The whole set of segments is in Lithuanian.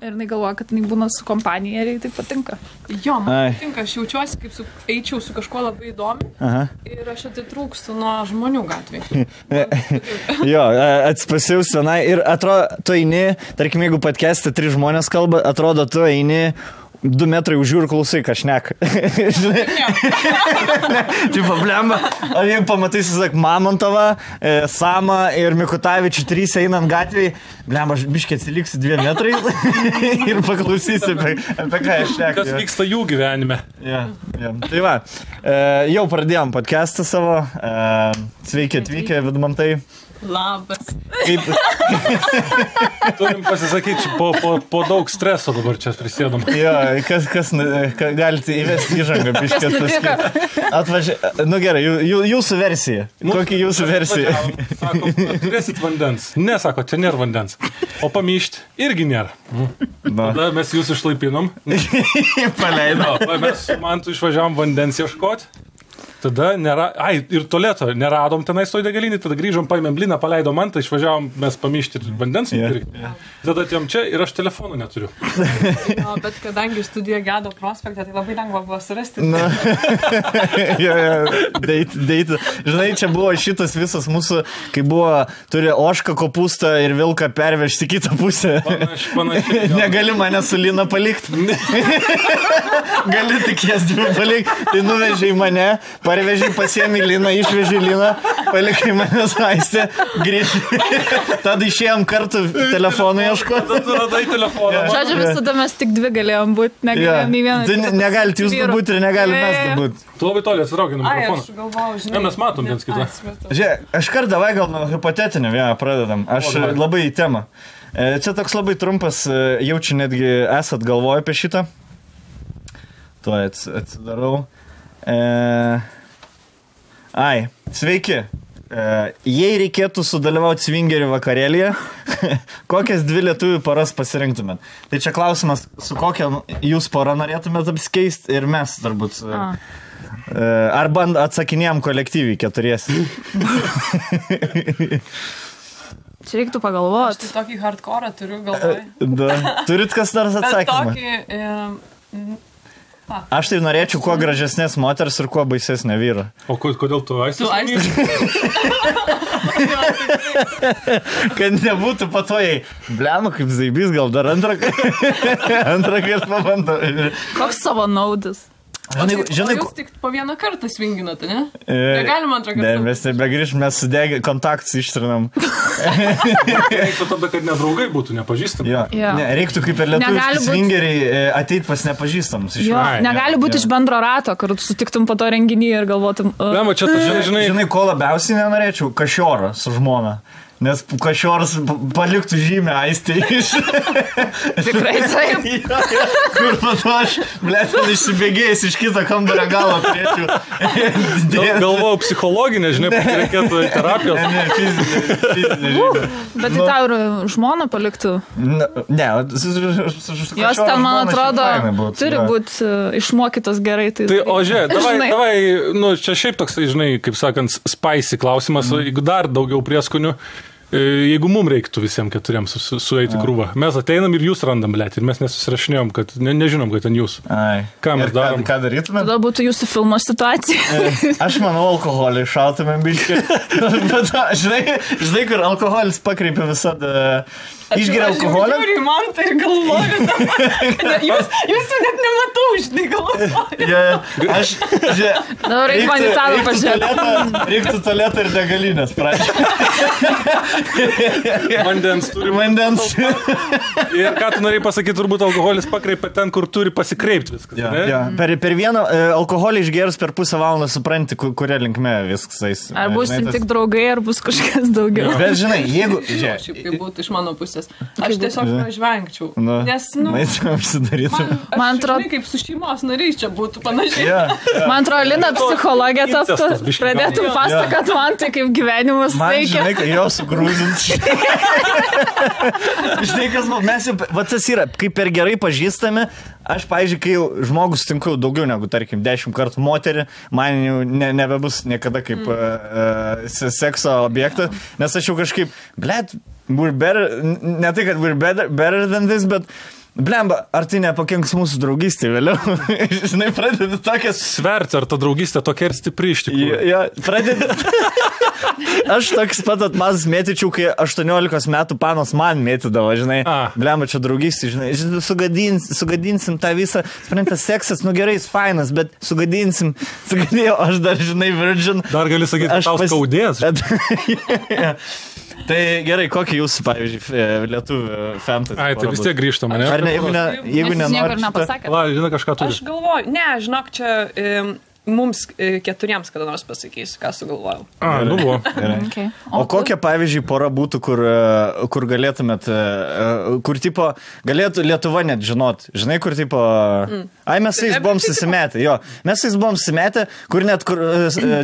Ir jinai galvoja, kad jinai būna su kompanija ir jai tai patinka. Jo, man patinka, aš jaučiuosi, kaip eičiau su kažkuo labai įdomi. Ir aš atitrūkstu nuo žmonių gatvėje. Jo, atsipasiausi vienai ir atrodo, tu eini, tarkim, jeigu podcast'e 3 žmonės kalba, atrodo, tu eini 2 metrai už jų ir klausai, ką šneka. Tipo, blemba. O jeigu pamatysi, sak, Mamontovą, Samą ir Mikutavičių 3 einant gatvėje, blemba, biškiai atsiliksi 2 metrai ir paklausysi, apie ką aš šneku. Kas vyksta jų gyvenime. Ja. Tai va, jau pradėjom podcastą savo. Sveiki atvykę, Vidmantai. Labas. Turim pasisakyti, po daug streso dabar čia prisėdom. Jo, kas galite įvesti įžangą, biškės pasakyti. Nu gerai, jūsų versija. Kokia jūsų versija? Sako, turėsit vandens. Ne, sako, čia nėra vandens. O pamyšti irgi nėra. Tada mes jūs išlaipinom. Paleido. Mes su Mantu išvažiavom vandens ieškoti. Tada ir tualeto neradom tenais toj degalinį, tada grįžom, paėmėm bliną, paleidom Mantą, išvažiavom mes pamyšti vandens nupirkti. Tada atėjom čia ir aš telefonų neturiu. No, bet kadangi studija Gedo prospekte, tai labai lengva buvo surasti. Date. Žinai, čia buvo šitas visas mūsų, kai buvo, turi ožką, kopūstą ir vilką pervežti kitą pusę. Panašiai. Negali mane su Lina palikti. Gali tik jas 2 palikti. Tai nuvežiai mane, parvežiai, pasiemi Liną, išvežiai Liną, palikai mane Aistę, grįžti. Tada išėjom kartu telefoną ieškoti. Tada tu radai telefoną. Žodžiu, visada mes tik 2 galėjom būti, negalėjom nei vieną. Negalite jūs būti ir negalime mes būti. Tu labai toli atsitraukiai nuo mikrofono. Aš galvojau, žinai. Mes matom viens kitą. Žiūrėk, aš kart davai gal nuo hipotetinio vieną pradedam. Aš labai į temą. Čia toks labai trumpas, jaučiu netgi esat galvoję apie šitą. Tuo atsidarau. Sveiki. Jei reikėtų sudalyvauti swingerių vakarėlyje, kokias 2 lietuvių paras pasirinktumėt? Tai čia klausimas, su kokia jūs pora norėtumėt apsikeisti ir mes turbūt. Arba atsakinėjom kolektyviai 4. Čia reiktų pagalvoti. Aš tai tokį hardcore turiu galvoje. Turit kas nors atsakymą? Aš tai norėčiau kuo gražesnės moters ir kuo baisesnė vyra. O kodėl tu Aistės? Kad nebūtų patojai. Blema, kaip zaibys, gal dar antrą kartą pabandau. Koks savo naudis? Žinai, jūs tik po 1 kartą swinginate, ne? Negalima 2 kartą. Ne, mes nebegrįžim, mes sudegę kontaktus ištrinam. Reiktų tada, kad nedraugai būtų, nepažįstami. Ne, reiktų kaip ir lietuviški swingeriai ateit pas nepažįstamus. Negali būti iš bendro rato, kad sutiktum po to renginį ir galvotum. Žinai, ko labiausiai nenorėčiau? Kašiorą su žmona. Nes Kašioras paliktų žymę Aistei iš... Tikrai taip. Kur pato aš, blėtin, išsibėgėjęs iš kito kambario galo turėčiau. Galvojau psichologinė, žinai, reikėtų terapijos. Ne, fizinė žymė. Bet tai tau ir žmona paliktų? Ne, jos ten, man atrodo, turi būti išmokytos gerai. Tai, o žiūrėk, davai, čia šiaip toks, žinai, kaip sakant, spicy klausimas, jeigu dar daugiau prieskonių. Jeigu mums reiktų visiems 4 sueiti krūvą, mes ateinam ir jūs randam, blėt, ir mes nesusirašinėjom, kad nežinom, kad ten jūs. Ką mes darom? Ką darytume? Tada būtų jūsų filmo situacija. Aš manau, alkoholį šautumėm biškį. Bet žinai, kur alkoholis pakreipia visada. Išgeria alkoholį. Aš žiūriu, man tai galvoju. Jūs net nematau, žinai, galvoju. Aš, dabar reikia man į tavo pažiūrėti. Reiktų tualetą ir degalinės, prašau. Vandens turi. Vandens. Ir ką tu norėjai pasakyti, turbūt alkoholis pakreipia ten, kur turi pasikreipti viskas. Per vieną alkoholį išgerus per pusę valandą supranti, kuria linkme viskas eis. Ar bus tik draugai, ar bus kažkas daugiau. Bet žinai, jeigu... Šiaip kaip būtų iš mano pusės. Aš tiesiog pražvengčiau. Nes, man atrodo, kaip su šeimos nariais čia būtų panašiai. Man atrodo, Lina psichologė taptų, pradėtum pasakot man tai, kaip gyvenimas veikia. Man, žinai, jo sugrūzint. Žinai, kas mes jau, va tas yra, kaip per gerai pažįstame, aš, pavyzdžiui, kai jau žmogus sutinku daugiau negu, tarkim, 10 kartų moterį, man jau nebebus niekada kaip sekso objektas, nes aš jau kažkaip, blėt, we're better, ne tai, kad we're better than this, bet Blemba, ar tai nepakenks mūsų draugystė vėliau? Žinai, pradedi tokias... Sverti, ar ta draugystė tokia ir stipri iš tikrųjų? Jo, pradedi... Aš toks pat atmazas mėtyčiau, kai 18 metų panos man mėtydavo, žinai. Blemba, čia draugystė, žinai. Sugadinsim tą visą... Sprentas seksas, nu gerai, jis fainas, bet sugadinsim. Sugadėjau, aš dar, žinai, virgin. Dar gali sakyti, tau skaudės. Tai gerai, kokį jūsų, pavyzdžiui, lietuvių fantasy? Ai, tai vis tiek grįžtam, ne? Ar ne, jeigu nenori... Va, žinai, kažką turi. Aš galvoju, žinok, čia mums keturiems kada nors pasakysiu, ką sugalvojau. Nu buvo. Okay. O kokia, pavyzdžiui, pora būtų, kur galėtumėt, kur tipo, galėtų Lietuva net žinot, žinai, kur tipo, mes su jais buvom susimetę, mes su jais buvom susimetę, kur net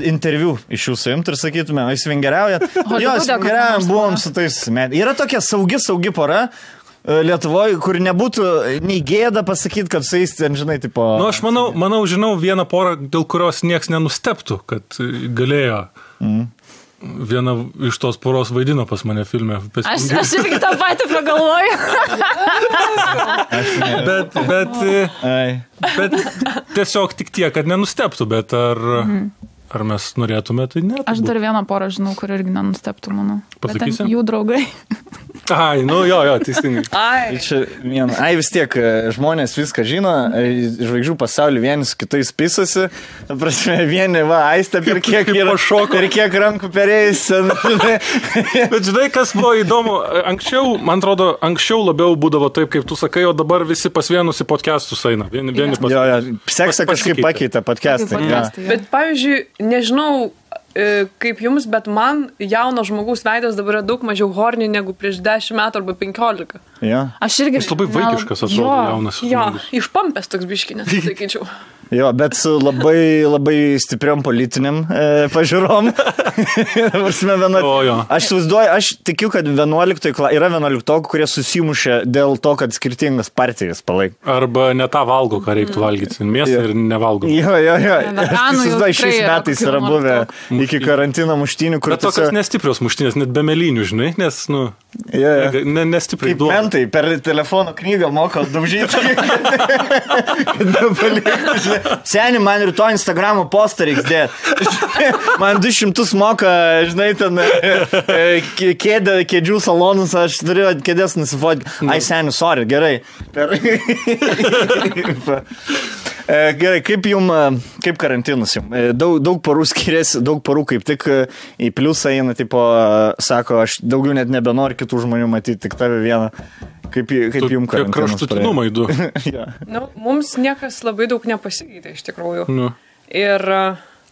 interviu iš jūsų imt ir sakytume, jūs vingeriaujat, svingeriaujam, buvom su tais susimetę. Yra tokia saugi pora, Lietuvoje, kur nebūtų nei gėda pasakyti, kad su jais ten, žinai, tipo... Nu, aš žinau vieną porą, dėl kurios nieks nenusteptų, kad galėjo. Viena iš tos poros vaidino pas mane filme. Aš irgi tą patį pagalvoju. bet tiesiog tik tiek, kad nenusteptų, bet ar mes norėtume, tai ne. Aš dar vieną porą žinau, kur irgi nenusteptų, manau. Pasakysi? Jų draugai. Ai, nu jo, teisingai. Vis tiek, žmonės viską žino, žvaigždžių pasaulį vieni su kitais pisasi, vieni, aistė per kiek yra šoko, per kiek rankų perėjus. Bet žinai, kas buvo įdomu, man atrodo, anksčiau labiau būdavo taip, kaip tu sakai, o dabar visi pas vienus į podcastus eina. Seksą kažkaip pakeitė podcastai. Bet pavyzdžiui, nežinau, kaip jums, bet man jauno žmogaus veidas dabar yra daug mažiau horny negu prieš 10 metų arba 15. Aš irgi... Jis labai vaikiškas atrodo jaunas. Išpampęs toks biškinės, sakyčiau. Bet su labai stipriom politiniam pažiūrom. Aš suvaizduoju, aš tikiu, kad yra 11, kurie susimušė dėl to, kad skirtingas partijas palaik. Arba ne tą valgo, ką reiktų valgyti. Mėsą ir nevalgo. Aš suvaizduoju, šiais metais yra buvę iki karantino muštynių, kur... Bet tokios nestiprios muštynės, net be melinių, žinai, nes, nestipriai duoda. Kaip mentai, per telefono knygą moko daužyti. Seni, man rytoj Instagramo postą reiks dėti. Man 200 moka, žinai, ten kėdžių salonus, aš turiu kėdės nusifotki. Ai, seni, sorry, gerai. Gerai, kaip karantinas jums? Daug porų skiriasi, daug porų kaip tik į pliusą eina, tipo, sako, aš daugiau net nebenoriu kitų žmonių matyti, tik tave vieną. Kaip jums karantinas? Kraštutinumai du. Mums niekas labai daug nepasikeitė, iš tikrųjų.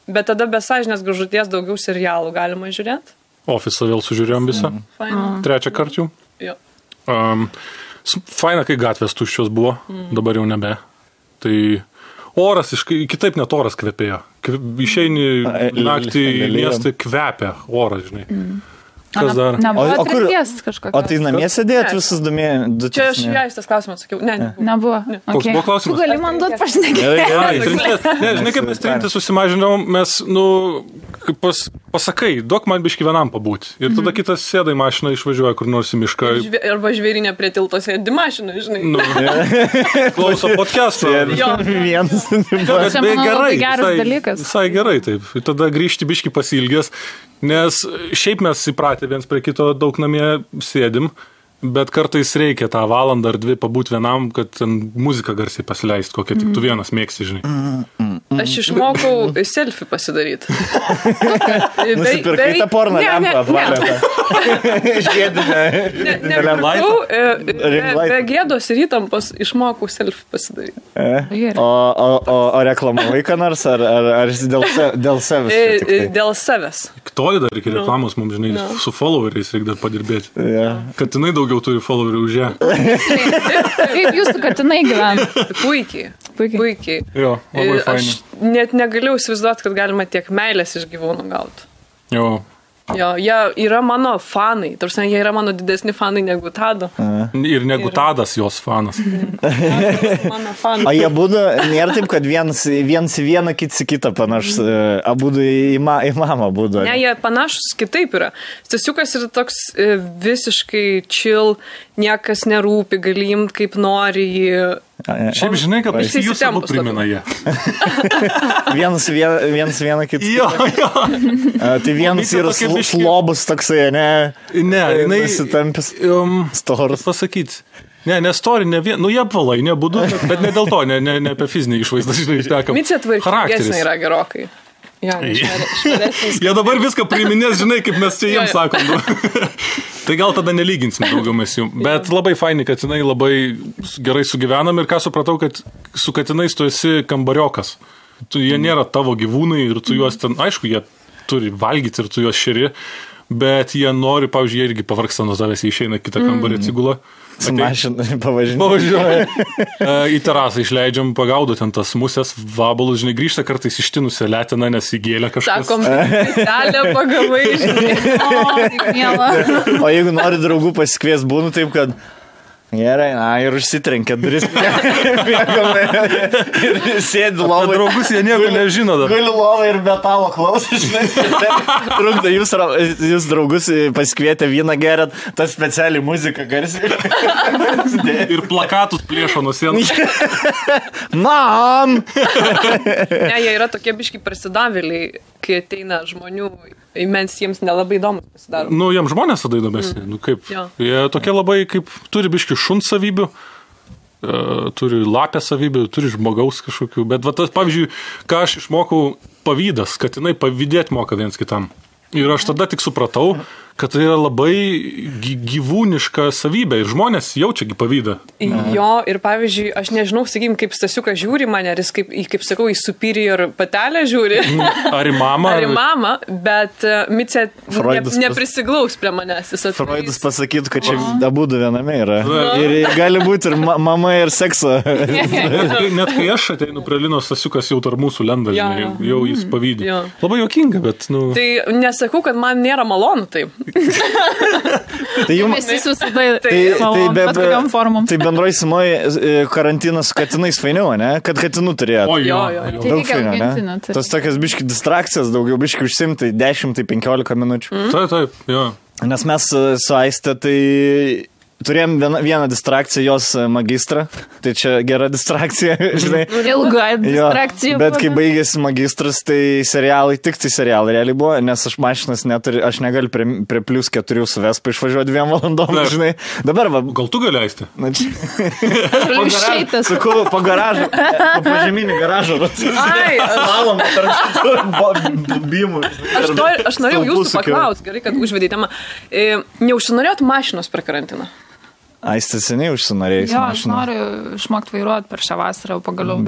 Bet tada be sąžinės graužaties daugiau serialų galima žiūrėti. Ofisą vėl sužiūrėjom visą. Trečią kartą jau. Faina, kai gatvės tuščios buvo, dabar jau nebe. Tai oras, kitaip net oras kvepėjo. Išeini naktį į miestą, kvepia oras, žinai. Kas dar? Nebuvo atrinkties kažkokios. O tai namie sėdėjot visus du mėnesius? Čia aš ją tas klausimą atsakiau. Nebuvo. Koks buvo klausimas? Tu gali man duoti pašnekėti. Žinai, kaip mes trintis susimažinom, mes, pasakai, duok man biškį vienam pabūti. Ir tada kitas sėda į mašiną, išvažiuoja kur nors į mišką. Arba žvėrinė prie tilto sėdi mašiną, žinai. Klauso podcast'o. Vienas. Čia manau labai geras dalykas. Visai gerai, taip. Ir tada grįžti biškį pasilgęs. Nes šiaip mes įpratę viens prie kito daug namie sėdim, bet kartais reikia tą valandą ar 2 pabūti vienam, kad muziką garsiai pasileisti, kokią tik tu vienas mėgsi, žinai. Aš išmokau selfie pasidaryti. Nusipirkai tą porno lempą apvalėtą. Be gėdos ir įtampos išmokau selfie pasidaryti. O reklamavai ką nors, ar dėl savęs? Dėl savęs. Toli dar iki reklamos mums, žinai, su followeriais reikia dar padirbėti. Katinai daugiau turi followerių už ją. Kaip jūs su katinai gyvena? Puikiai. Jo, labai fainai. Aš net negalėjau įsivaizduoti, kad galima tiek meilės iš gyvūnų gauti. Jo, Jo, jie yra mano fanai. Tarsi, jie yra mano didesni fanai negu Tado. Ir negu Tadas jos fanas. Mano fanai. O jie būdu, nėra taip, kad viens vieną, kits kitą panašus, abudu į mamą būdu. Ne, jie panašus kitaip yra. Stasiukas yra toks visiškai chill, niekas nerūpi, gali imt kaip nori jį. Šiaip žinai, kad jūs abu primena jie. Vienas vieną kitą. Jo. Tai vienas yra slobus toksai, ne? Ne, jinai... Pasitampęs. Storas. Pasakyti. Ne story, jie apvalai, nebūdu, bet ne dėl to, ne apie fizinį išvaizdą, žinai, ištekam. Micė tvarkingesnė yra gerokai. Ja, jie dabar viską priiminės, žinai, kaip mes čia jiems sakom. Tai gal tada nelyginsim daugiau mes jų. Bet labai faini, kad jinai labai gerai sugyvenam ir ką supratau, kad su katinais tu esi kambariokas. Jie nėra tavo gyvūnai ir tu juos ten, aišku, jie turi valgyti ir tu juos šeri, bet jie nori, pavyzdžiui, jie irgi pavargsta nuo tavęs, jie išeina kitą kambarį atsigula. Su mašina pavažinėja. Į terasą išleidžiam, pagaudo ten tas musės, vabalus, žinai, grįžta kartais ištinusią letiną, nes įgėlė kažkas. Sakom, telę pagavai, žinai. O jeigu nori draugų pasikvies, būnu taip, kad gerai, ir užsitrenkia duris. Ir sėdi lovai. Draugus jie nieko nežino dar. Guli lovai ir metalo klausai, žinai. Trukda, jūs draugus pasikvietė vyną gerat, tas specialiai muzika garsiai. Ir plakatus plėšo nuo sienos. Mam! Ne, jie yra tokie biški prasidavėliai, kai ateina žmonių. Imens jiems nelabai įdomus pasidaro. Jiems žmonės tada įdomesni. Kaip, jie tokie labai, kaip turi biški šuns savybių, turi lapę savybių, turi žmogaus kažkokių. Bet va tas, pavyzdžiui, ką aš išmokau, pavydas, kad jinai pavydėti moka viens kitam. Ir aš tada tik supratau, kad tai yra labai gyvūniška savybė ir žmonės jaučiagi pavydą. Jo, ir pavyzdžiui, aš nežinau, sakykim, kaip Stasiukas žiūri mane, ar jis, kaip sakau, į superior patelę žiūri. Ar į mamą. Ar į mamą, bet Micė neprisiglaus prie manęs. Freudas pasakytų, kad čia abudu viename yra. Ir gali būti ir mama, ir sekso. Net kai aš ateinu prie Linos, Stasiukas jau tarp mūsų lenda, jau jis pavydė. Labai juokinga, bet, Tai nesakau, kad man nėra malonu taip. Tai jums visada bet kokiam formom. Tai bendroj sumoj karantinas su katinais fainiau, ne? Kad katinų turėjot. Jo. Daug fainiau, ne? Tas tokias biški distrakcijas, daugiau biški užsimtai 10-15 minučių. Taip, jo. Nes mes su Aiste tai turėjom vieną distrakciją, jos magistrą. Tai čia gera distrakcija, žinai. Ilga distrakcija. Bet kai baigėsi magistras, tai tik serialai realiai buvo, nes aš mašinas neturiu, aš negaliu prie plius 4 su Vespa išvažiuoti 2 valandom, žinai. Dabar va. Gal tu gali leisti? Sakau, po garažą, po žeminį garažą. Slalomą tarp bimų. Aš norėjau jūsų paklausti, gerai, kad užvedėte temą. Neužsinorėjot mašinos per karantiną? Aiste seniai užsinorėjus mašiną. Aš noriu išmokti vairuoti per šią vasarą, pagaliau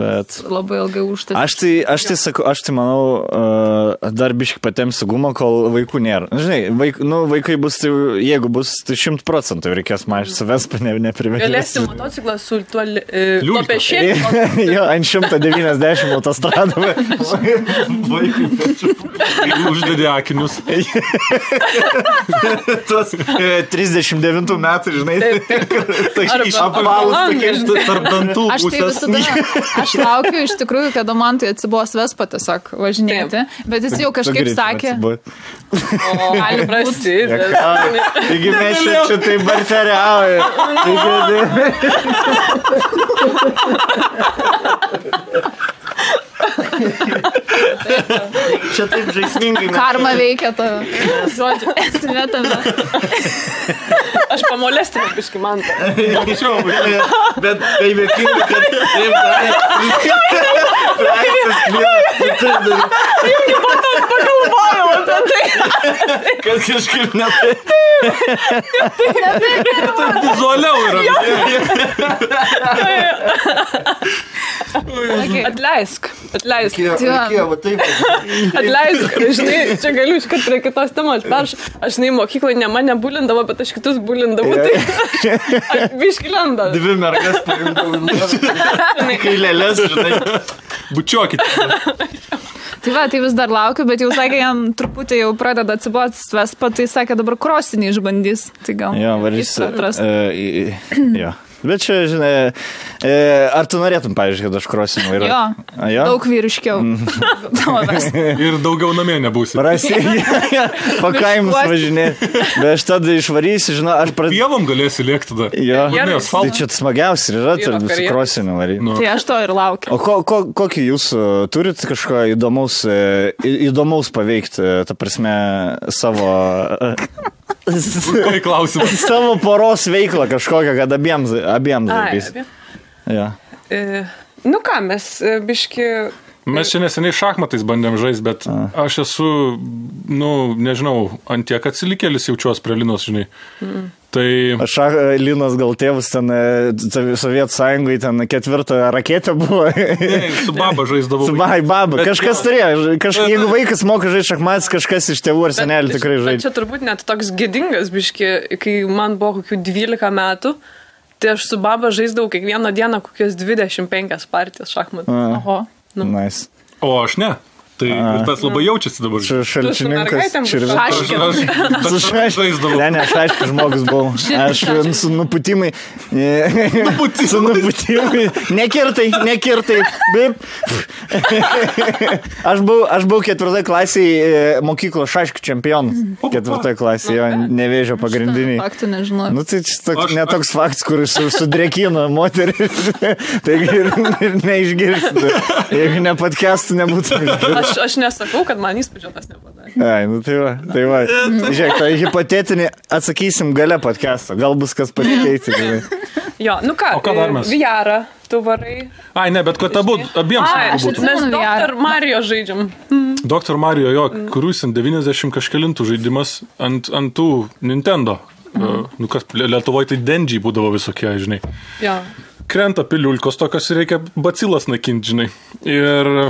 labai ilgai užtęsti. Aš tai manau, dar biškai patempsiu gumą, kol vaikų nėra. Žinai, vaikai bus, jeigu bus, tai 100% reikės mašiną, Vespa neprivežti. Galėsi motociklą su tuo lopešėliu. Jo, ant 190 autostradome. Vaikai pečiu. Uždėdė akinius. Tuos 39 metų, žinai. Tarp dantų aš laukiu iš tikrųjų, kada man tai atsibos Vespa tiesiog važinėti, bet jis jau kažkaip sakė. Gali prasidėti. Taigi mes čia taip barteriauja. Čia taip žaismingai. Karma veikia tave. Žodžiu, esmė tave. Aš pamolestinu biškį mantą. Bet tai vėkinga, kad taip darė. Irgi pagalvojau apie tai. Kad kažkaip ne taip. Tai vizualiau yra. Atleisk. Reikėjo, va taip. Atleisk, žinai, čia galiu iškart prie kitos temos. Aš mokyklai ne mane bulindavo, bet aš kitus bulindavau. Tai biški lenda. 2 mergas paimdavau. Kai lėlės, žinai. Bučiuokit. Tai va, tai vis dar laukiu, bet jau sakė, jam truputį jau pradeda atsibotis Vespa, tai sakė, dabar krosinį išbandys. Tai gal jo. Bet čia, žinai, ar tu norėtum, pavyzdžiui, kad aš krosinu vairuoju? Jo, daug vyriškiau. Ir daugiau namie nebūsi. Pakaimus važinėti. Bet aš tada išvarysiu, žinau, aš pradėsiu. Pievom galėsi lėkti tada. Jo, tai čia smagiausia yra, su krosiniu varyti. Tai aš to ir laukiu. O kokį jūs turit kažko įdomaus paveikti, ta prasme, savo... Klausimas. Savo poros veiklą kažkokią, kad abiems darbys. Ja. Nu ką, mes biški... Mes čia neseniai šachmatais bandėm žaisti, bet aš esu, nežinau, ant tiek atsilikėlis jaučiuos prie Linos, žinai. Tai... Linos gal tėvus ten Sovietų Sąjungai ten 4 raketė buvo. Ne, su baba žaisdavau. Su baba. Kažkas turėjo. Jeigu vaikas moka žaisti šachmatais, kažkas iš tėvų ar senelių tikrai žaidžia. Čia turbūt net toks gėdingas biški, kai man buvo kokių 12 metų, tai aš su baba žaisdavau kiekvieną dieną kokias 25 partijas šachmatų. Oho. Nice. O aš ne. Tai ir tas labai jaučiasi dabar. Šalčininkas. Su šaškinu. Ne, aš aišku žmogus buvau. Aš su nuputimai. Su nuputimai. Nekirtai. Bip. Aš buvau 4 klasėje mokyklos šaškių čempionas. 4 klasėje, jo, Nevėžio pagrindiniai. Faktų nežinau. Nu, tai netoks faktas, kuris sudrekino moterį. Taigi ir neišgirsti. Jeigu ne podcastų nebūtų. Aš nesakau, kad man įspūdžio tas nepadarė. Ai, nu tai va. Žiūrėk, tai hipotetinį atsakysim gale podcast'o. Gal bus kas pasikeiti. Jo, nu ką, VR, tu varai. Ai, ne, bet kad abiems. Mes Dr. Mario žaidžiam. Dr. Mario, jo, kuris 90 kažkelintų žaidimas ant tų Nintendo. Nu kas, Lietuvoje tai Denžiai būdavo visokie, žinai. Jo. Krenta piliulkos tokios ir reikia bacilas nakinti, žinai. Ir...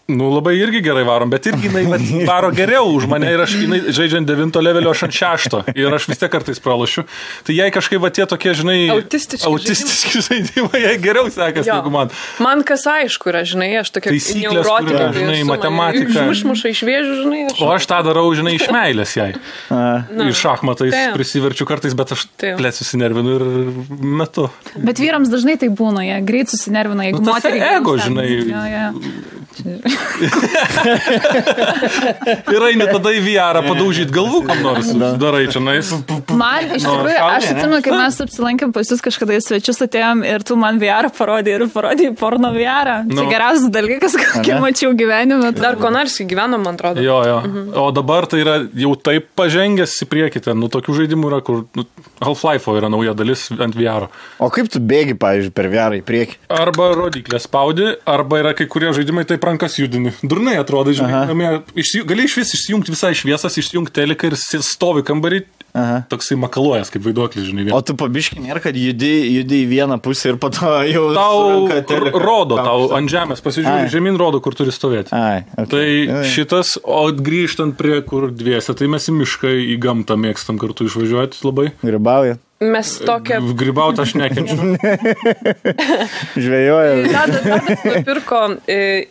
labai irgi gerai varom, bet irgi jinai varo geriau už mane ir aš žaidžiant 9 levelio, aš ant 6 ir aš vis tiek kartais pralošiu. Tai jai kažkaip tie tokie, žinai, autistiški žaidimai, jai geriau sekasi negu man. Man kas aišku yra, žinai, aš tokia neurotika, žinai, matematika. Išmuša iš vėžių, žinai. O aš tą darau, žinai, iš meilės jai. Ir šachmatais prisiverčiu kartais, bet aš susinervinu ir metu. Bet vyrams dažnai tai būna, jie greit susinervina, jeigu moteriai. Ego, žinai. Ir eini tada į VR padaužyti galvų, kam nors darai čia nais. Man iš tikrųjų, aš atsimenu, kai mes apsilankėm pas jūs kažkada į svečius atėjom ir tu man VR parodė porno VR. Čia geriausias dalykas, kokį mačiau gyvenime. Dar Konarskį gyveno, man atrodo. Jo. O dabar tai yra jau taip pažengęs į priekį ten. Nu, tokių žaidimų yra, kur Half-Life'o yra nauja dalis ant VR. O kaip tu bėgi, pavyzdžiui, per VR į priekį? Arba rodiklę spaudi, arba yra kai kurie žaidimai taip rankas judini. Durnai atrodo, žinai, gali iš vis išsijungti visai šviesas, išsijungti teliką ir stovi kambarį, toksai makaluojas kaip vaiduoklis, žinai. O tu pabiški nėra, kad judi į vieną pusę ir po to jau... Tau rodo, tau ant žemės pasižiūrė, žemyn rodo, kur turi stovėti. Tai šitas, o grįžtant prie kur dviese, tai mes į mišką, į gamtą mėgstam kartu išvažiuoti labai. Grybauja. Mes tokia... Grybauti aš nekenčiu. Žvejoja. Tadas nupirko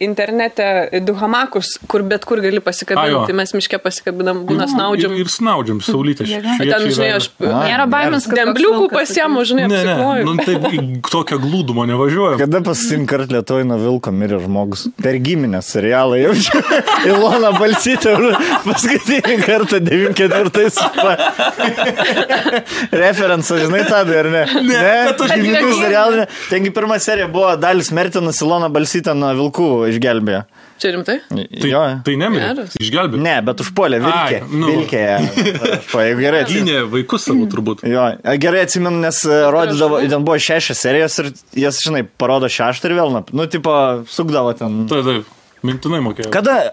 internete 2 hamakus, kur bet kur gali pasikabinti. Mes miške pasikabinam, būna snaudžiam. Ir snaudžiam, saulytė. Ten, žinai, aš... Nėra baimės, kad... Dembliukų pasiemu, žinai, apsikloju. Nu, taip, tokią glūdumą nevažiuoju. Kada paskutinį kartą Lietuvoj nuo vilko mirė žmogus? Per giminės serialą jaučiu. Ilona Balsytė paskutinį kartą 94 referenciją. Žinai tą, ar ne? Ne, serialą. Tengi pirma serija buvo Dalis Mertinas, Ilona Balsytė nuo vilkų išgelbėjo. Čia rimtai? Tai nemirė, išgelbėjo. Ne, bet užpuolė vilkė. Vilkėje. Gynė vaikus savo turbūt. Jo, gerai atsimenu, nes rodydavo, ten buvo 6 serijos ir jas, žinai, parodo 6 ir vėl, nu, tipo, sukdavo ten. Taip. Mintinai mokėjau. Kada,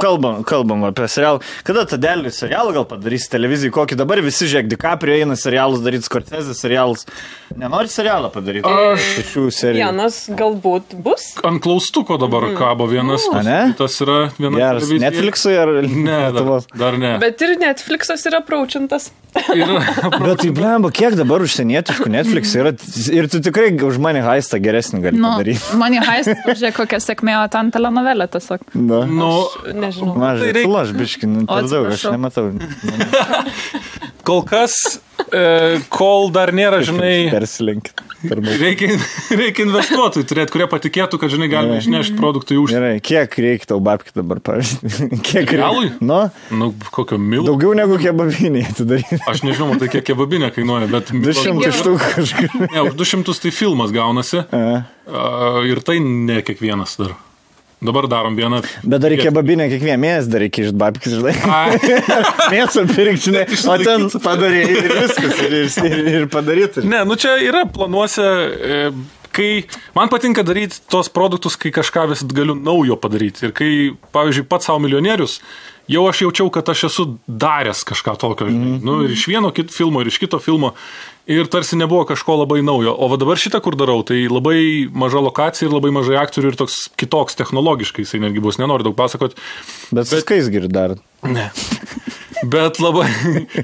kalbam apie serialą, kada Tadelį serialą gal padarys televizijai, kokį dabar visi žiūrėk, DiCaprio eina serialus daryti, Scorsese serialus. Nenori serialą padaryti? Šių serijų. Vienas galbūt bus. Ant klaustuko dabar kabo vienas. Tas yra viena televizija. Netflixui ar... Ne, dar ne. Bet ir Netflixas yra praučintas. Bet tai blemba, kiek dabar užsienietiškų Netflix yra ir tu tikrai už Money Heistą geresnį gali padaryti. Money Heist, žiūrėk, kokia sėkmė, o ten telenovelė tiesiog. Nežinau. Mažai, tai lažbiškai, per daug, aš nematau. Kol kas, kol dar nėra, žinai... Persilinkit. Reikia investuotojų turėti, kurie patikėtų, kad, žinai, galime išnešti produktų į užsienį. Gerai, kiek reikia tau babkių dabar, pavyzdžiui? Kiek realui? Nu, kokio milo? Daugiau negu kebabinė atidaryti. Aš nežinau, tai kiek kebabinė kainuoja, bet... 200 štuk kažkur. Ne, už 200 tai filmas gaunasi. Ir tai ne kiekvienas dar. Dabar darom vieną. Bet dar reikia babinę kiekvieną mėnesį, dar reikia iš babkis, žinai. Mėsą pirkti, žinai. O ten padarė ir viskas, ir padaryti. Ne, nu čia yra planuose, kai man patinka daryti tos produktus, kai kažką vis galiu naujo padaryti. Ir kai, pavyzdžiui, pats savo milijonierius, jau aš jaučiau, kad aš esu daręs kažką tokio. Nu, ir iš vieno filmo, ir iš kito filmo. Ir tarsi nebuvo kažko labai naujo. O va dabar šitą, kur darau, tai labai maža lokacija ir labai mažai aktorių ir toks kitoks technologiškai, jisai netgi bus, nenoriu daug pasakot. Bet viskais geri dar. Ne. Bet labai,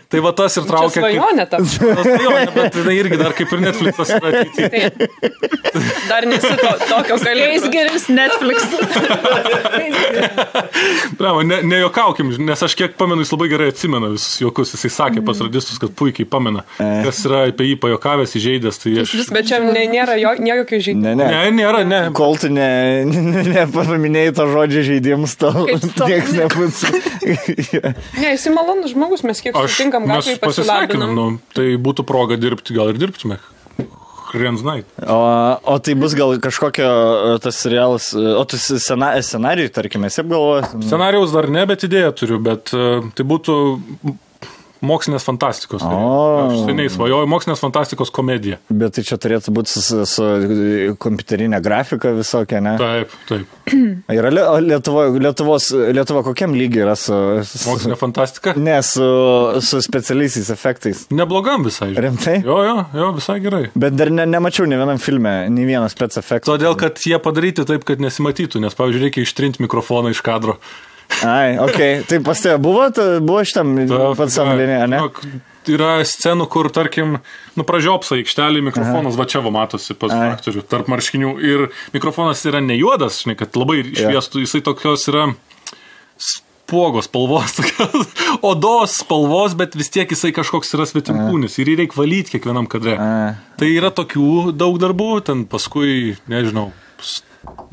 tai va tas ir traukia. Čia svajonė tam. Svajonė, bet tai irgi dar kaip ir Netflixas yra ateityje. Dar nesi tokio kalėjais geris Netflix. Bravo, nejokaukim, nes aš kiek pamenu, jis labai gerai atsimena visus juokus. Jisai sakė pas radistus, kad puikiai pamena, kas yra apie jį pajokavęs, įžeidęs. Tai aš... Bet čia nėra jokio žaidimo. Ne, nėra, ne. Kol tu nepaminėjai to žodžio žaidimus, tau tieks nebūs. Ne, jis malonus žmogus, mes kiek sutinkam gatvėje pasilabinam. Nu, tai būtų proga dirbti, gal ir dirbtume. Night. O tai bus gal kažkokio tas serialas, o tu scenarijų, tarkime, esi apgalvojęs? Scenarijaus dar ne, bet idėją turiu, bet tai būtų mokslinės fantastikos. Aš seniai svajoju, mokslinės fantastikos komedija. Bet tai čia turėtų būti su kompiuterinė grafika visokia, ne? Taip. Yra Lietuva kokiam lygiai yra su... Mokslinė fantastika? Ne, su specialiaisiais efektais. Neblogam visai. Rimtai? Jo, visai gerai. Bet dar nemačiau ne vienam filme, ne vieną spec efektą. Todėl, kad jie padaryti taip, kad nesimatytų, nes, pavyzdžiui, reikia ištrinti mikrofoną iš kadro. Ai, okei. Tai pas tave buvo šitam pats samlinė, ne? Yra scenų, kur, tarkim, pražiopsa aikštelį, mikrofonas va čia va matosi pas aktorių tarp marškinių ir mikrofonas yra ne juodas, žinai, kad labai šviestų, jisai tokios yra spuogos spalvos, odos spalvos, bet vis tiek jisai kažkoks yra svetimkūnis ir jį reikia valyti kiekvienam kadre. Tai yra tokių daug darbų, ten paskui, nežinau,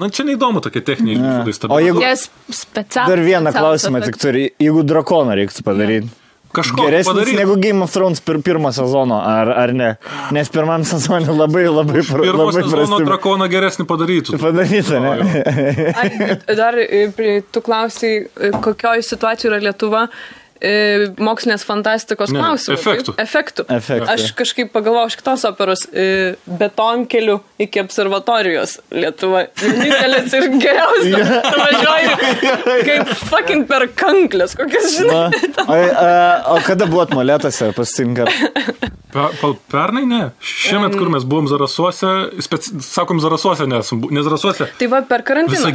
na, čia neįdomu tokie techniniai žodai. O jeigu... Dar vieną klausimą tik turi. Jeigu drakoną reiktų padaryti. Kažko geresnis padaryti. Negu Game of Thrones pirmo sezono, ar ne? Nes pirmam sezonė labai Pirmo sezono drakoną geresnį padarytų. Padarytų, ne? Dar tu klausai, kokioj situacijoj yra Lietuva mokslinės fantastikos klausimų. Efektų. Aš kažkaip pagalvojau iš kitos operos betonkelių iki observatorijos Lietuva. Vienintelis ir geriausias. Važiuoju kaip fucking per kanklės. Kokias žinai. O kada buvot molėtose pasitinkar? Pernai ne. Šiemet, kur mes buvom Zarasuose, sakom Zarasuose nesam, ne Zarasuose. Tai va per karantiną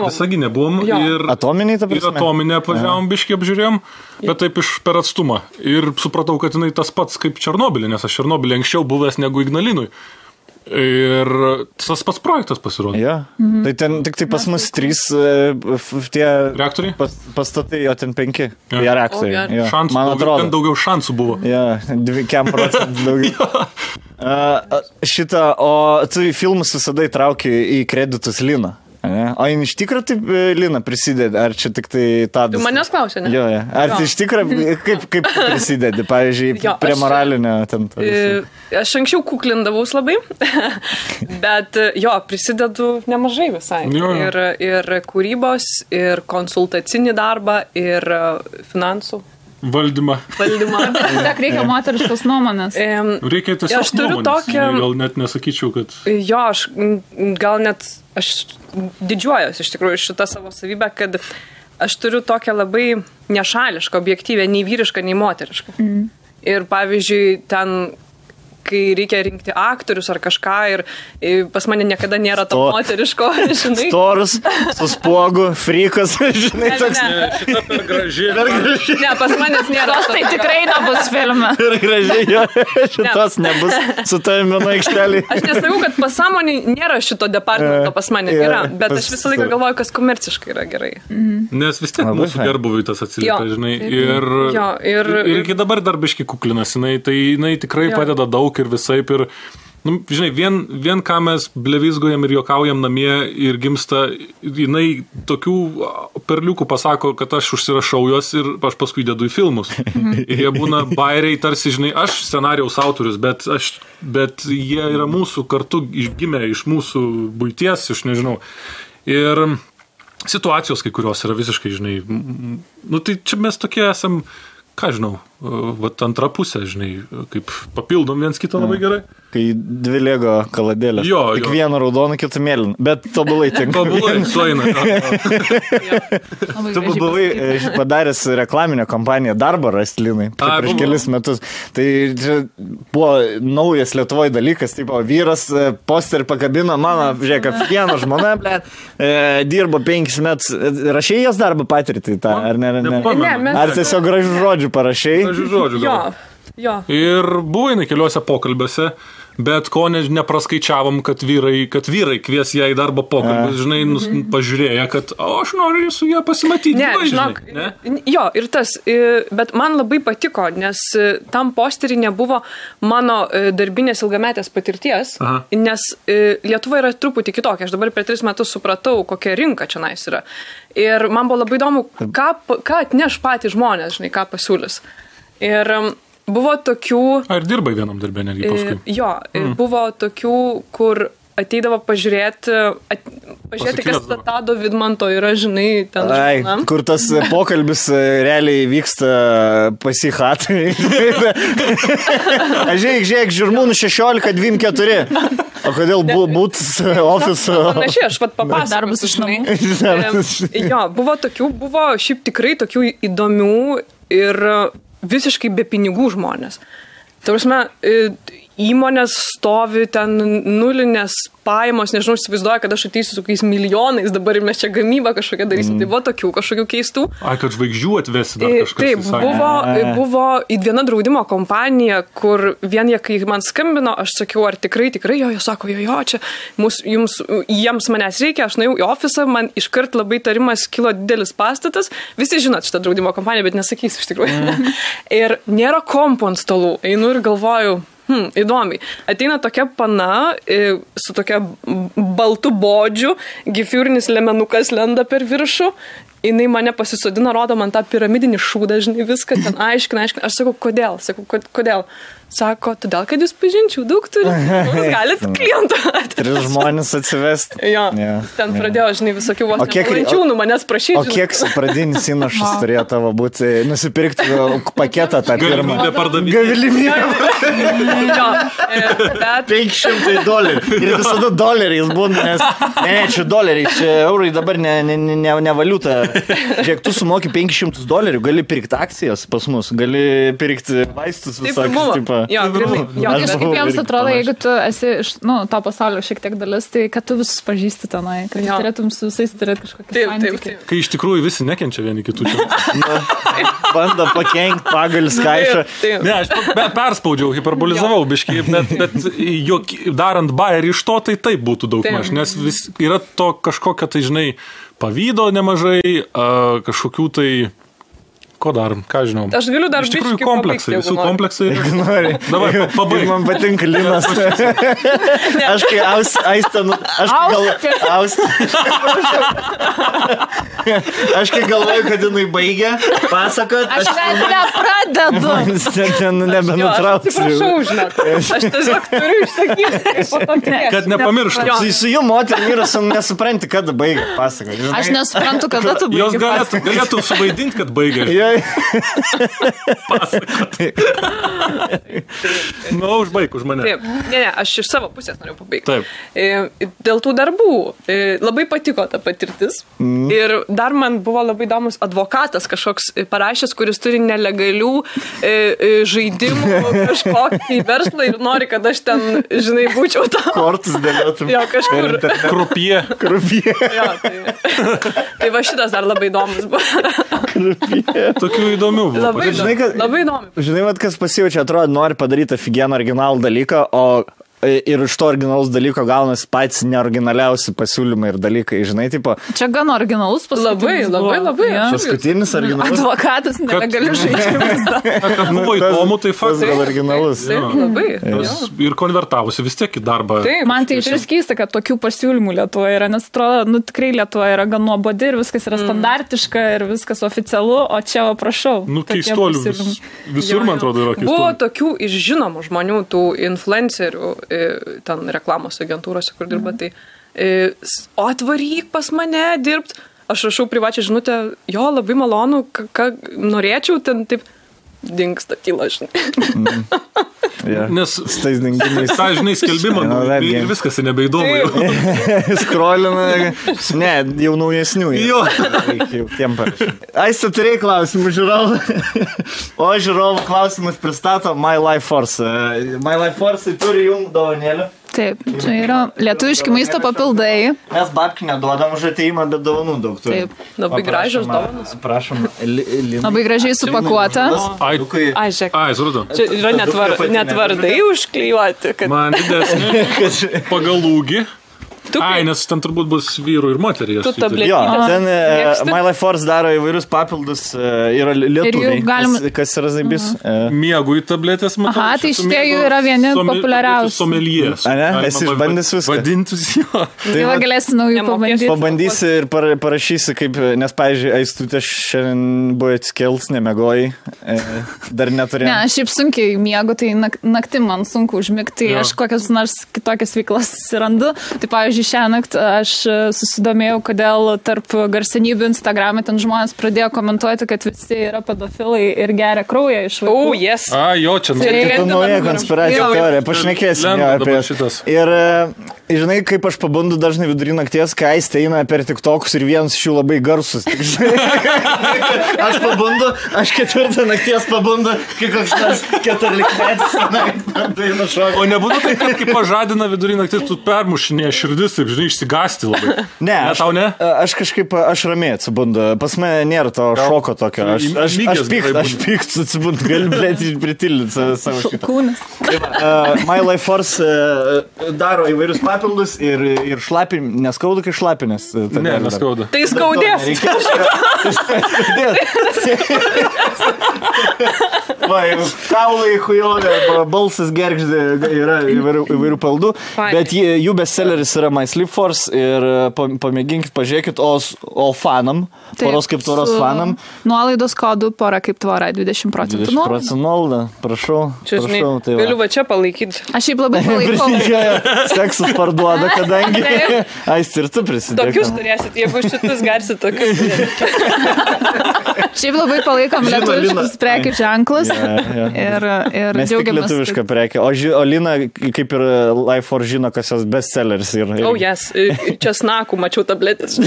Visaginė buvom ir Atominiai, ta prasme? Ir Atominę apvažiavom, biškį apžiūrėjom, bet taip per atstumą. Ir supratau, kad jinai tas pats kaip Černobylė, nes aš Černobylė anksčiau buvęs negu Ignalinui. Ir tas pats projektas pasirodė. Ja. Tai ten tik tai pas mus 3 tie reaktoriai? Pastatai, o ten 5. Ja, reaktoriai. Ja. Man atrodo. Ten daugiau šansų buvo. Ja, 2% daugiau. O tu filmus visada įtrauki į kreditus Liną. O jin iš tikrųjų taip Lina prisidedi, ar čia tik tai Tadas? Tu manęs klausė, ne? Jo. Ar tai iš tikrųjų kaip prisidedi, pavyzdžiui, prie moralinio ten? Aš anksčiau kuklindavaus labai, bet prisidedu nemažai visai. Ir kūrybos, ir konsultacinį darbą, ir finansų. Valdymą. Tiesiog reikia moteriškos nuomonės. Reikia tiesiog nuomonės. Gal net nesakyčiau, kad... Aš gal net... Aš didžiuojuosi iš tikrųjų šitą savo savybę, kad aš turiu tokią labai nešališką, objektyvę, nei vyrišką, nei moterišką. Ir pavyzdžiui, ten kai reikia rinkti aktorius ar kažką ir pas mane niekada nėra to moteriško, žinai. Storus, su spuogu, frikas, žinai, toks. Šitą per gražiai. Ne, pas manęs nėra. Tai tikrai nebus filme. Per gražiai, jo, šitos nebus su tavim viena aikštelė. Aš nesakau, kad pasąmonį nėra šito departamento, pas mane yra, bet aš visą laiką galvoju, kas komerciškai yra gerai. Nes vis tiek mūsų gerbuvui tas atsiliepia, žinai. Ir iki dabar dar biški kuklinasi, tai jinai tikrai padeda daug ir visaip ir, žinai, vien ką mes blevizgojam ir juokaujam namie ir gimsta, jinai tokių perliukų pasako, kad aš užsirašau juos ir aš paskui dedu į filmus. Ir jie būna bairiai, tarsi, žinai, aš scenarijaus autorius, bet jie yra mūsų kartu gimę iš mūsų buities, iš nežinau. Ir situacijos kai kurios yra visiškai, žinai, tai čia mes tokie esam, ką žinau, antrą pusę, žinai, kaip papildom viens kitą labai gerai. Kai dvi lego kaladėlės. Tik vieną raudoną, kitą mėlyną. Bet tobulai tinka. Tobulai, sueina. Tu buvai padaręs reklaminę kampaniją Darbą rasti, Linai, prieš kelis metus. Tai buvo naujas Lietuvoje dalykas, tipo, vyras posterį pakabino, mano, žiūrėk, viena žmona, dirbo 5 metus. Rašėjai jos darbą patirtį tą, ar ne? Ar tiesiog gražių žodžių parašėjai? Gražių žodžių gal. Jo. Ir buvo jinai keliuose pokalbiuose, bet ko nepraskaičiavom, kad vyrai kvies ją į darbo pokalbį, žinai, pažiūrėję, kad aš noriu su ją pasimatyti. Ne, žinok, jo, ir tas, bet man labai patiko, nes tam posterį nebuvo mano darbinės ilgametės patirties, nes Lietuva yra truputį kitokia. Aš dabar per 3 metus supratau, kokia rinka čia nais yra. Ir man buvo labai įdomu, ką atneš patys žmonės, žinai, ką pasiūlys. Ir buvo tokių... Ar dirbai vienam darbė netgi paskui? Jo, buvo tokių, kur ateidavo pažiūrėti, kas Tado Vidmanto yra, žinai, ten žmona. Kur tas pokalbis realiai vyksta pasihatai. Žiūrėk, žirmūnų 16-24. O kodėl būtų ofiso? Panašiai, aš papasakosiu. Darbas iš namų. Jo, buvo šiaip tikrai tokių įdomių ir visiškai be pinigų žmonės. Tai prasme, įmonės stovi ten nulinės pajamos, nežinau, įsivaizduoja, kad aš ateisiu su kokiais milijonais dabar ir mes čia gamybą kažkokią darysim. Tai buvo tokių kažkokių keistų. Kad žvaigždžių atvesi dar kažkas. Taip, buvo viena draudimo kompanija, kur vien jie, kai man skambino, aš sakiau, ar tikrai, jo, jie sako, jo, čia jiems manęs reikia, aš nuėjau į ofisą, man iškart labai tarimas kilo didelis pastatas, visi žinot šitą draudimo kompaniją, bet nesakysiu iš tikrųjų. Ir nėra kompų ant stalų, einu ir galvoju, įdomiai. Ateina tokia pana su tokia baltu bodžiu, gifiurinis lemenukas lenda per viršų, jinai mane pasisodina, rodo man tą piramidinį šūdą, žinai, viską ten aiškina. Aš sakau, kodėl? Sako, todėl, kad jūs pažinčių daug turite, galite klientą. 3 žmonės atsivesti. Jo, ten pradėjo, žinai, visokių vos nepalančiūnų manęs prašyti. O kiek pradinis įnašas turėjo tavo būti, nusipirkti paketą tą pirmą? Galimybę. Jo, bet... $500. Ir visada doleriais būna, nes... Ne, čia doleriai, čia eurai dabar ne valiuta. Žiūrėk, tu sumoki $500, gali pirkti akcijas pas mus, gali pirkti vaistus visokius. Jo, grinai. Bet kaip jiems atrodo, jeigu tu esi iš to pasaulio šiek tiek dalis, tai kad tu visus pažįsti tenai, kad turėtum su visais turėti kažkokį santykį. Kai iš tikrųjų visi nekenčia vieni kitų čia. Bando pakenkti pagalis kaišą. Ne, aš perspaudžiau, hiperbolizavau biškai, bet darant bairį iš to, tai taip būtų daug maž, nes yra to kažkokio, tai žinai, pavydo nemažai, kažkokių tai... Ko darom, ką žinau. Aš galiu dar iš tikrųjų kompleksai, visų kompleksai. Nori. Davai, pabaig. Man patinka Linas. Aš kai Aš kai galvoju, kad jinai baigia pasakot. Aš nepradedu. Ten nebenutrauksiu. Atsiprašau, žinok. Aš tiesiog turiu išsakyti. Kad nepamirštum. Su jų moterį vyras nesupranti, kada baigia pasakot. Aš nesuprantu, kada tu baigia pasakot. Jos galėtų suvaidinti, kad baigia. Užbaig už mane. Taip, ne, aš iš savo pusės noriu pabaigti. Taip. Dėl tų darbų labai patiko ta patirtis. Ir dar man buvo labai įdomus advokatas kažkoks parašęs, kuris turi nelegalių žaidimų kažkokį verslą ir nori, kad aš ten, žinai, būčiau tam. Kortus dėliotum. Jo, kažkur. Krupie. Jo, tai va šitas dar labai įdomus buvo. Krupie. Tokių įdomių buvo. Labai įdomu. Žinai, kas pasijaučia, atrodo, nori padaryti ofigeną originalų dalyką, o ir iš to originalus dalyko gaunasi patys neoriginaliausi pasiūlymai ir dalykai, žinai, tipo. Čia gan originalus paskutinis. Labai. Ja. Paskutinis originalus. Advokatas nelegalių žaidimus. Kad buvo įdomu, tai faktas. Tas originalus. Taip, labai. Ir konvertavosi vis tiek į darbą. Taip, man tai išvis keista, kad tokių pasiūlymų Lietuvoje yra, nes atrodo, tikrai Lietuvoje yra gan nuobodi ir viskas yra standartiška ir viskas oficialu, o čia, prašau. Keistolių visur, man atrodo, yra keistolių. Buvo tokių iš žinomų žmonių, tų influencerių, ten reklamos agentūrose, kur dirba, tai o atvaryk pas mane dirbt. Aš rašau privačią žinutę, jo, labai malonu, ką norėčiau, ten taip dingsta tyla, žinai. Nes žinai skelbimą ir viskas nebeįdomu. Skrolina, ne, jau naujesnių. Jo. Aiste, turėjai klausimų žiūrovų. O žiūrovų klausimus pristato My Life Force. My Life Force turi jums dovanėlį. Taip, čia yra lietuviški maisto papildai. Mes babkių neduodam už ateimą, bet dovanų daug turi. Taip, labai gražios dovanos. Prašom, Lina. Labai gražiai supakuota. Ai, žiūrėk. Ai, suratau. Čia yra netvardai užklijuoti. Man didesnė pagal ūgį. Ai, nes ten turbūt bus vyrų ir moterį. Tu tabletį. Jo, ten My Life Force daro įvairius papildus, yra lietuviai, kas yra zaibis. Miegų į tabletės, matau. Aha, tai šitie jų yra vieni populiariausių. Somelies. A ne, esi išbandęs viską. Vadintus jo. Tai va galėsi naujų pabandyti. Pabandysi ir parašysi, kaip, nes, pavyzdžiui, Aistutė šiandien buvo atskels, nemegojai, dar neturėjau. Ne, aš šiaip sunkiai miegu, tai naktį man sunku užmigti, aš kokias nors kitokias veiklas randu. Tai, pavyzdžiui, šiąnakt aš susidomėjau, kodėl tarp garsenybių Instagram'e ten žmonės pradėjo komentuoti, kad visi yra pedofilai ir geria kraują iš vaikų. Oh, yes. A, jo, čia nauja konspiracijų teorija, pašnekėsim jo apie šitas. Ir, žinai, kaip aš pabundu dažnai vidurį nakties, kai Aistė eina per TikTokus ir vienas iš jų labai garsus. Aš pabundu, aš 4 nakties pabundu, kai koks nors 14-metis. O nebūtų tai, kad kai pažadina vidurį nakties, tu permušinė širdis, taip, žinai, išsigąsti labai. Ne, tau ne? Aš kažkaip, aš ramiai atsibundu. Pas mane nėra to šoko tokio. Aš pykstu atsibundu, gali, blėti, pritildyti savo šitą. Kūnas. My Life Force daro įvairius papildus ir šlapi, neskaudu, kai šlapinės. Ne, neskaudu. Tai skaudės. Va, kaulai, hujonė, balsas gergždė, yra įvairių paldų, bet jų bestselleris yra My Sleep Force ir pamėginkit, pažiūrėkit, o fanam, poros kaip tvoros fanam. Nuolaidos kodų pora kaip tvora, 20%. 20% nuolaidą, prašau. Čia, žinai, galiu va čia palaikyti. Aš šiaip labai palaikau. Seksus parduoda, kadangi. Aist, ir tu prisidėk. Tokius turėsit, jeigu šitus garsit, tokius turėsit. Šiaip labai palaikom lietuviškus prekių ženklus. Ir mes tik lietuvišką prekę. O Lina, kaip ir Life Force žino, kas jos bestselleris yra. Oh, yes. Česnakų mačiau tabletės.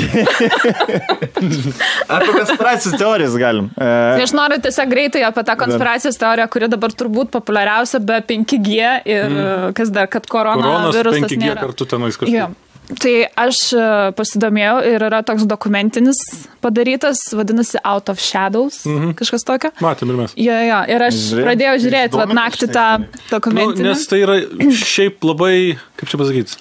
Apie konspiracijos teorijas galim. Aš noriu tiesiog greitai apie tą konspiracijos teoriją, kuri dabar turbūt populiariausia be 5G ir kas dar, kad koronavirusas 5G nėra. Kartu tenais kažkaip. Tai aš pasidomėjau ir yra toks dokumentinis padarytas, vadinasi Out of Shadows, kažkas tokio. Matėm ir mes. Jo, ir aš pradėjau žiūrėti naktį tą dokumentinį. Nes tai yra šiaip labai, kaip čia pasakyti,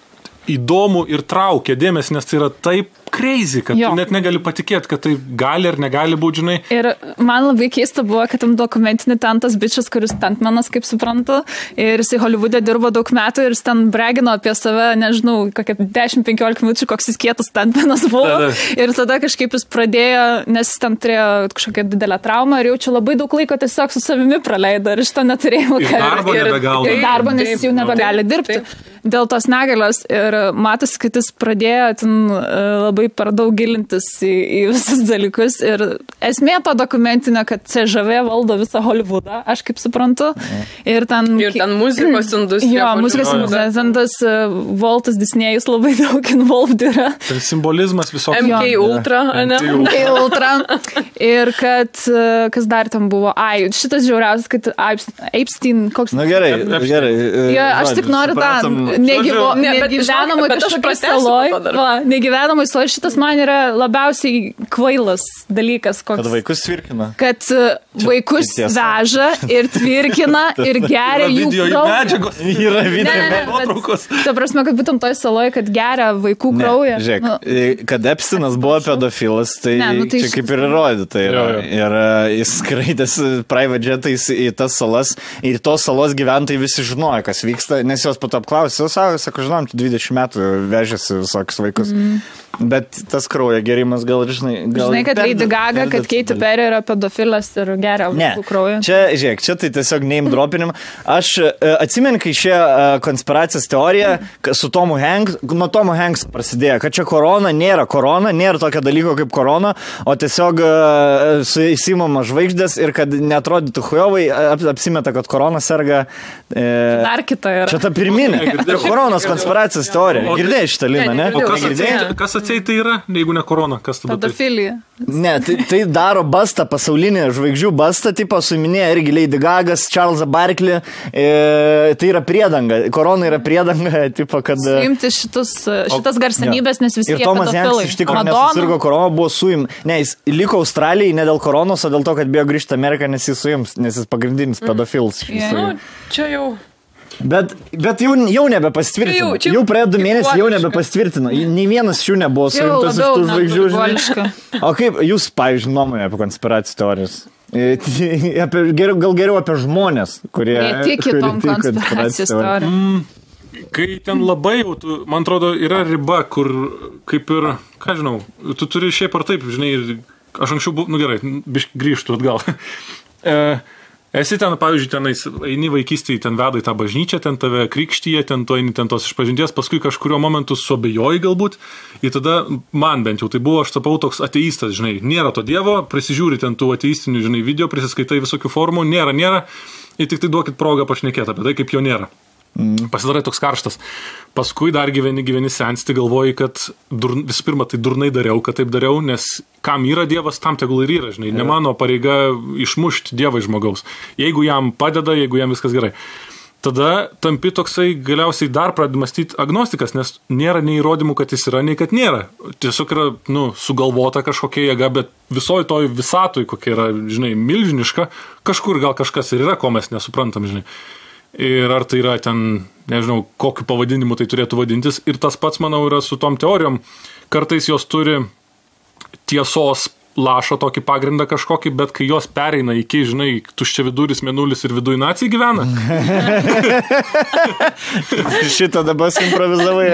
įdomu ir traukia dėmesį, nes tai yra taip crazy, kad tu net negali patikėti, kad tai gali ar negali būti, žinai. Ir man labai keista buvo, kad tam dokumentinį ten tas bičias, kuris stuntmanas, kaip suprantu, ir jisai Hollywoode dirbo daug metų ir jis ten bragino apie save, nežinau, kokią 10-15 minučių, koks jis kietas stuntmanas buvo. Ir tada kažkaip jis pradėjo, nes jis ten turėjo kažkokią didelę traumą ir jaučiu labai daug laiko tiesiog su savimi praleido ir iš to neturėjau darbo, nes jis jau nebegali dirbti dėl tos negalios. Ir matosi, kad jis pradėjo ten labai labai per daug gilintis į visus dalykus. Ir esmė to dokumentinio, kad CŽV valdo visą Hollywoodą, aš kaip suprantu. Ir ten muzikos industrija. Jo, muzikos industrija. Ten tas Waltas Disnėjus labai daug involved yra. Tai simbolizmas visokių. MK Ultra, ne? MK Ultra. Ir kad, kas dar tam buvo? Šitas žiauriausias, kad Epstein, koks... Na gerai. Ja, aš tik noriu tą negyvenamą kažkokią saloj. Negyvenamą saloj, šitas man yra labiausiai kvailas dalykas. Koks. Kad vaikus tvirkina. Kad vaikus veža ir tvirkina ir geria jų kraują. Yra video nuotraukos. Ta prasme, kad būtent toj saloj, kad geria vaikų kraują. Žiūrėk, kad Epsteinas buvo pedofilas, tai čia kaip ir įrodyta yra. Ir jis skraidėsi private jetais į tas salas ir tos salos gyventojai visi žinojo, kas vyksta, nes jos po to apklausė, sako, žinom, 20 metų vežėsi visokius vaikus. Bet tas kraujo gerimas gal, žinai, kad Lady Gaga, kad Katy Perry yra pedofilas ir geria vaikų kraują. Čia tai tiesiog name dropinim. Aš atsimenu, kai šie konspiracijos teorija su Tomu Hanks, nuo Tomu Hanks prasidėjo, kad čia korona, nėra tokio dalyko kaip korona, o tiesiog įsimama žvaigždės ir kad neatrodytų chujovai, apsimeta, kad korona serga. Dar kita yra. Čia ta pirminė. Koronos konspiracijos teorija. Girdėjai šitą Liną, ne? Kas atseit tai yra, jeigu ne korona? Kas tada? Pedofilija. Ne, tai daro bastą, pasaulinį žvaigždžių bastą, tipo suminėja irgi Lady Gagas, Charlesą Barkley. Tai yra priedanga. Korona yra priedanga, tipo, kad... Suimti šitas garsenybės, nes visi jie pedofilai. Ir Tomas Hanks iš tikrųjų nesusirgo korona, buvo suim. Ne, jis liko Australijai ne dėl koronos, o dėl to, kad bijo grįžti Ameriką, nes jis suims, nes jis pagrindinis pedofilas. Čia jau... Bet jau nebepastvirtino. Jau praėjo 2 mėnesius, jau nebepastvirtino. Nei vienas šių nebuvo suimtas iš tų žvaigždžių. O kaip jūs, pavyzdžiui, nuomonė apie konspiracijų teorijas? Gal geriau apie žmonės, kurie tiki tom konspiracijos teorijom. Kai ten labai jau, man atrodo, yra riba, kur kaip ir, ką žinau, tu turi šiaip ar taip, žinai, aš anksčiau buvau, gerai, grįžtų atgal. Esi ten, pavyzdžiui, tenais, eini vaikystėje, ten veda į tą bažnyčią, ten tave krikštyje, ten tu eini ten tos išpažinties, paskui kažkurio momentu suabejoji galbūt, ir tada man bent jau tai buvo, aš tapau toks ateistas, žinai, nėra to dievo, prisižiūri ten tų ateistinių, žinai, video, prisiskaitai visokių formų, nėra, ir tik tai duokit progą pašnekėti apie tai, kaip jo nėra. Pasidarai toks karštas. Paskui dar gyveni sensti, galvoji, kad visų pirma, tai durnai dariau, kad taip dariau, nes kam yra Dievas, tam tegul ir yra, žinai, ne mano pareiga išmušti Dievą iš žmogaus. Jeigu jam padeda, jeigu jam viskas gerai. Tada tampi toksai galiausiai dar pradedi mąstyti agnostikas, nes nėra nei įrodymų, kad jis yra, nei kad nėra. Tiesiog yra, sugalvota kažkokia jėga, bet visoji toj visatoj, kokia yra, žinai, milžiniška, kažkur gal kažkas ir yra, ko mes nesuprantam, žinai. Ir ar tai yra ten, nežinau, kokiu pavadinimu tai turėtų vadintis. Ir tas pats, manau, yra su tom teorijom. Kartais jos turi tiesos lašo tokį pagrindą kažkokį, bet kai jos pereina iki, žinai, tuščia viduris, mėnulis ir viduj nacijai gyvena. Šitą dabar improvizavai.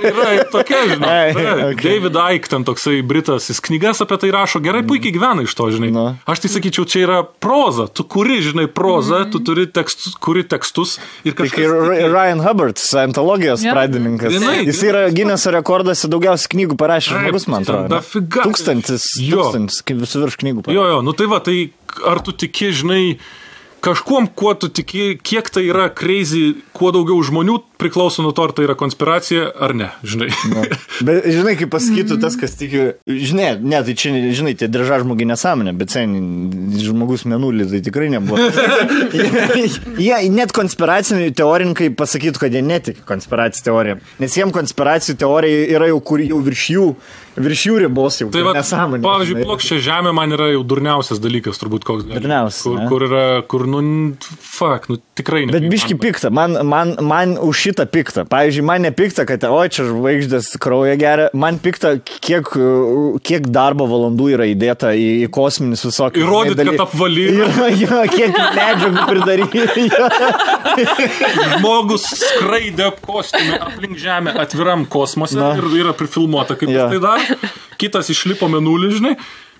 Yra tokia, žinai. David Icke, ten toksai britas, jis knygas apie tai rašo, gerai, puikiai gyvena iš to, žinai. Aš tai sakyčiau, čia yra proza. Tu kuri, žinai, prozą, tu turi kuri tekstus. Ir kažkas... Ryan Hubbard, scientologijos pradininkas. Jis yra Guinneso rekordas, daugiausiai knygų parašė žmogus, man atrodo. 1000 kaip visų virš knygų. Jo, tai va, tai ar tu tiki, žinai, kažkuom, kuo tu tiki, kiek tai yra crazy, kuo daugiau žmonių priklauso nuo to, ar tai yra konspiracija, ar ne, žinai. Bet, žinai, kaip pasakytų tas, kas tiki, žinai, tai čia, žinai, tai drža žmogiai nesąmonė, bet žmogus mėnulį tai tikrai nebuvo. Jie net konspiraciniai teorininkai pasakytų, kad jie netiki konspiracijų teoriją, nes jiems konspiracijų teorija yra jau kur jau virš jų ribos jau. Tai va, pavyzdžiui, plokščia žemė man yra jau durniausias dalykas, turbūt koks. Durniausias. Kur yra, tikrai ne. Bet biški pikta, man už šitą pikta. Pavyzdžiui, man nepikta, kad čia žvaigždės kraują geria, man pikta, kiek darbo valandų yra įdėta į kosminius visokius. Įrodyti, kad apvaly. Kiek medžiagų pridaryti. Žmogus skraidė kostiumė aplink žemę atviram kosmose ir yra prifilmuota, kaip tai dar. Kitas išlipo mėnulį, žinai.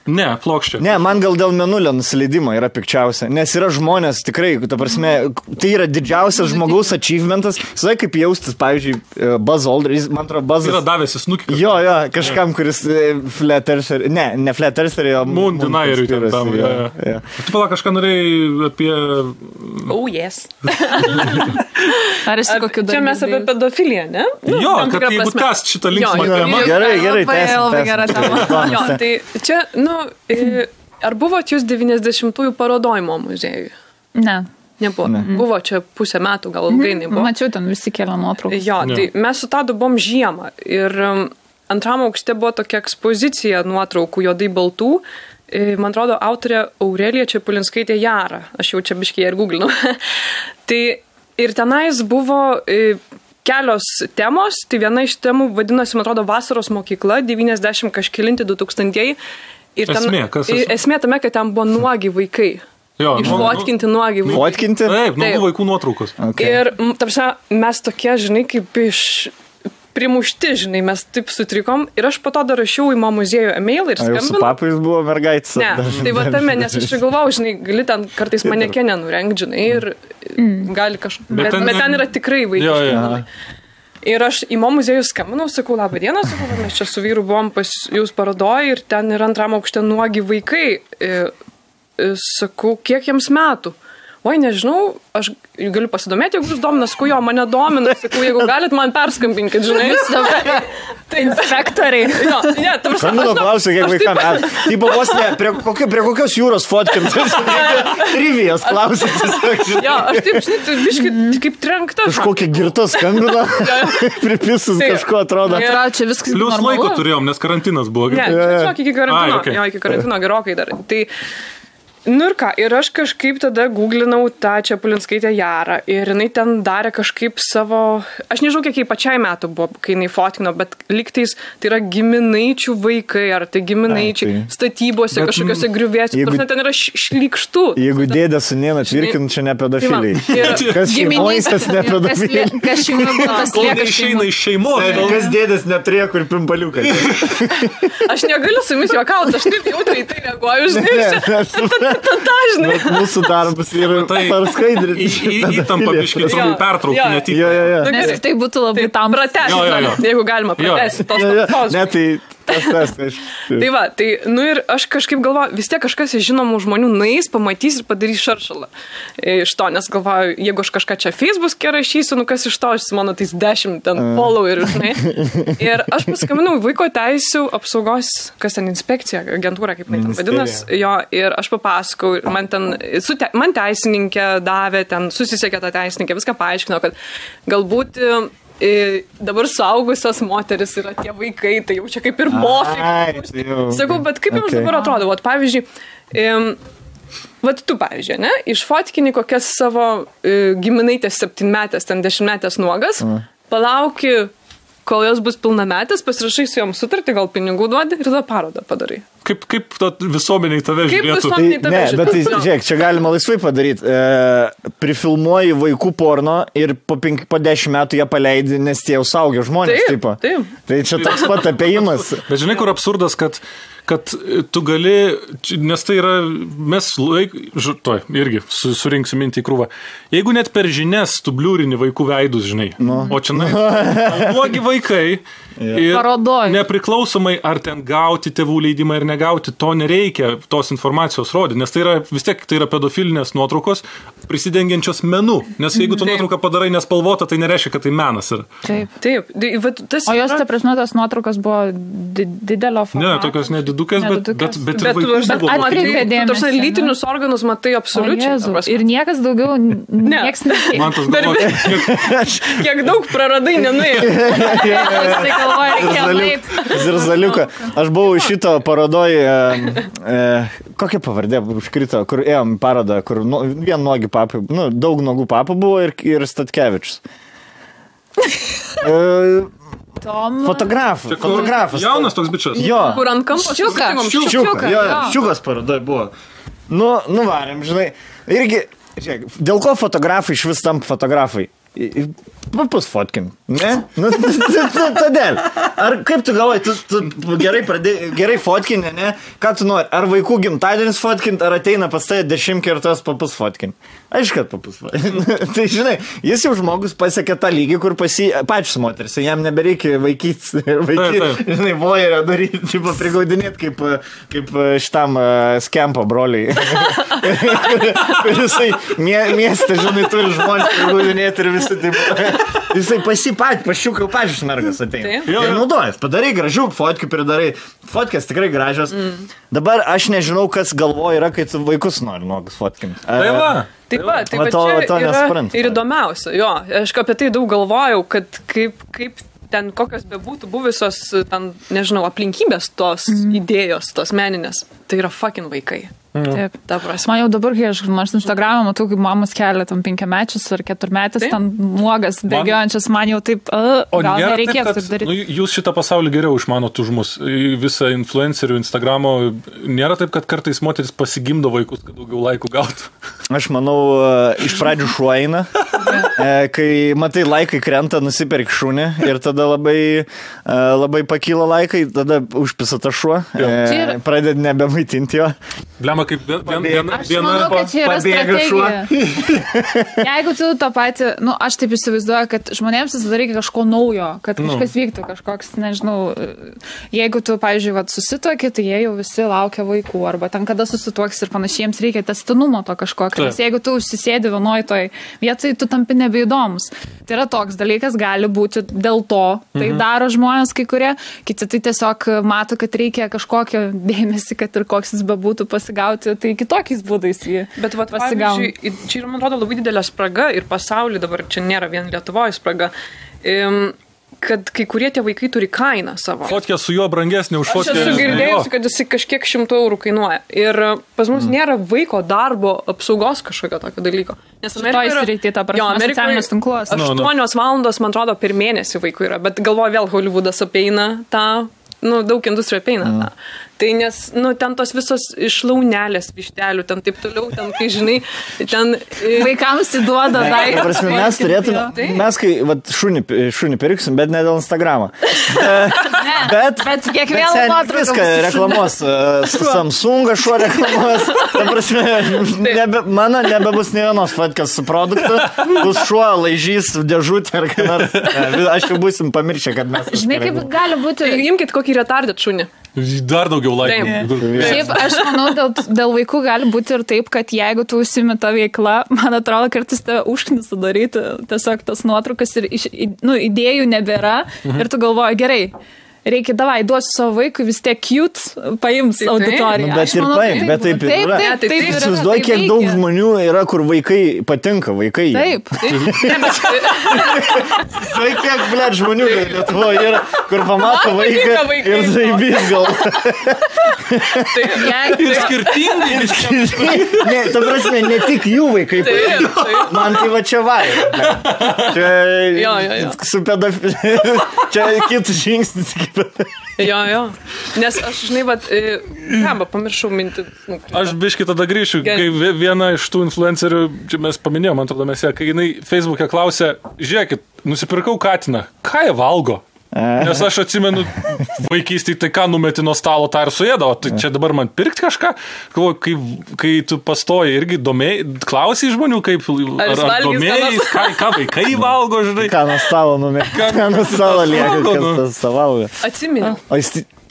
Ne, plokščia. Ne, man gal dėl mėnulio nusileidimo yra pikčiausia, nes yra žmonės tikrai, ta prasme, tai yra didžiausias žmogaus achievementas, žinai, kaip jaustis, pavyzdžiui, Buzz Aldrin, man atrodo, Buzzas. Yra davęs snukį. Jo, kažkam, kuris Flat Earther, ne Flat Earther, o Moon Denieriui ten tam. Tu pala kažką norėjai apie... Oh, yes. Ar esi kokiu čia mes apie pedofiliją, ne? Jo, kad jeigu kas šitą linksmą temą. Gerai, Jo, tai čia, ar buvot jūs 90-ųjų parodojimo muziejui? Ne. Nebuvo. Buvo čia pusę metų, gal ilgai nebuvo. Mačiau, ten visi kelia nuotraukas. Jo, tai mes su Tadu buvom žiemą ir antram aukšte buvo tokia ekspozicija nuotraukų juodai baltų. Man atrodo, autorė Aurelija Čepulinskaitė Jara. Aš jau čia biškiai ir googlinu. Tai ir tenais buvo kelios temos. Tai viena iš temų vadinosi, man atrodo, Vasaros mokykla, 90 kažkelinti 2000-ieji. Ir esmė tame, kad ten buvo nuogi vaikai. Jo, išfotkinti nuogi vaikai. Fotkinti? Taip, nuogų vaikų nuotraukos. Okay. Ir, tarsi, mes tokie, žinai, kaip primušti, žinai, mes taip sutrikom. Ir aš po to dar rašiau į mo muziejų e-mailą ir skambinau. Jūsų papais buvo mergaitis? Ne, tai va tame, nes aš galvau, žinai, gali ten kartais manekenę nurengt, žinai, ir gali kažką. Bet ten yra tikrai vaikai. Ir aš į mo muziejų skambinau, sakau, labą dieną, sakau, mes čia su vyru buvom pas jūs parodoj ir ten yra antram aukšte nuogi vaikai. Sakau, kiek jiems metų? Oi, nežinau, aš galiu pasidomėti, jeigu jūs domina, sakau, jo, mane domina, sakau, jeigu galit man perskambinkit, žinai. Tai inspektoriai. Jo, ne, tam skambino klausiu, kiek vaikam metų. Tipo, vos ne, prie kokios jūros fotkintis? Trivijas klausytis. Jo, aš taip, žinai, biškai kaip trenkta. Kažkokia girta skambina, pripisus kažko atrodo. Čia viskas plius laiko turėjom, nes karantinas buvo. Ne, čia iki karantino. Jo, iki karantino gerokai dar. Tai nu ir ką, ir aš kažkaip tada googlinau tą Čepulinskaitę Jarą ir jinai ten darė kažkaip savo, aš nežinau, kiek jai pačiai metų buvo, kai jinai fotkino, bet lygtais tai yra giminaičių vaikai, ar tai giminaičiai statybose, kažkokiose griuvėse, ten yra šlykštų. Jeigu dėdė su nėna tvirkint, čia ne pedofiliai. Kas šeimos, tas ne pedofiliai. Kas šeimos, kol neišeina iš šeimos. Kas dėdės neturėjo kur pimpaliukai. Aš negaliu su jumis juokauti, aš taip jautriai tai reaguoju, žinai. Dažnai. Mūsų darbas yra parskaidrinti. Įtampa biškai pertraukti netik. Nes tai būtų labai tam pratęsti, jeigu galima pratęsti tos tautos. Ne, tai tai va, tai, nu ir aš kažkaip galvoju, vis tiek kažkas iš žinomų žmonių nueis, pamatys ir padarys šaršalą iš to, nes galvoju, jeigu aš kažką čia Facebook'e rašysiu, nu kas iš to, aš mano tais 10 ten followerių, žinai. Ir aš paskambinau vaiko teisių apsaugos, kas ten inspekcija, agentūra, kaip ten vadinas, jo, ir aš papasakau, man ten, man teisininkė davė, ten susisiekė tą teisininkę, viską paaiškino, kad galbūt dabar suaugusios moteris yra tie vaikai, tai jau čia kaip ir mofik. Sakau, bet kaip jums dabar atrodo? Vat, pavyzdžiui, vat tu, pavyzdžiui, ne? Išfotkini kokias savo giminaitės 7-metės, ten 10-metės nuogas, palauki, kol jos bus pilnametės, pasirašai su jom sutartį, gal pinigų duodi ir tada parodą padarai. Kaip visuomeniai tave žiūrėtų? Bet tai, žiūrėk, čia galima laisvai padaryti. Prifilmuoji vaikų porno ir po 10 metų jie paleidi, nes tie jau saugia žmonės. Taip. Tai čia toks pat apėjimas. Bet žinai, kur absurdas, kad tu gali, nes tai yra, mes irgi surinksim mintį į krūvą. Jeigu net per žinias tu bliūrini vaikų veidus, žinai, o čia blogi vaikai ir parodoj. Nepriklausomai ar ten gauti tėvų leidimą ir negauti, to nereikia tos informacijos rodyti, nes tai yra, vis tiek tai yra pedofilinės nuotraukos prisidengiančios menu, nes jeigu tu nuotrauką padarai nespalvotą, tai nereiškia, kad tai menas yra. Taip. O jos, ta prasme, tos nuotraukos buvo didelio formato? Ne, tokios nedidukės, bet vaikų buvo. Atkreipė dėmesį. Lytinius organus matai absoliučiai. Ir niekas daugiau nieks nekėlė. Man tas galvoja. Kiek daug praradai, nenuėjo. Zirzaliuką. Aš buvau šito parodoj, kokia pavardė užkrito, kur ėjom parodą, kur vien nogi papai, daug nogų papų buvo ir Statkevičius. Fotografas. Jaunas toks bičias. Jo. Kur ant kampo Ščiukas parodoj buvo. Nuvarėm, žinai. Irgi, žiūrėk, dėl ko fotografai iš vis tampa fotografai? Papusfotkin. Ne? Nu, todėl. Ar kaip tu galvoji, tu gerai fotkinė, ne? Ką tu nori? Ar vaikų gimtadienis fotkinti, ar ateina pas tai 10 kartos papusfotkinti? Aišku, kad papusfotkinti. Tai žinai, jis jau žmogus pasiekė tą lygį, kur pačius moteris, jam nebereikia vaikyti, žinai, vojerio daryti, tipo prigaudinėti kaip šitam skempo broliai. Jisai miestą, žinai, turi žmonės prigaudinėti ir visi taip. Jisai pašiukai pačius mergas ateina. Ir naudojas, padarai gražių fotkių, pridarai. Fotkės tikrai gražios. Dabar aš nežinau, kas galvoja yra, kai tu vaikus nori nuogus fotkinti. Tai va, čia yra ir įdomiausia. Jo, aš apie tai daug galvojau, kad kaip ten kokios bebūtų buvusios, ten, nežinau, aplinkybės tos idėjos, tos meninės, tai yra fucking vaikai. Taip, ta prasme. Man jau dabar, kai aš Instagram'e matau, kaip mamos kelia tam 5-mečius ar 4-metis, ten nuogas, bėgiojančias, man jau taip, gal nereikėtų taip daryti. Jūs šitą pasaulį geriau išmanot už mus, visą influencerių Instagramo, nėra taip, kad kartais moteris pasigimdo vaikus, kad daugiau laikų gautų. Aš manau, iš pradžių šuo eina, kai matai laikai krenta, nusipirk šunį ir tada labai pakyla laikai, tada užpisa tą šuo, pradėt nebemaitinti jo. Blema, kaip viena pabėga šuo. Jeigu tu tą patį, aš taip įsivaizduoju, kad žmonėms visada reikia kažko naujo, kad kažkas vyktų, kažkoks, nežinau, jeigu tu, pavyzdžiui, susituoki, tai jie jau visi laukia vaikų, arba ten kada susituoks ir panašiai, jiems reikia tęstinumo to kažkokio, nes jeigu tu užsisėdi vienoj toj vietoj, tu tampi nebeįdomus. Tai yra toks dalykas, gali būti dėl to, tai daro žmonės kai kurie, kiti tai tiesiog mato, kad reikia kažkokio dėmesį, kad ir koks jis bebūtų pasigauti, tai kitokiais būdais jį pasigauna. Čia yra, man atrodo, labai didelė spraga ir pasaulyje dabar čia nėra vien Lietuvoje spraga, kad kai kurie tie vaikai turi kainą savo. Fotkė su juo brangesnė už fotkę. Aš esu girdėjusi, kad jis kažkiek 100 eurų kainuoja. Ir pas mus nėra vaiko darbo apsaugos kažkokio tokio dalyko. Nes Amerikoje 8 valandos, man atrodo, per mėnesį vaikų yra. Bet galvoju, vėl Hollywoodas apeina tą, daug industrijų apeina tą. Tai nes, ten tos visos išlaunelės vištelių, ten taip toliau, ten, kai žinai, ten... Vaikams įduoda daiktą. Prasme, mes turėtume, mes kai šunį pirksim, bet ne dėl Instagramo. Bet kiekvieną nuotrauką. Viską reklamos, Samsungą šuo reklamos. Ta prasme, mano nebebus ne vienos fotkės su produktu, bus šuo, laižys, dėžutė ar ką nors. Aš jau būsim pamiršę, kad mes... Žinai, kaip gali būti... Imkit kokį retardet šunį. Dar daugiau laikų. Šiaip, aš manau, dėl vaikų gali būti ir taip, kad jeigu tu užsimi tą veiklą, man atrodo, kartais tave užknisa daryti tiesiog tas nuotraukas ir idėjų nebėra ir tu galvoji, gerai, reikia, davai, duosiu savo vaikui, vis tiek cute paims auditoriją. Bet ir paim, bet taip ir yra. Taip, įsivaizduoju, kiek daug žmonių yra, kur vaikai patinka, vaikai. Taip. Žinai, kiek, blėt, žmonių Lietuvoje yra, kur pamato vaiką ir zaibys gal. Ir skirtingai. Ne, ta prasme, ne tik jų vaikai patinka. Man tai va čia vaira. Čia su pedofilija. Čia kitus žingsnis. Jo. Nes aš, žinai, pamiršau mintį. Aš biškį tada grįšiu, kai viena iš tų influencerių, čia mes paminėjom, man atrodo, kai jinai Facebook'e klausė, žiūrėkit, nusipirkau katiną, ką jie valgo? Nes aš atsimenu vaikystėje, tai ką numeti nuo stalo, tą ir suėdavo. Tai čia dabar man pirkti kažką? Kai tu pastoji irgi klausai žmonių, kaip ar domėjai, ką vaikai valgo, žinai. Ką nuo stalo numeti? Ką nuo stalo lieka, kas tas valgo? Atsimenu.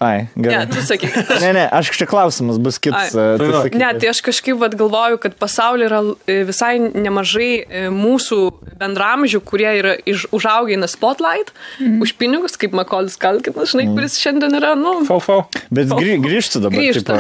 Ai, gerai. Ne, tu sakyk. Ne, aš čia klausimas bus kitas. Ne, tai aš kažkaip galvoju, kad pasaulyje yra visai nemažai mūsų bendramžių, kurie yra užaugę Spotlight, už pinigus, kaip Makolis Kalkinas, žinai, kuris šiandien yra, Bet grįžtų dabar. Grįžtų,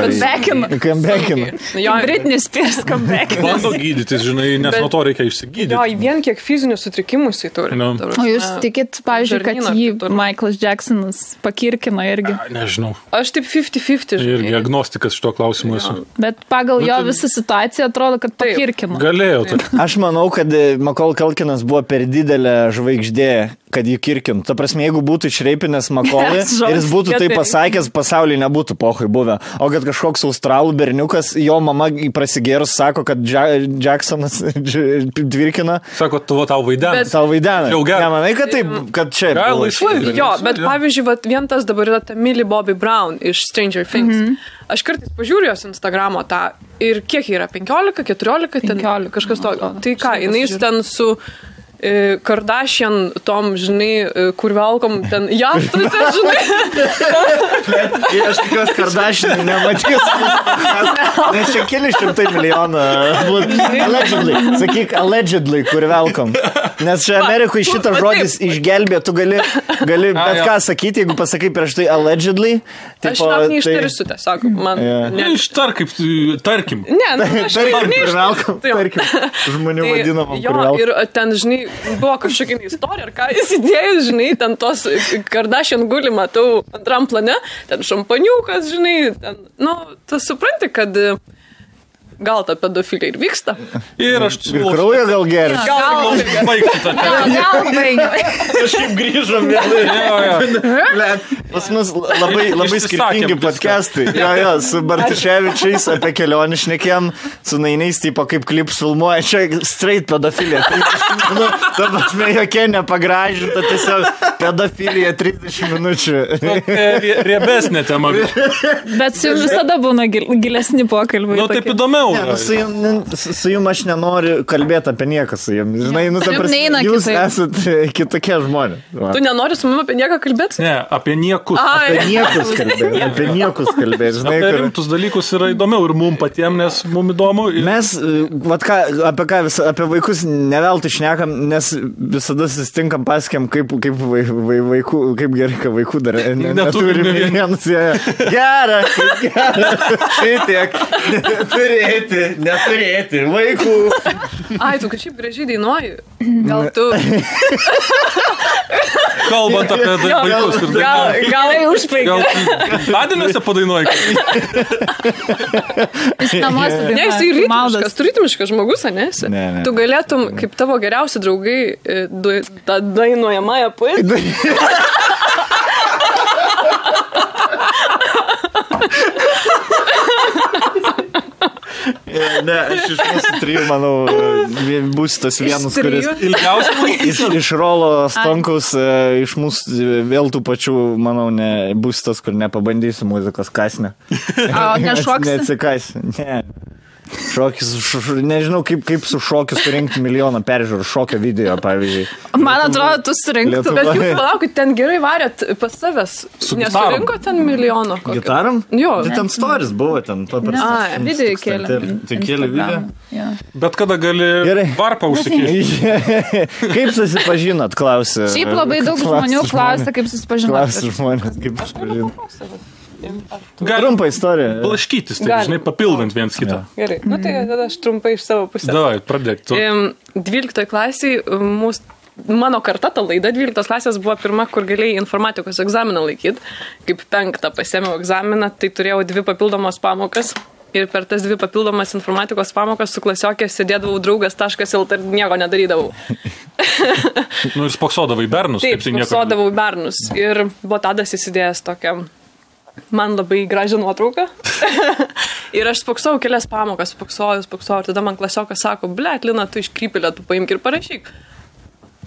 comebackina. Britney Spears comebackina. Bando gydytis, žinai, nes nuo to reikia išsigydyti. Jo, vien kiek fizinių sutrikimų jisai turi. O jūs tikit, pavyzdžiui, kad jį Michaelas Jacksonas pakirkina irgi? Nežinau. Aš taip 50-50. Ir agnostikas šito klausimu esu. Bet pagal jo visą situaciją atrodo, kad pakirkino. Galėjo. Aš manau, kad Macaulay Culkinas buvo per didelė žvaigždė, kad jį kirkintų. Ta prasme, jeigu būtų išreipinęs Makolį ir jis būtų tai pasakęs, pasaulyje nebūtų pohai buvę. O kad kažkoks australų berniukas, jo mama prasigėrus sako, kad Jacksonas tvirkina. Sako, tau vaidena. Tau vaidena. Nemanai, kad taip, kad čia... Gal laisvai. Jo, bet pavyzdžiui, vien tas dabar yra ta Millie Bobby Brown iš Stranger Things. Aš kartais pažiūriu jos Instagramo tą ir kiek yra, 15, 14, 15, kažkas to. Tai ką, jinai ten su Kardashian tom, žinai, kur velkom ten jachtose, žinai. Aš tikiuos Kardashian nematys. Nes čia keli šimtai milijonų. Allegedly. Sakyk, allegedly, kur velkom. Nes čia Amerikoje šitas žodis išgelbė, tu gali bet ką sakyti, jeigu pasakai prieš tai allegedly. Aš net neištarsiu tiesiog. Ištar kaip, tarkim. Ne, aš neištarsiu. Tarkim. Žmonių vadinamą. Jo, ir ten, žinai, buvo kažkokia istorija, ar ką jis įdėjus, žinai, ten tos Kardashian guli, matau antram plane, ten šampaniukas, žinai, ten, tu supranti, kad gal ta pedofilija ir vyksta. Ir aš kraują gal geria. Gal baigti tą temą. Gal baigti. Kažkaip grįžom vėl. Pas mus labai skirtingi podcastai. Jo, su Bartuševičiais apie kelionį šnekėm, su nainiais, tipo kaip klips filmuoja, čia straight pedofilija. Ta prasme, jokia nepagražinta, tiesiog pedofilija 30 minučių. Riebesnė tema. Bet su jums visada būna gilesni pokalbiai. Taip įdomiau. Su jums aš nenoriu kalbėti apie nieką su jums. Žinai, jūs esate kitokie žmonės. Tu nenori su mumis apie nieką kalbėti? Ne, apie niekus. Apie niekus kalbėti. Apie rimtus dalykus yra įdomiau ir mums patiems, nes mums įdomu. Mes, apie vaikus neveltui šnekam, nes visada susitinkam, pasakiam, kaip vaikų, kaip gerai, kad vaikų dar neturime vienus. Gera, šitiek, neturėti vaikų. Ai, tu kažkaip gražiai dainuoji. Gal tu... Kalbant apie vaikus ir dainuoji. Gal užpaigė. Gal Adiniuose padainuoji. Ne, jis ritmiškas, tu ritmiškas žmogus, ne? Tu galėtum, kaip tavo geriausi draugai, tą dainuojamąją poeziją. Ne, aš iš mūsų trijų, manau, bus tas vienas, kuris iš Rolo Stonkaus, iš mūsų vėl tų pačių, manau, bus tas, kur nepabandysiu muzikos kasnę. Nešoksi? Neatsikasi, ne. Šokis, nežinau, kaip su šokiu surinkti milijoną peržiūrų šokio video, pavyzdžiui. Man atrodo, tu surinktų. Bet jūs palaukit, ten gerai varėt pas savęs. Nesurinko ten milijono. Gitaram? Jo. Tai ten stories buvo ten paprastas. Video kėlė. Tai kėlė video. Bet kada gali varpą užsikėsti? Kaip susipažinot, klausė. Šiaip labai daug žmonių klausia, kaip susipažinot. Klausė žmonės, kaip susipažinot. Trumpa istorija. Blaškytis, tai žinai, papildant viens kitą. Gerai, tai tada aš trumpai iš savo pusės. Davai, pradėk tu. 12 klasiai, mano karta, ta laida 12 klasės buvo pirma, kur galėjai informatikos egzaminą laikyti. Kaip 5 pasėmiau egzaminą, tai turėjau 2 papildomos pamokas. Ir per tas 2 papildomas informatikos pamokas su klasiokė sėdėdavau draugas.lt ir nieko nedarydavau. Ir spoksodavai bernus. Taip, spoksodavau bernus. Ir buvo Tadas įsidėjęs tokią man labai gražią nuotrauką. Ir aš spoksojau kelias pamokas, spoksojau. Ir tada man klasiokas sako, blet, Lina, tu iškrypėlę, tu paimk ir parašyk.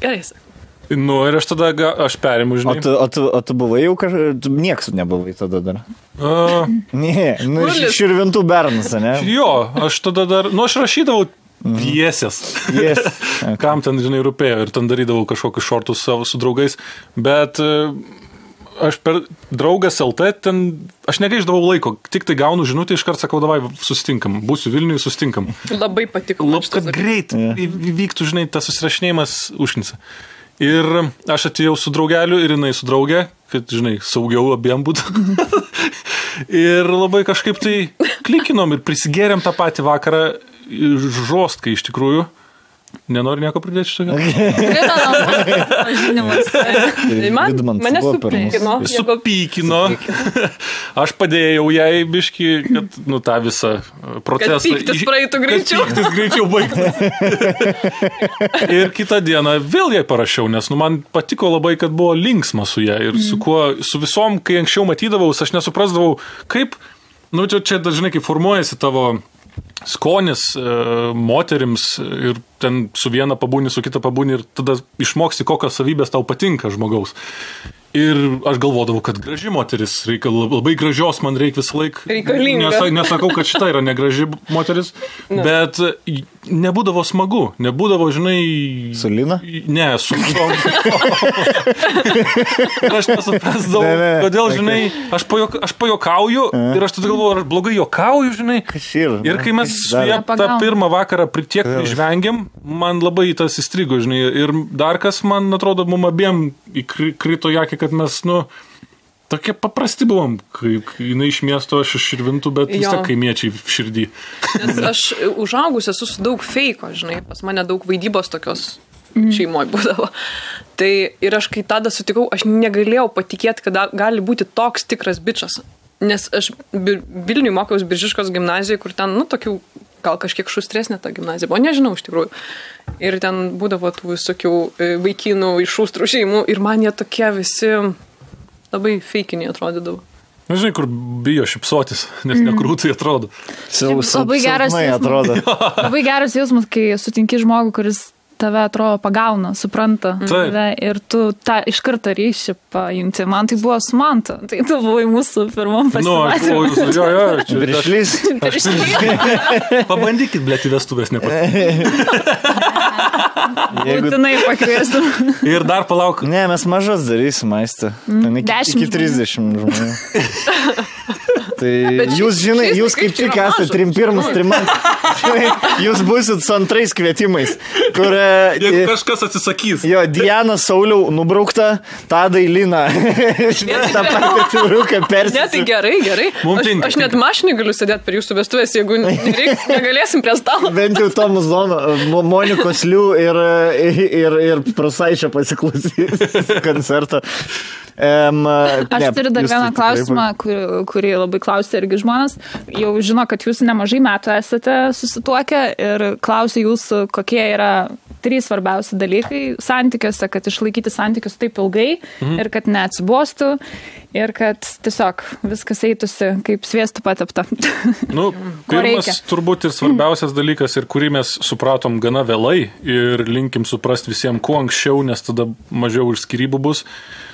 Gerai, sako. Ir aš tada, aš perimu, žinai. O tu buvai jau tu nieks nebuvai tada dar? Ne, širvintų bernus, ne? Jo, aš tada dar, aš rašydavau pjesės. Kam ten, žinai, rūpėjo ir ten darydavau kažkokius šortus savo su draugais, bet aš per draugas LT ten, aš negaiždavau laiko, tik tai gaunu žinutę, iškart sakau, davai, susitinkam, būsiu Vilniuje, susitinkam. Labai patiko. Kad greit vyktų, žinai, tas susirašinėjimas užknisa. Ir aš atėjau su draugeliu ir jinai su draugė, kad, žinai, saugiau abiem būtų. Ir labai kažkaip tai klikinom ir prisigėrėm tą patį vakarą žostkai iš tikrųjų. Nenori nieko pridėti šitą? Mane supykino. Aš padėjau jai biškį, kad tą visą procesą... Kad pyktis praeitų greičiau. Pyktis greičiau baigtų. Ir kitą dieną vėl jai parašiau, nes man patiko labai, kad buvo linksma su ją. Ir su visom, kai anksčiau matydavau, aš nesuprasdavau, kaip... čia dažnai kaip formuojasi tavo... skonis moterims ir ten su viena pabūni, su kita pabūni ir tada išmoksti, kokios savybės tau patinka žmogaus. Ir aš galvodavau, kad graži moteris, labai gražios man reikia visą laiką. Reikalinga. Nesakau, kad šita yra negraži moteris, bet nebūdavo smagu, nebūdavo, žinai... Su Lina? Ne, su... Ir aš nesuprasdavau, kodėl, žinai, aš pajokauju ir aš tada galvoju, aš blogai jokauju, žinai. Ir kai mes su ją tą pirmą vakarą tiek išvengėm, man labai tas įstrigo, žinai. Ir dar kas, man atrodo, mum abiem įkrito jakį, kad mes, tokie paprasti buvom, kai jinai iš miesto, aš iš Širvintų, bet vis tiek kaimiečiai širdį. Nes aš užaugus esu su daug feiko, žinai, pas mane daug vaidybos tokios šeimoje būdavo. Tai ir aš kai tada sutikau, aš negalėjau patikėti, kad gali būti toks tikras bičas. Nes aš Vilniui mokiausi Biržiškos gimnazijoje, kur ten, tokių gal kažkiek šustresnė ta gimnazija, o nežinau iš tikrųjų. Ir ten būdavo tų visokių vaikinų iš šustrų šeimų ir man jie tokie visi labai feikiniai atrodydavo. Žinai, kur bijo šipsotis, nes nekrūtai atrodo. Labai geras jausmas, kai sutinki žmogų, kuris tave atrodo pagauna, supranta tave ir tu tą iš karto ryšį paimti. Man tai buvo su Mantu. Tai tu buvai mūsų pirmam pasimatymui. Viršlys. Pabandykit, blėt, į vestuvės Būtinai pakviestum. Ir dar palauk. Ne, mes mažas darysim, Aiste. Iki 30 žmonių. Tai jūs, žinai, jūs kaip tik esate pirmus jūs būsit su antrais kvietimais, kur... Jeigu kažkas atsisakys. Jo, Diana Sauliau nubraukta, Tadai Lina. Ta patį persis. Ne, tai gerai. Aš net mašinį galiu sėdėti per jūsų vestuvės, jeigu negalėsim prie stalo. Bent jau Tomas Zono, Monikos Liu ir Prasaičio pasiklausys koncertą. Aš turiu dar vieną klausimą, kurį labai klausė irgi žmonės. Jau žino, kad jūs nemažai metų esate susituokę ir klausė jūsų, kokie yra 3 svarbiausi dalykai santykiuose, kad išlaikyti santykius taip ilgai ir kad neatsibostų ir kad tiesiog viskas eitųsi kaip sviestų patepta. Pirmas turbūt ir svarbiausias dalykas ir kurį mes supratom gana vėlai ir linkim suprasti visiems kuo anksčiau, nes tada mažiau ir skyrybų bus,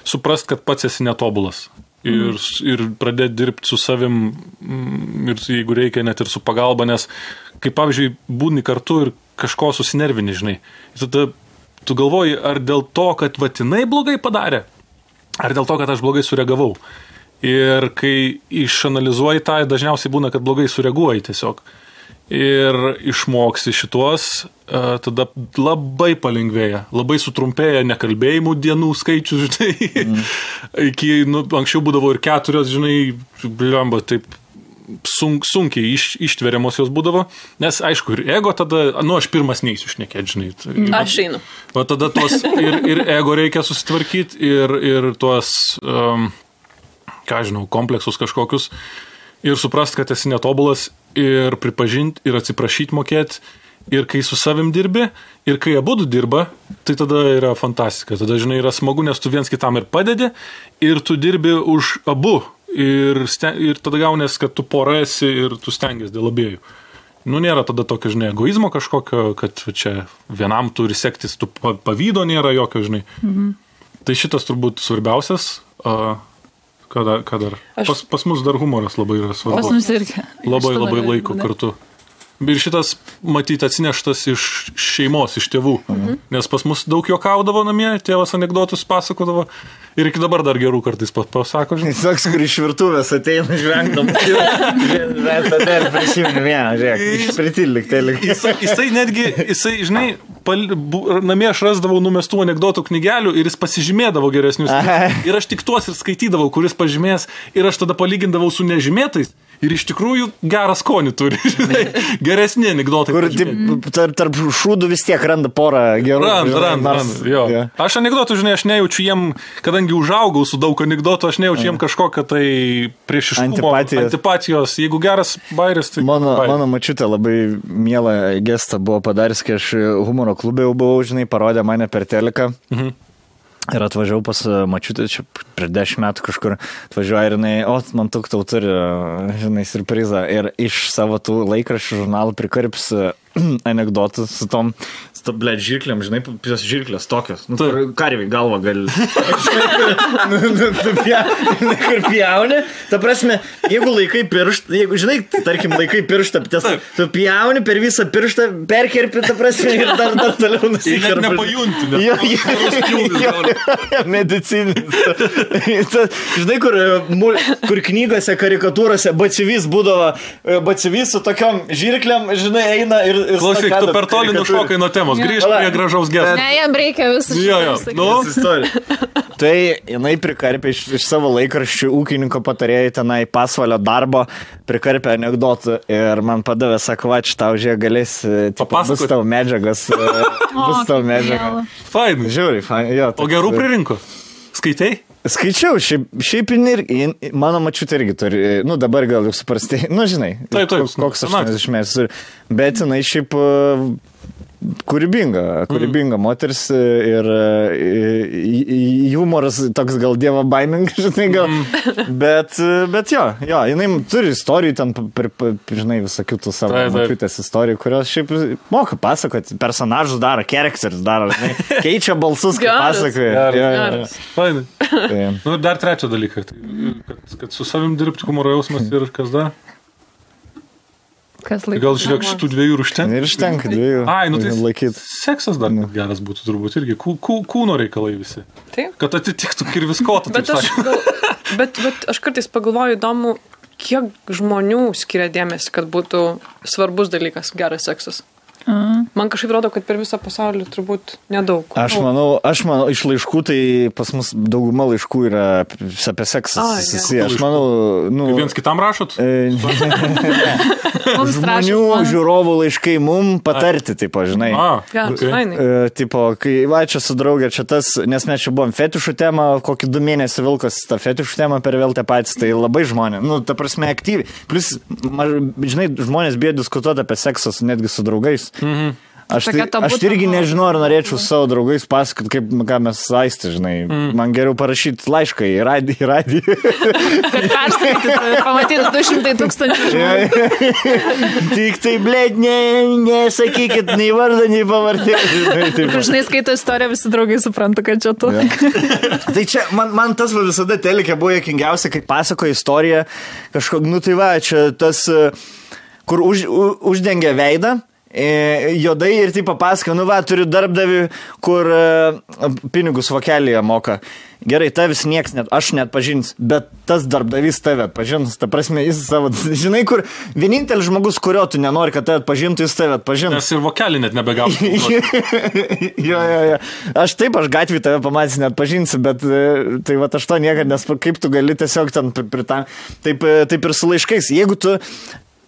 suprast, kad pats esi netobulas. Ir pradėti dirbti su savim ir jeigu reikia net ir su pagalba, nes kaip pavyzdžiui būni kartu ir kažko susinervini, žinai. Tada tu galvoji, ar dėl to, kad vatinai blogai padarė, ar dėl to, kad aš blogai sureagavau. Ir kai išanalizuoji tą, dažniausiai būna, kad blogai sureaguoji tiesiog. Ir išmoksi šituos, tada labai palengvėja, labai sutrumpėja nekalbėjimų dienų skaičius, žinai. Iki, anksčiau būdavo ir 4, žinai, bliamba, taip sunkiai ištveriamos jos būdavo, nes aišku, ir ego tada, aš pirmas neįsiu šnekėti, žinai. Aš einu. O tada tuos ir ego reikia susitvarkyti, ir tuos, kompleksus kažkokius, ir suprast, kad esi netobulas, ir pripažinti, ir atsiprašyti mokėti, ir kai su savim dirbi, ir kai abudu dirba, tai tada yra fantastika. Tada, žinai, yra smagu, nes tu viens kitam ir padedi, ir tu dirbi už abu, ir tada gaunės, kad tu pora esi ir tu stengiasi dėl abiejų. Nėra tada tokio, žinai, egoizmo kažkokio, kad čia vienam turi sektis, tu pavydo nėra jokio, žinai. Tai šitas turbūt svarbiausias. Ką dar? Pas mus dar humoras labai yra svarbus. Pas mus irgi. Labai laiko kartu. Ir šitas, matyti, atsineštas iš šeimos, iš tėvų. Nes pas mus daug juokaudavo namie, tėvas anekdotus pasakodavo. Ir iki dabar dar gerų kartais pasako, žinai. Toks, kur iš virtuvės ateina žvengdam. Tada ir prisimenu vieną, žiūrėk, išpritilik. Jisai netgi, žinai, namie aš rasdavau numestų anekdotų knygelių ir jis pasižymėdavo geresnius. Ir aš tik tuos ir skaitydavau, kuris pažymės. Ir aš tada palygindavau su nežymėtais. ir iš tikrųjų gerą skonį turi, žinai, geresni anekdotai. Kur tarp šūdų vis tiek randa porą gerų. Randa, jo. Yeah. Aš anekdotų, žinai, aš nejaučiu jiem, kadangi užaugau su daug anekdotų, aš nejaučiu jiem kažkokią tai priešiškumo, antipatijos. Jeigu geras bairis, tai... Mano mačiutė labai mielą gestą buvo padaręs, kai aš humoro klube jau buvau, žinai, parodė mane per teliką. Ir atvažiavau pas mačiutę, čia prieš 10 metų kažkur atvažiuoju ir jinai, man tau turi, žinai, surprizą. Ir iš savo tų laikraščių žurnalų prikarps anekdotų su tom, blėt, žirklėm, žinai, žirklės tokios. Nu, karviai galva gali. Kur pjauni. Ta prasme, jeigu laikai pirštą, jeigu, žinai, tarkim, laikai pirštą, tu pjauni per visą pirštą, perkerpi, ta prasme, ir dar toliau nusikerpi. Ir nepajunti. Medicinis. Žinai, kur knygose, karikatūrose batsivis būdavo, batsivis su tokiom žirklėm, žinai, eina ir... Klausyk, tu per toli nušokai nuo temos, grįžt prie gražaus gesto. Ne, jam reikia visų Tai jinai prikarpė iš savo laikraščių ūkininko patarėjai tenai pasvalio darbo, prikarpė anekdotų ir man padavė, sako, va, tau žiūrė, galės, bus tavo medžiagas. Fainai. Žiūri, fainai. O gerų pririnko? Skaitai? Skaičiau, šiaip mano mačiutė irgi turi, nu dabar gal jau suprastai, nu žinai, taip, koks 80 metų, bet jinai šiaip kūrybinga moteris ir humoras toks gal dievo baimingas, žinai, gal, bet jo, jinai turi istorijų ten, žinai, visokių tų savo mačiutės istorijų, kurios šiaip moka pasakoti, personažus daro, characters daro, žinai, keičia balsus, kai pasakoja. Geras. Fainai. Nu, dar trečią dalyką, kad su savim dirbti humoro jausmas ir kas dar? Gal žiūrėk, šitų dviejų užtenka? Ir užtenka dviejų. Ai, nu tai laikyt. Seksas dar geras būtų turbūt irgi. Kūno reikalai visi. Taip. Kad atitiktų kirviskotą. Bet aš kartais pagalvoju įdomu, kiek žmonių skiria dėmesį, kad būtų svarbus dalykas geras seksas. Man kažkaip rodo, kad per visą pasaulį turbūt nedaug. Aš manau, iš laiškų, tai pas mus dauguma laiškų yra apie seksą. Aš manau, nu... Viens kitam rašot? Žmonių žiūrovų laiškai mum patarti, tipo, žinai. Tipo, kai va, čia su draugė, čia tas, nes mes čia buvom fetišų temą, kokį 2 mėnesį vilkas tą fetišų temą per vėl tie patys, tai labai žmonės, nu, ta prasme, aktyviai. Plus, žinai, žmonės bijo diskutuoti apie seksą netgi su draugais. Aš irgi nežinau, ar norėčiau savo draugais pasakot, ką mes saisti, žinai. Man geriau parašyti laišką į radiją. Kad perskaityti, pamatyti 200,000 žmonių. Tik tai, blėt, nesakykit nei vardą, nei pavardį. Žinai, skaito istoriją, visi draugai supranta, kad čia tu. Tai čia, man tas visada telekė buvo juokingiausia, kai pasakoja istoriją kažkok, nu tai va, čia tas, kur uždengia veidą, juodai ir taip papasakoja, nu va, turiu darbdavį, kur pinigus vokelėje moka. Gerai, tavis nieks aš net pažins, bet tas darbdavys tave pažins, ta prasme, jis savo, žinai, kur vienintelis žmogus, kurio tu nenori, kad tave atpažintų, jis tave atpažins. Nes ir vokelį net nebegausi. Jo. Aš gatvį tave pamatys net pažinsiu, bet tai va, aš to niekad, nes kaip tu gali tiesiog ten taip ir su laiškais. Jeigu tu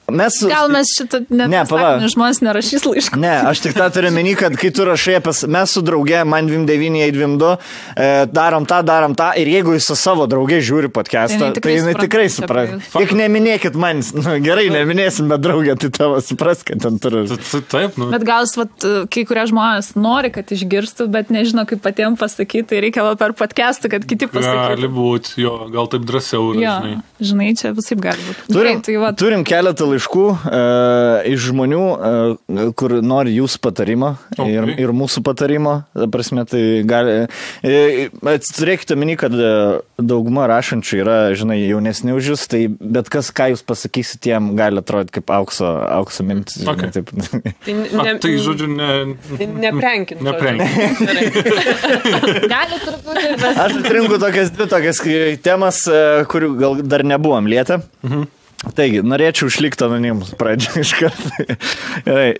Gal mes šitą žmonės nerašys laiškų. Ne, aš tik tą turiu meni, kad kai tu rašai, mes su drauge, man 29, 22, darom tą, ir jeigu jis su savo drauge žiūri podcastą, tai jinai tikrai supras. Tik neminėkit man, gerai, neminėsim, bet draugė, tai tavo supras, kad ten turiu. Taip, nu. Bet gal, kai kurie žmonės nori, kad išgirstų, bet nežino, kaip patiems pasakyti, tai reikia per podcastą, kad kiti pasakytų. Gali būti, jo, gal taip drąsiau. Žinai, čia visaip gali būti. Turim keletą laiškų iš žmonių, kur nori jūsų patarimo ir mūsų patarimo. Prasme, tai gali... Turėkite meni, kad dauguma rašančių yra, žinai, jaunesni už jūs, tai bet kas, ką jūs pasakysite, jiem gali atrodyti kaip aukso mintis. Okay. Tai, žodžiu, neprenkin. Gali truputį, bet... Aš atrinku tokias temas, kurių gal dar nebuvom lietę. Taigi, norėčiau išlikti anonimus pradžią iš karto.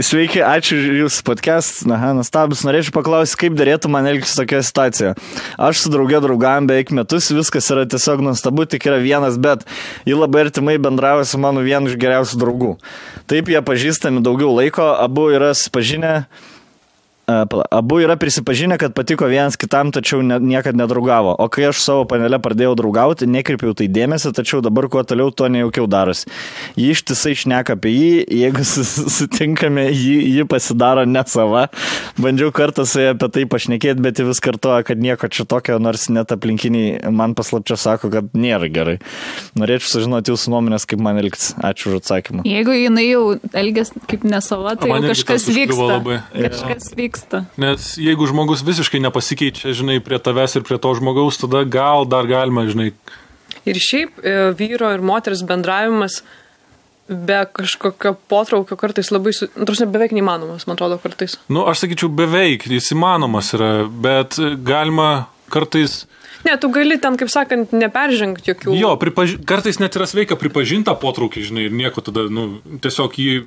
Sveiki, ačiū Jūsų podcast. Nuostabus. Norėčiau paklausyti, kaip darėtų man elgtis tokioje situacijoje. Aš su drauge draugavom beveik metus, viskas yra tiesiog nuostabu, tik yra vienas, bet ji labai artimai bendrauja su mano vienu iš geriausių draugų. Taip, jie pažįstami daugiau laiko, abu yra prisipažinę, kad patiko vienas kitam, tačiau niekad nedraugavo. O kai aš savo panelę pradėjau draugauti, nekreipiau tai dėmesį, tačiau dabar kuo toliau, to nejaukiau darosi. Ji ištisai šneka apie jį, jeigu sutinkame, ji pasidaro ne sava. Bandžiau kartą su ja apie tai pašnekėti, bet ji vis kartoja, kad nieko čia tokio, nors net aplinkiniai man paslapčia sako, kad nėra gerai. Norėčiau sužinoti Jūsų nuomonės, kaip man elgtis. Ačiū už atsakymą. Jeigu jinai jau elgiasi kaip ne sava, tai jau kažkas vyksta. Kažkas vyksta. Nes jeigu žmogus visiškai nepasikeičia, žinai, prie tavęs ir prie to žmogaus, tada gal dar galima, žinai. Ir šiaip vyro ir moters bendravimas be kažkokio potraukio kartais labai, beveik neįmanomas, man atrodo, kartais. Aš sakyčiau, beveik, jis įmanomas yra, bet galima kartais... Ne, tu gali ten, kaip sakant, neperžengti jokių... Jo, kartais net yra sveika pripažinta potraukį, žinai, ir nieko tada, tiesiog jį...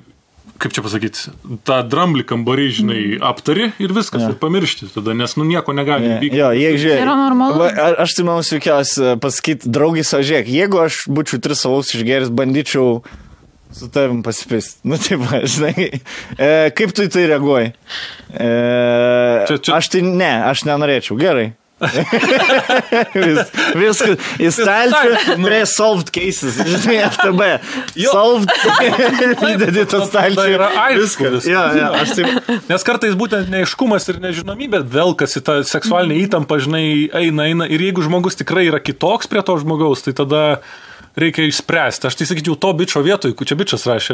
Kaip čia pasakyti, tą dramblį kambarį, žinai, aptari ir viskas, ir pamiršti tada, nes nieko negali vykti. Jo, jeigu žiūrėk, yra normalu. Aš tai manau sveikiausia pasakyti, draugai savo žiūrėk, jeigu aš būčiau 3 alaus išgeris, bandyčiau su tavim pasipisti. Taip, žinai, kaip tu į tai reaguoji? Aš nenorėčiau, gerai. Viskas, į stalčių prie solved cases, žinai, FTB solved, įdedi tą stalčių, yra aiškus. Nes kartais būtent neaiškumas ir nežinomybė velkasi tą seksualinę įtampą, žinai, eina ir jeigu žmogus tikrai yra kitoks prie to žmogaus, tai tada reikia išspręsti. Aš tai sakyčiau, to bičo vietoj, čia bičas rašė.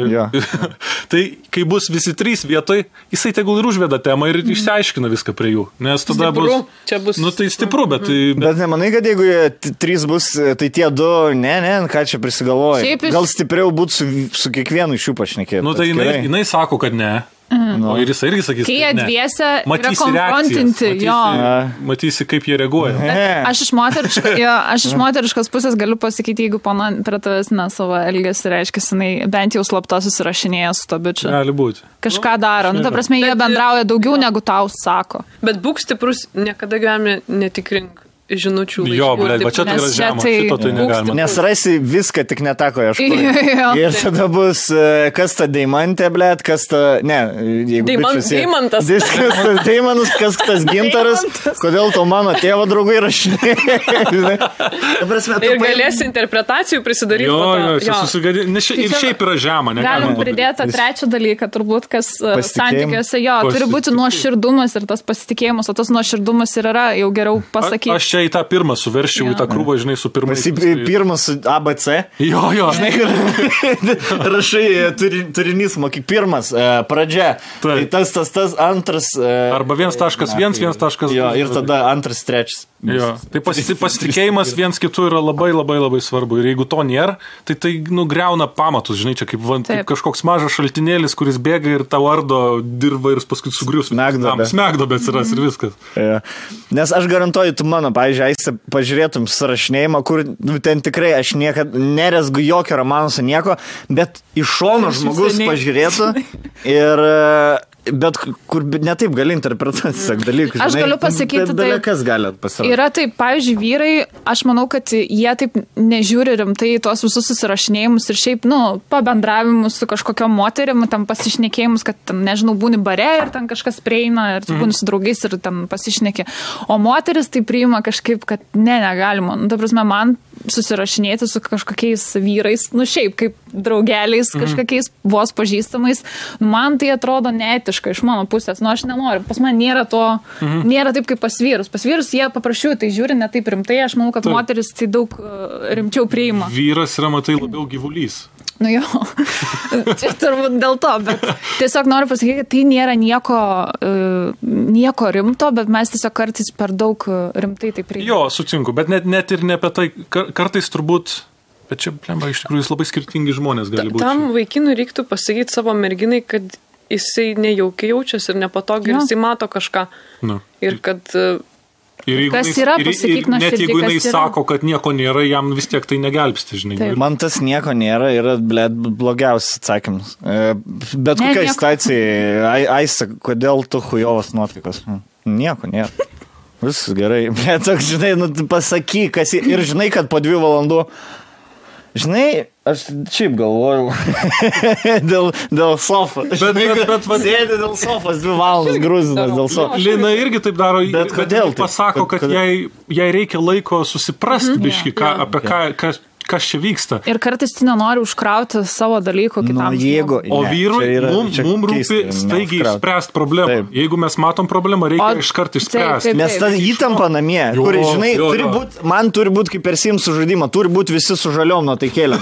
Tai kai bus visi 3 vietoj, jisai tegul ir užveda temą ir išsiaiškina viską prie jų. Nes tada bus... Tai stipru, bet... Bet nemanai, kad jeigu 3 bus, tai tie 2, ką čia prisigalvoja. Gal stipriau būtų su kiekvienu iš jų pašnekėti. Tai jinai sako, kad ne. O ir jis irgi sakys, kai jie dviese yra konfrontinti, matysi, kaip jie reaguoja. Aš iš moteriškos pusės galiu pasakyti, jeigu pana prie tavęs savo elgesį reiškia, jinai bent jau slapta susirašinėja su to bičiu. Gali būti. Kažką daro. Ta prasme, jie bendrauja daugiau negu tau sako. Bet būk stiprus, niekada gyvenime netikrink žinučių laiškų. Jo, bet čia tai yra žema, šito tai negalima. Nes rasi viską, tik netako ieškoti. Ir tada bus, kas ta deimantė, blėt, kas ta, Deimantas. Deimantas, kas tas gintaras, kodėl to mano tėvo draugai rašinė. Ir galėsi interpretacijų prisidaryti. Jo, čia susigadė, ir šiaip yra žema. Galim pridėti trečią dalyką, turbūt, kas santykiuose, turi būti nuoširdumas ir tas pasitikėjimas, o tas nuoširdumas ir yra jau geriau pasakyti. Į tą pirmą suverščiau, į tą krūvą, žinai, su pirmais. Pirmas ABC. Jo. Žinai, rašai turinys, mokyk, pirmas, pradžia. Tai tas, antras. Arba 1.1, 1.2. Jo, ir tada 2, 3. Jo. Tai pasitikėjimas viens kitų yra labai, labai, labai svarbu. Ir jeigu to nėra, tai griauna pamatus, žinai, čia kaip kažkoks mažas šaltinėlis, kuris bėga ir tau ardo dirba ir paskui sugrius. Smegdobė atsiras ir viskas. Nes aš garantuoju, tu mano, pavyzdžiui, pažiūrėtum surašinėjimą, kur ten tikrai aš niekad nerezgu jokio romano su nieko, bet iš šono žmogus pažiūrėtų ir... Bet kur netaip gali interpretuoti tiesiog dalykus. Aš galiu pasakyti, yra taip, pavyzdžiui, vyrai, aš manau, kad jie taip nežiūri rimtai tuos visus susirašinėjimus ir šiaip, pabendravimus su kažkokiom moterim, tam pasišnekėjimus, kad, nežinau, būni bare ir ten kažkas prieina ir būni su draugais ir ten pasišnekė. O moteris tai priima kažkaip, kad negalima. Ta prasme, man susirašinėti su kažkokiais vyrais, šiaip kaip draugeliais, kažkokiais vos pažįstamais, man tai atrodo neetiška iš mano pusės. Aš nenoriu. Pas man nėra to, nėra taip kaip pas vyrus. Pas vyrus jie paprašiau, tai žiūri ne taip rimtai. Aš manau, kad moteris tai daug rimčiau priima. Vyras yra, matai, labiau gyvulys. Jo, čia turbūt dėl to, bet tiesiog noriu pasakyti, kad tai nėra nieko rimto, bet mes tiesiog kartais per daug rimtai tai priimame. Jo, sutinku, bet net ir ne apie tai, kartais turbūt, bet čia, plemba, iš tikrųjų, jis labai skirtingi žmonės gali būti. Tam vaikinui reiktų pasakyti savo merginai, kad jisai nejaukiai jaučiasi ir nepatogiai, ir jisai mato kažką. Ir kad Kas yra, pasakyk nuoširdžiai, net jeigu jinai sako, kad nieko nėra, jam vis tiek tai negelbsti, žinai. Taip. Man tas nieko nėra yra, blogiausias atsakymas. Bet kokia situacija, Aisa, kodėl tu chujovas nuotaikos? Nieko nėra. Viskas gerai. Bet toks, žinai, pasakyk, kas ir žinai, kad po 2 valandų, žinai, aš šiaip galvojau dėl sofos. Bet sėdė dėl sofos 2 valandas grūzinas dėl sofos. Lina irgi taip daro, bet kodėl pasako, kad jai reikia laiko susiprasti biškį, apie kas čia vyksta. Ir kartais tu nenori užkrauti savo dalykų kitam. O vyrui mums rūpi staigiai išspręsti problemą. Taip. Jeigu mes matom problemą, reikia iškart išspręsti. Nes ta įtampa namie, kur, žinai, man turi būti kaip per Sims žaidimą, turi būti visi su žaliom nuotaikėlėm.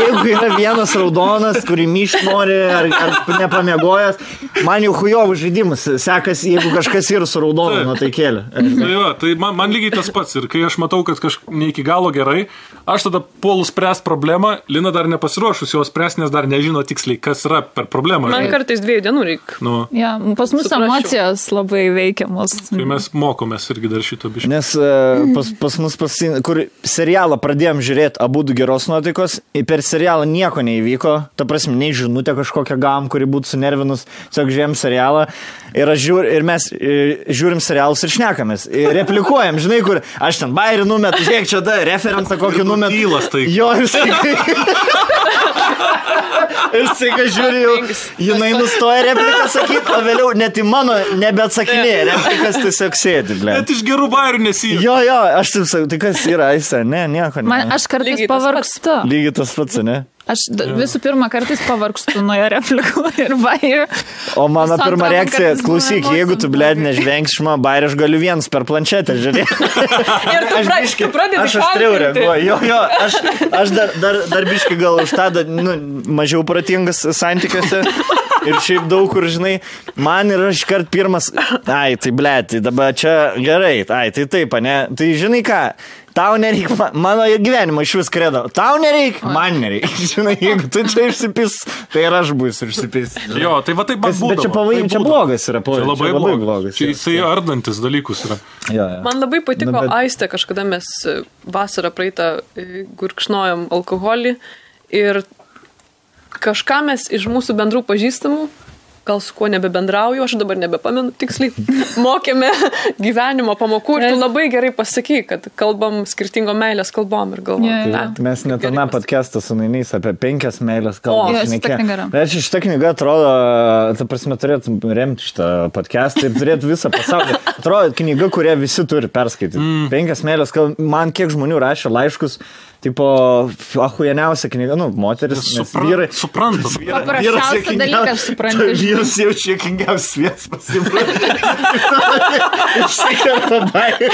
Jeigu yra vienas raudonas, kurį myšt nori ar nepamiegojęs, man jau chujovų žaidimas sekasi, jeigu kažkas yra su raudonu nuotaikėlė. Tai man lygiai tas pats. Ir kai aš matau, kad ne iki galo gerai, aš tada puolu spręs problemą, Lina dar nepasiruošus jos spręs, nes dar nežino tiksliai, kas yra per problemą. Man kartais 2 dienų reikia. Ja, pas mus emocijos labai veikiamos. Tai mes mokomės irgi dar šito biškį. Nes pas mus, kur serialą pradėjom žiūrėti abudu geros nuotaikos, per serialą nieko neįvyko, ta prasme, nei žinutė kažkokią gavom, kuri būtų sunervinus, tiesiog žiūrėjom serialą ir mes žiūrim serialus ir šnekamės. Replikuojam, žinai, kur aš ten bairį numetu, žiūrėk, čia da, referencą kokį numetu. Jo, ir staiga žiūriu, jinai nustoja repliką sakyti, o vėliau net į mano nebeatsakinėja, replikas tiesiog sėdi. Net iš gerų bairių nesijų. Jo, aš taip sakau, tai kas yra, Aisa, nieko ne. Aš kartais pavargstu. Lygiai tas pats, ne? Aš visų pirma kartais pavargstu nuo jo replikų ir bairių. O mano pirma reakcija, klausyk, jeigu tu, blėd, nežvengsi šma bairį, aš galiu vienas per planšetę žiūrėti. Ir tu pradedi aš aštriau reaguoju. Jo, aš dar biškai gal už tą mažiau pratingas santykiuose. Ir šiaip daug kur, žinai, man ir aš kart pirmas, tai blėd, tai dabar čia gerai, tai taip, ne, tai žinai ką, tau nereikia, mano gyvenimo iš vis kredo, tau nereikia, man nereikia, žinai, jeigu tu čia išsipis, tai ir aš būsiu išsipis. Jo, tai va taip man būdavo. Bet čia blogas yra, čia labai blogas. Čia jisai ardantis dalykus yra. Man labai patiko Aistė, kažkada mes vasarą praeitą gurkšnojom alkoholį ir kažką mes iš mūsų bendrų pažįstamų, gal su kuo nebebendrauju, aš dabar nebepamenu tiksliai, mokėme gyvenimo pamokų ir tu labai gerai pasakai, kad kalbam skirtingo meilės kalbom ir galvom. Mes net aną podcastą su Nainys apie 5 meilės kalbom. Bet šitą knygą atrodo, ta prasme, turėtų remti šitą podcastą ir turėtų visą pasaulį. Atrodo, knyga, kurią visi turi perskaityti. 5 meilės kalbom. Man kiek žmonių rašė laiškus, tipo, ahujeniausia knyga, moteris, vyrai. Suprantam. Paprasčiausia dalykas supranti. Vyras jau čia kingiausias vietas pasibrūdė. Išsikerta bairį.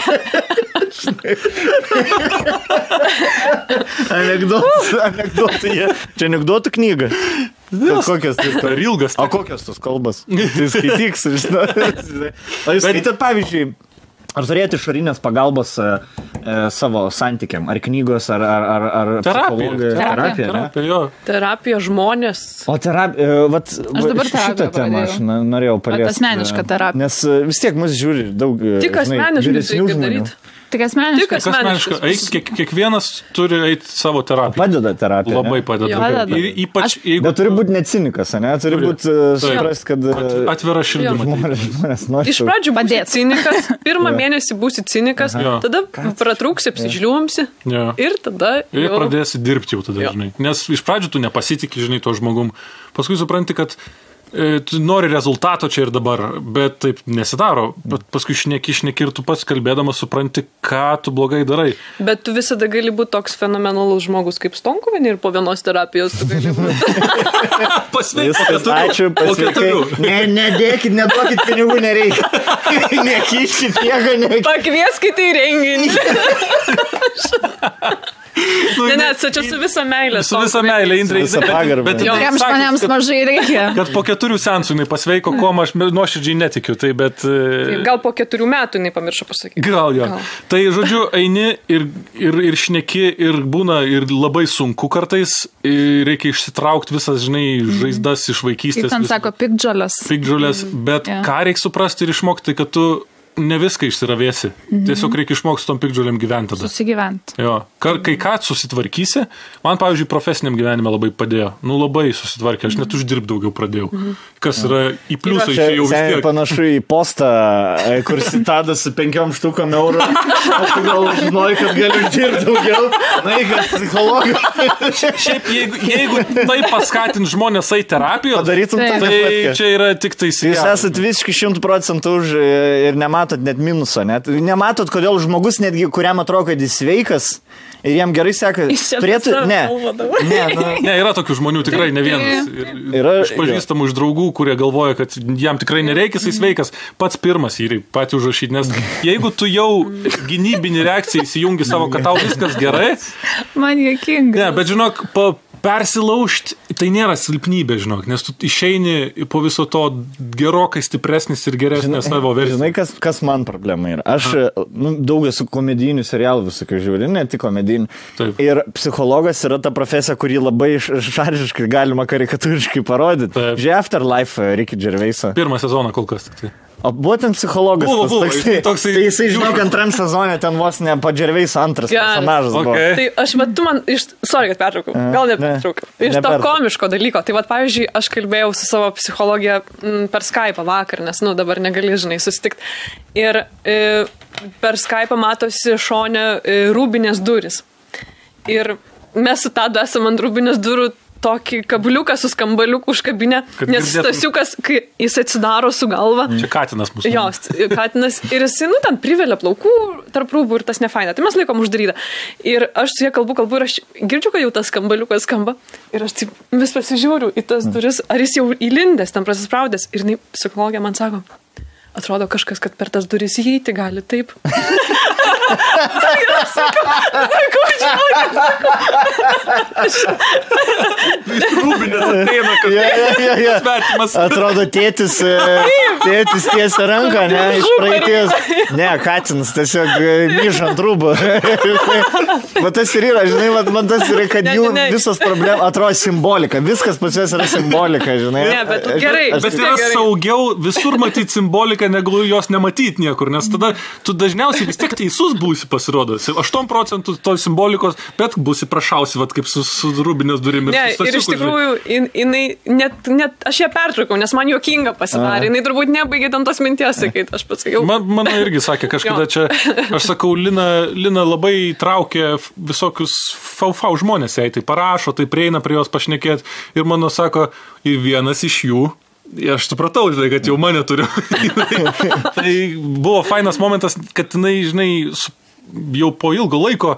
Anekdotai. Čia anekdotų knyga. Kokios tai? Per ilgas. O kokios tos kalbas? Tai skaityks, žinai. O jūs skaitat, pavyzdžiui, ar turėti išorinės pagalbos savo santykiam? Ar knygos, ar terapija? Terapija žmonės. O terapija, šitą temą aš norėjau paliesti. Asmenišką terapiją. Nes vis tiek mus žiūri daug tik asmeniškai reikia daryti. Tik asmeniškai. Kiekvienas turi eiti savo terapiją. Padeda terapija. Labai padeda. Ypač jeigu... Bet turi būti ne cinikas, ne? Turi būti suprast, kad... Atvira širdimi. Iš pradžių būsi cinikas, pirmą mėnesį būsi cinikas, tada pratrūksi, apsižliuomsi ir tada... Ir pradėsi dirbti jau tada, žinai. Nes iš pradžių tu nepasitikį, žinai, to žmogum. Paskui supranti, kad tu nori rezultato čia ir dabar, bet taip nesidaro. Bet paskui šneki ir tu pats kalbėdamas supranti, ką tu blogai darai. Bet tu visada gali būti toks fenomenalus žmogus kaip Stonkuvienė ir po vienos terapijos tu gali būti. Pasveikas. Ačiū, pasveikai. Nedėkit, neduokit pinigų, nereikia. Nekiškit nieko, nereikia. Pakvieskite į renginį. Ne, čia su visa meilė. Su visa meilė, Indrė. Bet jam žmonėms mažai reikia. Kad po 4 seansų jinai pasveiko, ko aš nuoširdžiai netikiu. Tai bet... Gal po 4 metų jinai pamiršo pasakyti. Gal jo. Tai, žodžiu, eini ir šneki ir būna ir labai sunku kartais. Reikia išsitraukti visas, žinai, žaizdas iš vaikystės. Kaip ten sako, piktžolės. Bet ką reikia suprasti ir išmokti, kad tu ne viską išsiravėsi. Tiesiog reikia išmokti tom pikdžiuliam gyventi tada. Susigyventi. Jo. Kai ką susitvarkysi, man, pavyzdžiui, profesiniam gyvenime labai padėjo. Labai susitvarkė, aš net uždirb daugiau pradėjau. Kas yra į pliusą išėjau vis tiek. Panašu į postą, kur Tadas su 5 štukom eurų. Aš gal žinojau, kad galiu uždirbti daugiau. Na, kad psichologų. Šiaip, jeigu tai paskatins žmonės į terapiją, tai čia yra tik tai Jūs esat visiškai 100% už ir nematot net minuso. Nematot, kodėl žmogus netgi, kuriam atrodo, kad jis sveikas ir jam gerai seka. Ne, yra tokių žmonių tikrai ne vienas. Yra pažįstamų iš draugų, kurie galvoja, kad jam tikrai nereikia, jis sveikas. Pats pirmas jį patį užrašyti, nes jeigu tu jau gynybinį reakciją įsijungi savo, kad tau viskas gerai. Man juokinga. Ne, bet žinok, persilaužti, tai nėra silpnybė, žinok, nes tu išeini po viso to gerokai stipresnis ir geresnės savo versijos. Žinai, kas man problema yra? Aš daug esu komedijinių serialų visokių žiūri, ne tik komedijinių. Taip. Ir psichologas yra ta profesija, kurį labai šaržiškai galima karikatūriškai parodyti. Žiūrėjau Afterlife Ricky Gervaisą. 1 sezoną kol kas tik tai. O būtent psichologas. Tai jisai, žinok, 2 sezone ten vos ne po Gervais 2 personažas buvo. Tai aš, bet tu man, sorry, kad pertraukau, gal nepertraukau. Iš to komiško dalyko. Tai pavyzdžiui, aš kalbėjau su savo psichologija per Skype'ą vakar, nes, dabar negali, žinai, susitikti. Ir per Skype'ą matosi šone rūbinės duris. Ir mes su Tadu esam ant rūbinės durų tokį kabliuką su skambaliuku užkabinę, nes Stasiukas, kai jis atsidaro su galva. Čia katinas mūsų. Jo, katinas. Ir jis, ten privelia plaukų tarp rūbų ir tas nefaina. Tai mes laikom uždarytą. Ir aš su jie kalbu ir aš girdžiu, kad jau tas skambaliukas skamba. Ir aš taip vis pasižiūriu į tas duris, ar jis jau įlindęs, ten prasispraudęs. Ir psichologija man sako, atrodo kažkas, kad per tas duris įeiti gali taip. Sakau, rūbinės ateina, kad svetimas. Atrodo, tėtis tiesia ranką, ne, iš praeities. Ne, katinas tiesiog myžant rūbų. Va tas ir yra, žinai, man tas yra, kad jų visos problemas atrodo simbolika. Viskas pas juos yra simbolika, žinai. Ne, bet gerai. Bet yra saugiau visur matyti simboliką, negu jos nematyti niekur, nes tada tu dažniausiai vis tiek teisus būsi pasirodo. 8% to simbolikos, bet būsi prašausi, vat, kaip su rūbinės durimis. Ne, ir iš tikrųjų, jinai, net aš ją pertraukau, nes man juokinga pasidarė. Jinai turbūt nebaigė ten tos minties, sakyti, aš pasakiau. Mano irgi sakė, kažkada čia, aš sakau, Lina labai traukia visokius fau žmonės, jai tai parašo, tai prieina prie jos pašnekėti ir mano sako, ir vienas iš jų, aš supratau, žinai, kad jau mane turiu. Tai buvo fainas momentas, kad jinai, žinai, jau po ilgo laiko,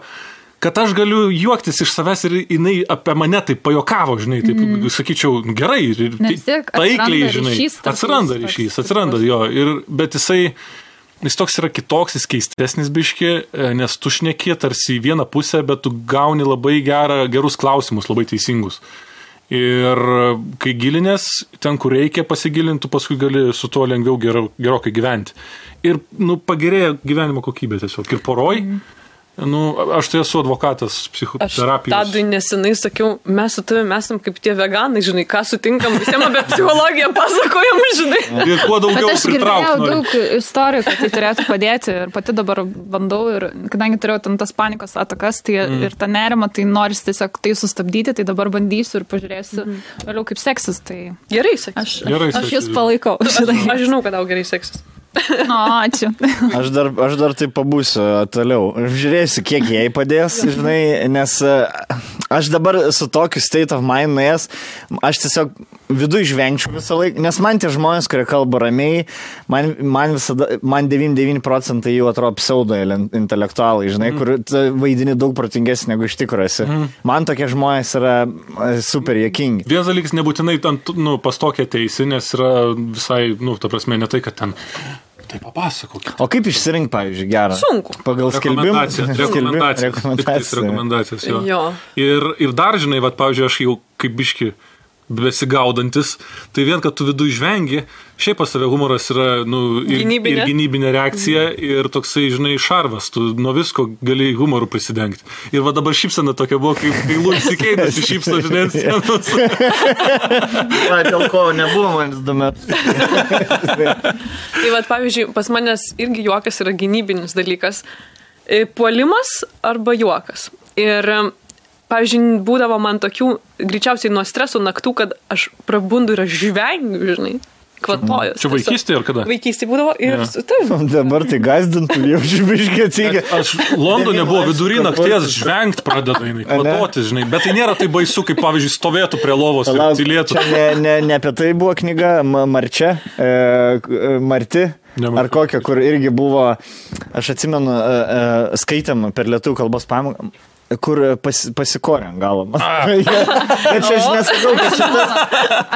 kad aš galiu juoktis iš savęs ir jinai apie mane taip pajokavo, žinai, taip sakyčiau, gerai, taikliai, žinai, atsiranda jo, bet jis toks yra kitoks, jis keistesnis biški, nes tu šneki tarsi į vieną pusę, bet tu gauni labai gerus klausimus, labai teisingus. Ir kai gilinės, ten, kur reikia pasigilinti, paskui gali su tuo lengviau gerokai gyventi. Ir, pagerėja gyvenimo kokybė tiesiog. Ir poroj, aš tai esu advokatas psichoterapijos. Aš Tadui nesenai sakiau, mes su tavimi esam kaip tie veganai, žinai, ką sutinkam, visiems apie psichologiją pasakojam, žinai. Ir kuo daugiau pritraukti. Bet aš girdėjau daug istorijų, kad tai turėtų padėti ir pati dabar bandau ir kadangi turėjau ten tas panikos atakas, tai ir tą nerimą, tai noris tiesiog tai sustabdyti, tai dabar bandysiu ir pažiūrėsiu vėliau kaip seksis. Tai gerai seksis. Aš jūs palaikau. Aš žinau, kad tau gerai seksis. Ačiū. Aš dar taip pabūsiu toliau. Žiūrėsiu, kiek jai padės, žinai, nes aš dabar su tokiu state of mind nuėjęs, aš tiesiog viduje žvengčiau visą laiką, nes man tie žmonės, kurie kalba ramiai, man 99% jų atrodo pseudo intelektualai, žinai, kur vaidini daug protingesnį negu iš tikrųjų esi. Man tokie žmonės yra super juokingi. Vienas dalykas nebūtinai pas tokią teisį, nes yra visai, ta prasme, ne tai, kad ten tai papasakok. O kaip išsirinkti, pavyzdžiui, gerą? Sunku. Pagal skelbimą? Rekomendacijas, jo. Ir dar, žinai, pavyzdžiui, aš jau kaip biški besigaudantis, tai vien, kad tu vidų žvengi, šiaip pas tave humoras yra ir gynybinė reakcija ir toksai, žinai, šarvas, tu nuo visko gali humorų prisidengti. Ir va dabar šypsena tokia buvo, kai Louis C.K. šypso, žinai, ant scenos. Dėl ko nebuvo manis 2 metus. Tai va, pavyzdžiui, pas manęs irgi juokas yra gynybinis dalykas. Puolimas arba juokas. Ir pavyzdžiui, būdavo man tokių, greičiausiai nuo streso naktų, kad aš prabundu ir aš žvengiu, žinai, kvatojas. Čia vaikystė ar kada? Vaikystė būdavo ir... Ja. Dabar tai gazdintų, jau žibiškai atsigia. Aš Londone buvo vidury nakties žvengt pradeda, kvatoti, žinai, bet tai nėra tai baisu, kaip pavyzdžiui stovėtų prie lovos ir tylėtų. Čia ne apie tai buvo knyga Marčia, Marti. Ar kokia, kur irgi buvo, aš atsimenu, skaitėm per lietuvių kalbos pamoką, kur pasikorė ant galo. Bet čia aš nesakau, kad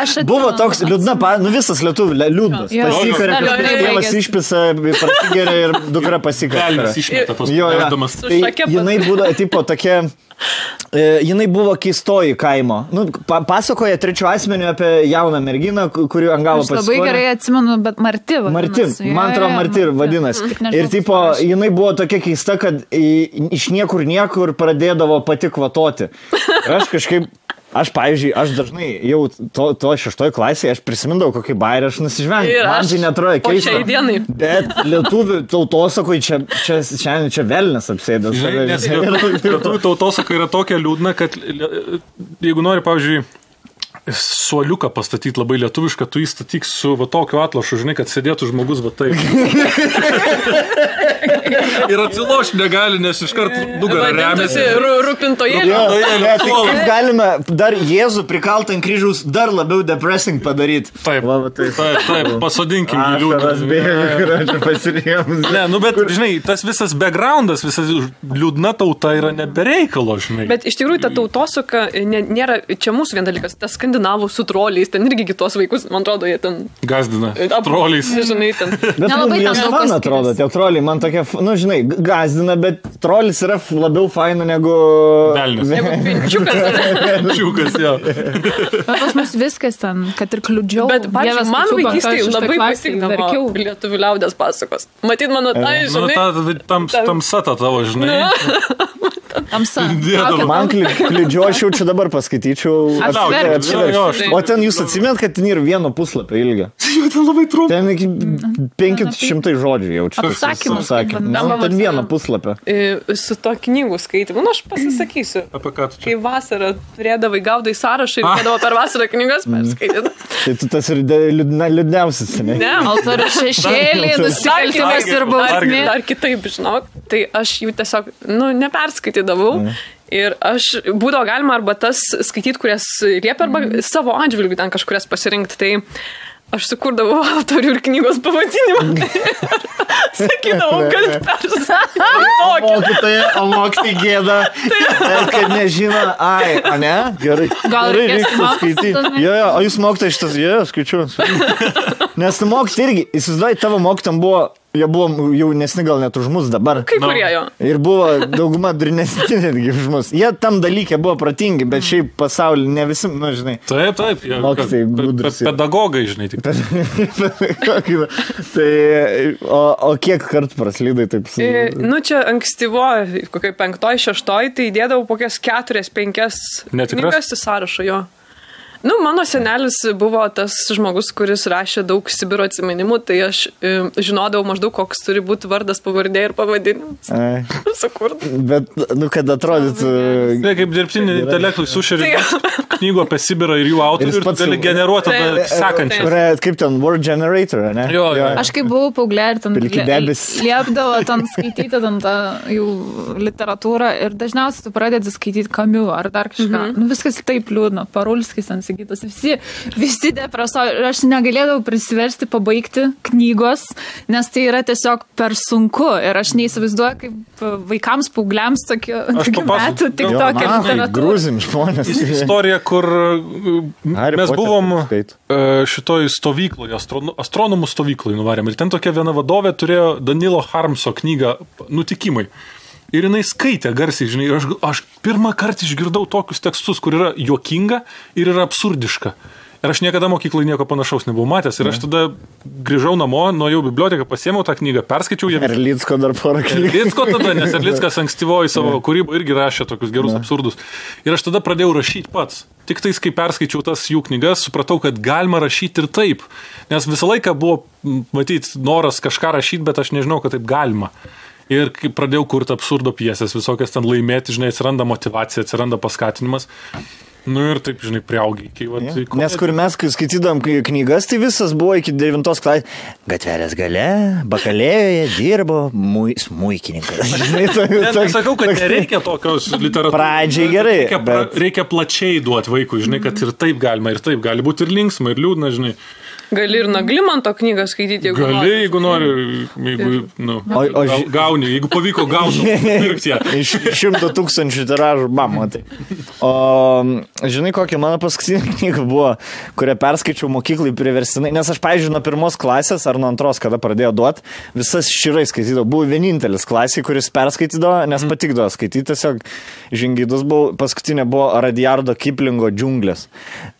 šitas buvo toks liūdna, visas lietuvių liūdnas. Pasikarė, kad tėvas išpisa, prasigeria ir dukra pasikarė. Velnis išmeta tos perdamas. Tai jinai būdavo, tipo, tokia... Jinai buvo keistoji kaimo. Pasakoja trečiu asmeniu apie jauną merginą, kurių ant galo pasikorė. Aš labai gerai atsimenu, bet Marti vadinasi. Man atrodo, Marti vadinasi. Ir tipo, jinai buvo tokia keista, kad iš niekur pradėdavo pati kvatoti. Ir aš kažkaip... Aš, pavyzdžiui, dažnai jau to 6 klasėje, aš prisimindavau kokį bairį, aš nusižvengiau. Man tai netrodo keista. O šiai dienai. Bet lietuvių tautosakoj čia velnis apsėdęs. Nes lietuvių tautosaka yra tokia liūdna, kad jeigu nori, pavyzdžiui, suoliuką pastatyti labai lietuvišką, tu įstatyk su va tokiu atlašu, žinai, kad sėdėtų žmogus va taip. Ir atsiloš negali, nes iškart nugarą remiasi. Rūpintojėlio. Tai kaip galime dar Jėzų prikaltą ant kryžiaus dar labiau depressing padaryti. Taip, pasodinkim jį liūdną. Ne, bet, žinai, tas visas backgroundas, visas liūdna tauta yra nebereikalo, žinai. Bet iš tikrųjų ta tautosaka nėra, čia mūsų vien dalykas, tas skandinavų su troliais, ten irgi kitos vaikus, man atrodo, jie ten... Gazdina, troliais. Žinai, ten... Bet jos man atrodo, tie troliai, man tokie, žinai, gazdina, bet trolis yra labiau faina negu... Velnis. Negu pinčiukas. Pinčiukas, jo. Bet pas mus viskas ten, kad ir kliudžiau. Bet, pavyzdžiui, man vaikystėje labai pasikdavo lietuvių liaudės pasakos. Matyt, mano tai, žinai... Tamsa ta tavo, žinai. Tamsa. Man kliudžiu, aš jau čia dabar paskaityčiau. O ten jūs atsimenat, kad ten yra 1 puslapio ilgio? Ten labai trumpa. Ten iki 500 žodžių jau čia. Apsakymas. Ten 1 puslapio. Su to knygų skaitimu, aš pasisakysiu. Apie ką tu čia? Kai vasarą turėdavai gaudai sąrašą ir turėdavo per vasarą knygas perskaityti. Tai tu tas ir liūdniausias, ne? Ne. Altorių šešėlį, nusikaltimas ir bausmė. Ar kitaip, žinok. Tai aš jų tiesiog, neperskaitydavau. Ir aš būdavo galima arba tas skaityti, kurias liepia, arba savo atžvilgių ten kažkurias pasirinkti. Tai aš sukurdavau autorių ir knygos pavadinimą. Sakydavau, kad perskaityti. O mokytai gėda, kad nežino, ne? Gerai. Gal reikės skaityti. Jo, o jūs mokytai šitas, skaičiu. Nes mokytai irgi, įsivaizduoji, tavo mokytam buvo... Jie buvo jaunesni gal net už mus dabar. Kai kurie jo. Ir buvo dauguma durnesni netgi už mus. Jie tam dalykė buvo protingi, bet šiaip pasaulyje ne visi, žinai. Taip. Mokytai gudrus. Pedagogai, žinai. Tik. Tai, o kiek kartų praslydai taip? Čia ankstyvo, kokiai 5-6, tai įdėdavau kokias 4-5 knygas į sąrašą jo. Mano senelis buvo tas žmogus, kuris rašė daug Sibiro atsiminimų, tai aš žinodavau maždaug, koks turi būti vardas, pavardė ir pavadinimas. Sukurt. Bet, kad atrodytų... Kaip dirbtinį intelektui sušeri knygų apie Sibirą ir jų autorių ir gali generuoti sekančią. Kaip ten, word generator, ne? Jo. Aš kai buvau paauglė ir ten liepdavo ten skaityti ten tą jų literatūrą ir dažniausiai tu pradedi skaityti Kamiu ar dar kažką. Viskas taip liūdna, Parulskis ten sakytas. Visi depresuoja. Ir aš negalėdavau prisiversti pabaigti knygos, nes tai yra tiesiog per sunku. Ir aš neįsivaizduoju, kaip vaikams, paaugliams tokių metų tik tokia literatūra. Grūzim žmonės. Istorija, kur mes buvom šitoj stovykloje, astronomų stovykloje nuvarėm. Ir ten tokia viena vadovė turėjo Danilo Harmso knygą Nutikimai. ir jinai skaitė garsiai, žinai, ir aš pirmą kartą išgirdau tokius tekstus, kur yra juokinga ir yra absurdiška. Ir aš niekada mokyklai nieko panašaus nebuvau matęs. Ir aš tada grįžau namo, nuėjau į biblioteką, pasiėmiau tą knygą, perskaičiau ją. Erlicko dar porą knygų. Erlicko tada, nes Erlickas ankstyvoji savo kūrybą irgi rašė tokius gerus absurdus. Ir aš tada pradėjau rašyti pats. Tik tais, kai perskaičiau tas jų knygas, supratau, kad galima rašyti ir taip. Nes visą laiką buvo, matyti, noras kažką rašyti, bet aš nežinau, kad taip galima. Ir kai pradėjau kurti absurdo pjesės, visokias ten laimėti, žinai, atsiranda motyvacija, atsiranda paskatinimas. Nu ir taip, žinai, priaugiai. Nes kur mes, kai skaitydam knygas, tai visas buvo iki 9 klasės. Gatvelės gale, bakalėjoje dirbo smuikininkas. Nesakau, kad nereikia tokios literatūros. Pradžiai gerai. Reikia plačiai duoti vaikui, žinai, kad ir taip galima, ir taip gali būti ir linksma, ir liūdna, žinai. Gali ir Naglimanto knygą skaityti, jeigu nori. Gali, jeigu nori, gauni, jeigu pavyko gauti, pirkti ją. Iš 100 000 tiražų, matai. O žinai, kokia mano paskutinė knyga buvo, kurią perskaičiau mokyklai priverstinai, nes aš, pavyzdžiui, nuo 1 klasės ar nuo 2, kada pradėjau duoti, visas širai skaitydavau. Buvo vienintelis klasė, kuris perskaitydavo, nes patikdavo skaityti, tiesiog žingeidus buvo. Paskutinė buvo Rudyardo Kiplingo Džiunglės.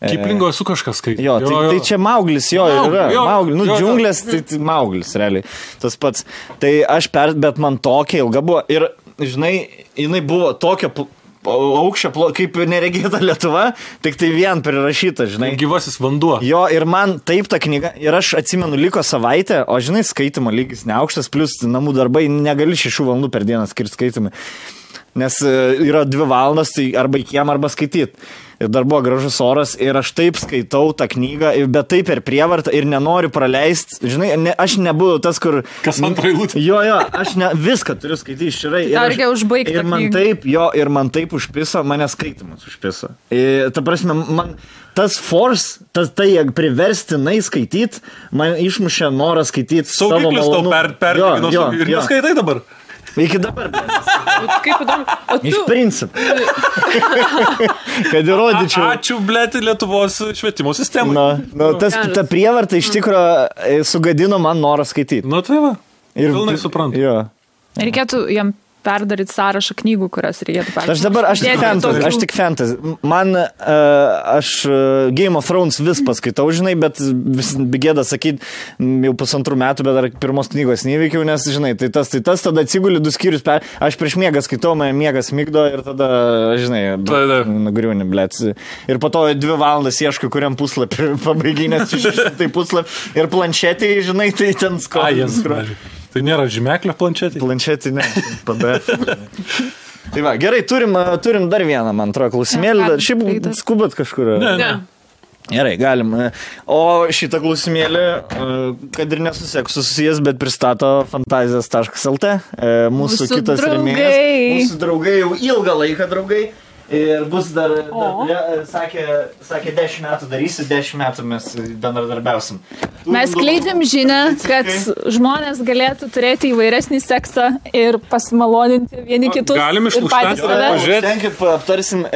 Kiplingo esu kažkas skaityti. Jo, tai čia Mauglis. Džiunglės, tai Mauglis, realiai. Tas pats. Tai bet man tokia ilga buvo. Ir, žinai, jinai buvo tokia aukščio, kaip neregėta Lietuva, tik tai vien prirašyta, žinai. Gyvasis vanduo. Jo, ir man taip ta knyga, ir aš atsimenu, liko savaitę, o žinai, skaitimo lygis neaukštas, plus namų darbai, negali 6 valandų per dieną skirti skaitimui. Nes yra 2 valandas, tai arba į kiemą, arba skaityti. Ir dar buvo gražus oras ir aš taip skaitau tą knygą, bet taip per prievartą ir nenoriu praleisti. Žinai, aš nebuvau tas, kur... Kas antrą eilutę? Jo, aš viską turiu skaityti širai. Reikia užbaigti tą knygą. Ir man taip užpiso, mane skaitimas užpiso. Ta prasme, man... Tas force, tai priverstinai skaityti, man išmušė norą skaityti savo malonumą. Saugiklis tau ir neskaitai dabar? Iki dabar. Kaip įdomu. Iš principų. Kad įrodyčiau. Ačiū, blėti, Lietuvos švietimo sistemai. Ta prievarta iš tikro sugadino man norą skaityti. Tai va. Ir pilnai suprantu. Jo. Reikėtų jam perdaryti sąrašą knygų, kurias reikėtų perdaryti. Aš tik fantasy. Man, Game of Thrones vis paskaitau, žinai, bet vis gėda sakyti, jau 2 metų, bet dar 1 knygos neįveikiau, nes, žinai, tai tas, tada atsiguli 2 skyrius, aš prieš miegą skaitau, man miegas migdo ir tada, žinai, nugriūni, blėt. Ir po to 2 valandas ieškai, kuriam puslapį pabaiginės 600 puslapį ir planšetį, žinai, tai ten skolas. Tai nėra žymeklio planšetė? Planšetė, ne. PDF. Tai va, gerai, turim dar vieną, man atrodo, klausimėlį. Šiaip skubat kažkur. Ne. Gerai, galim. O šitą klausimėlį, kad ir nesusieks susijęs, bet pristato fantazijas.lt. Mūsų kitas rėmėjas. Mūsų draugai jau ilgą laiką draugai. Ir bus dar sakė 10 metų darysi, 10 metų mes bendradarbiausim. Mes skleidžiam žinią, kad žmonės galėtų turėti įvairesnį seksą ir pasimaloninti vieni kitus. Galim ir patys save. Pažiūrėkit, aptarsim,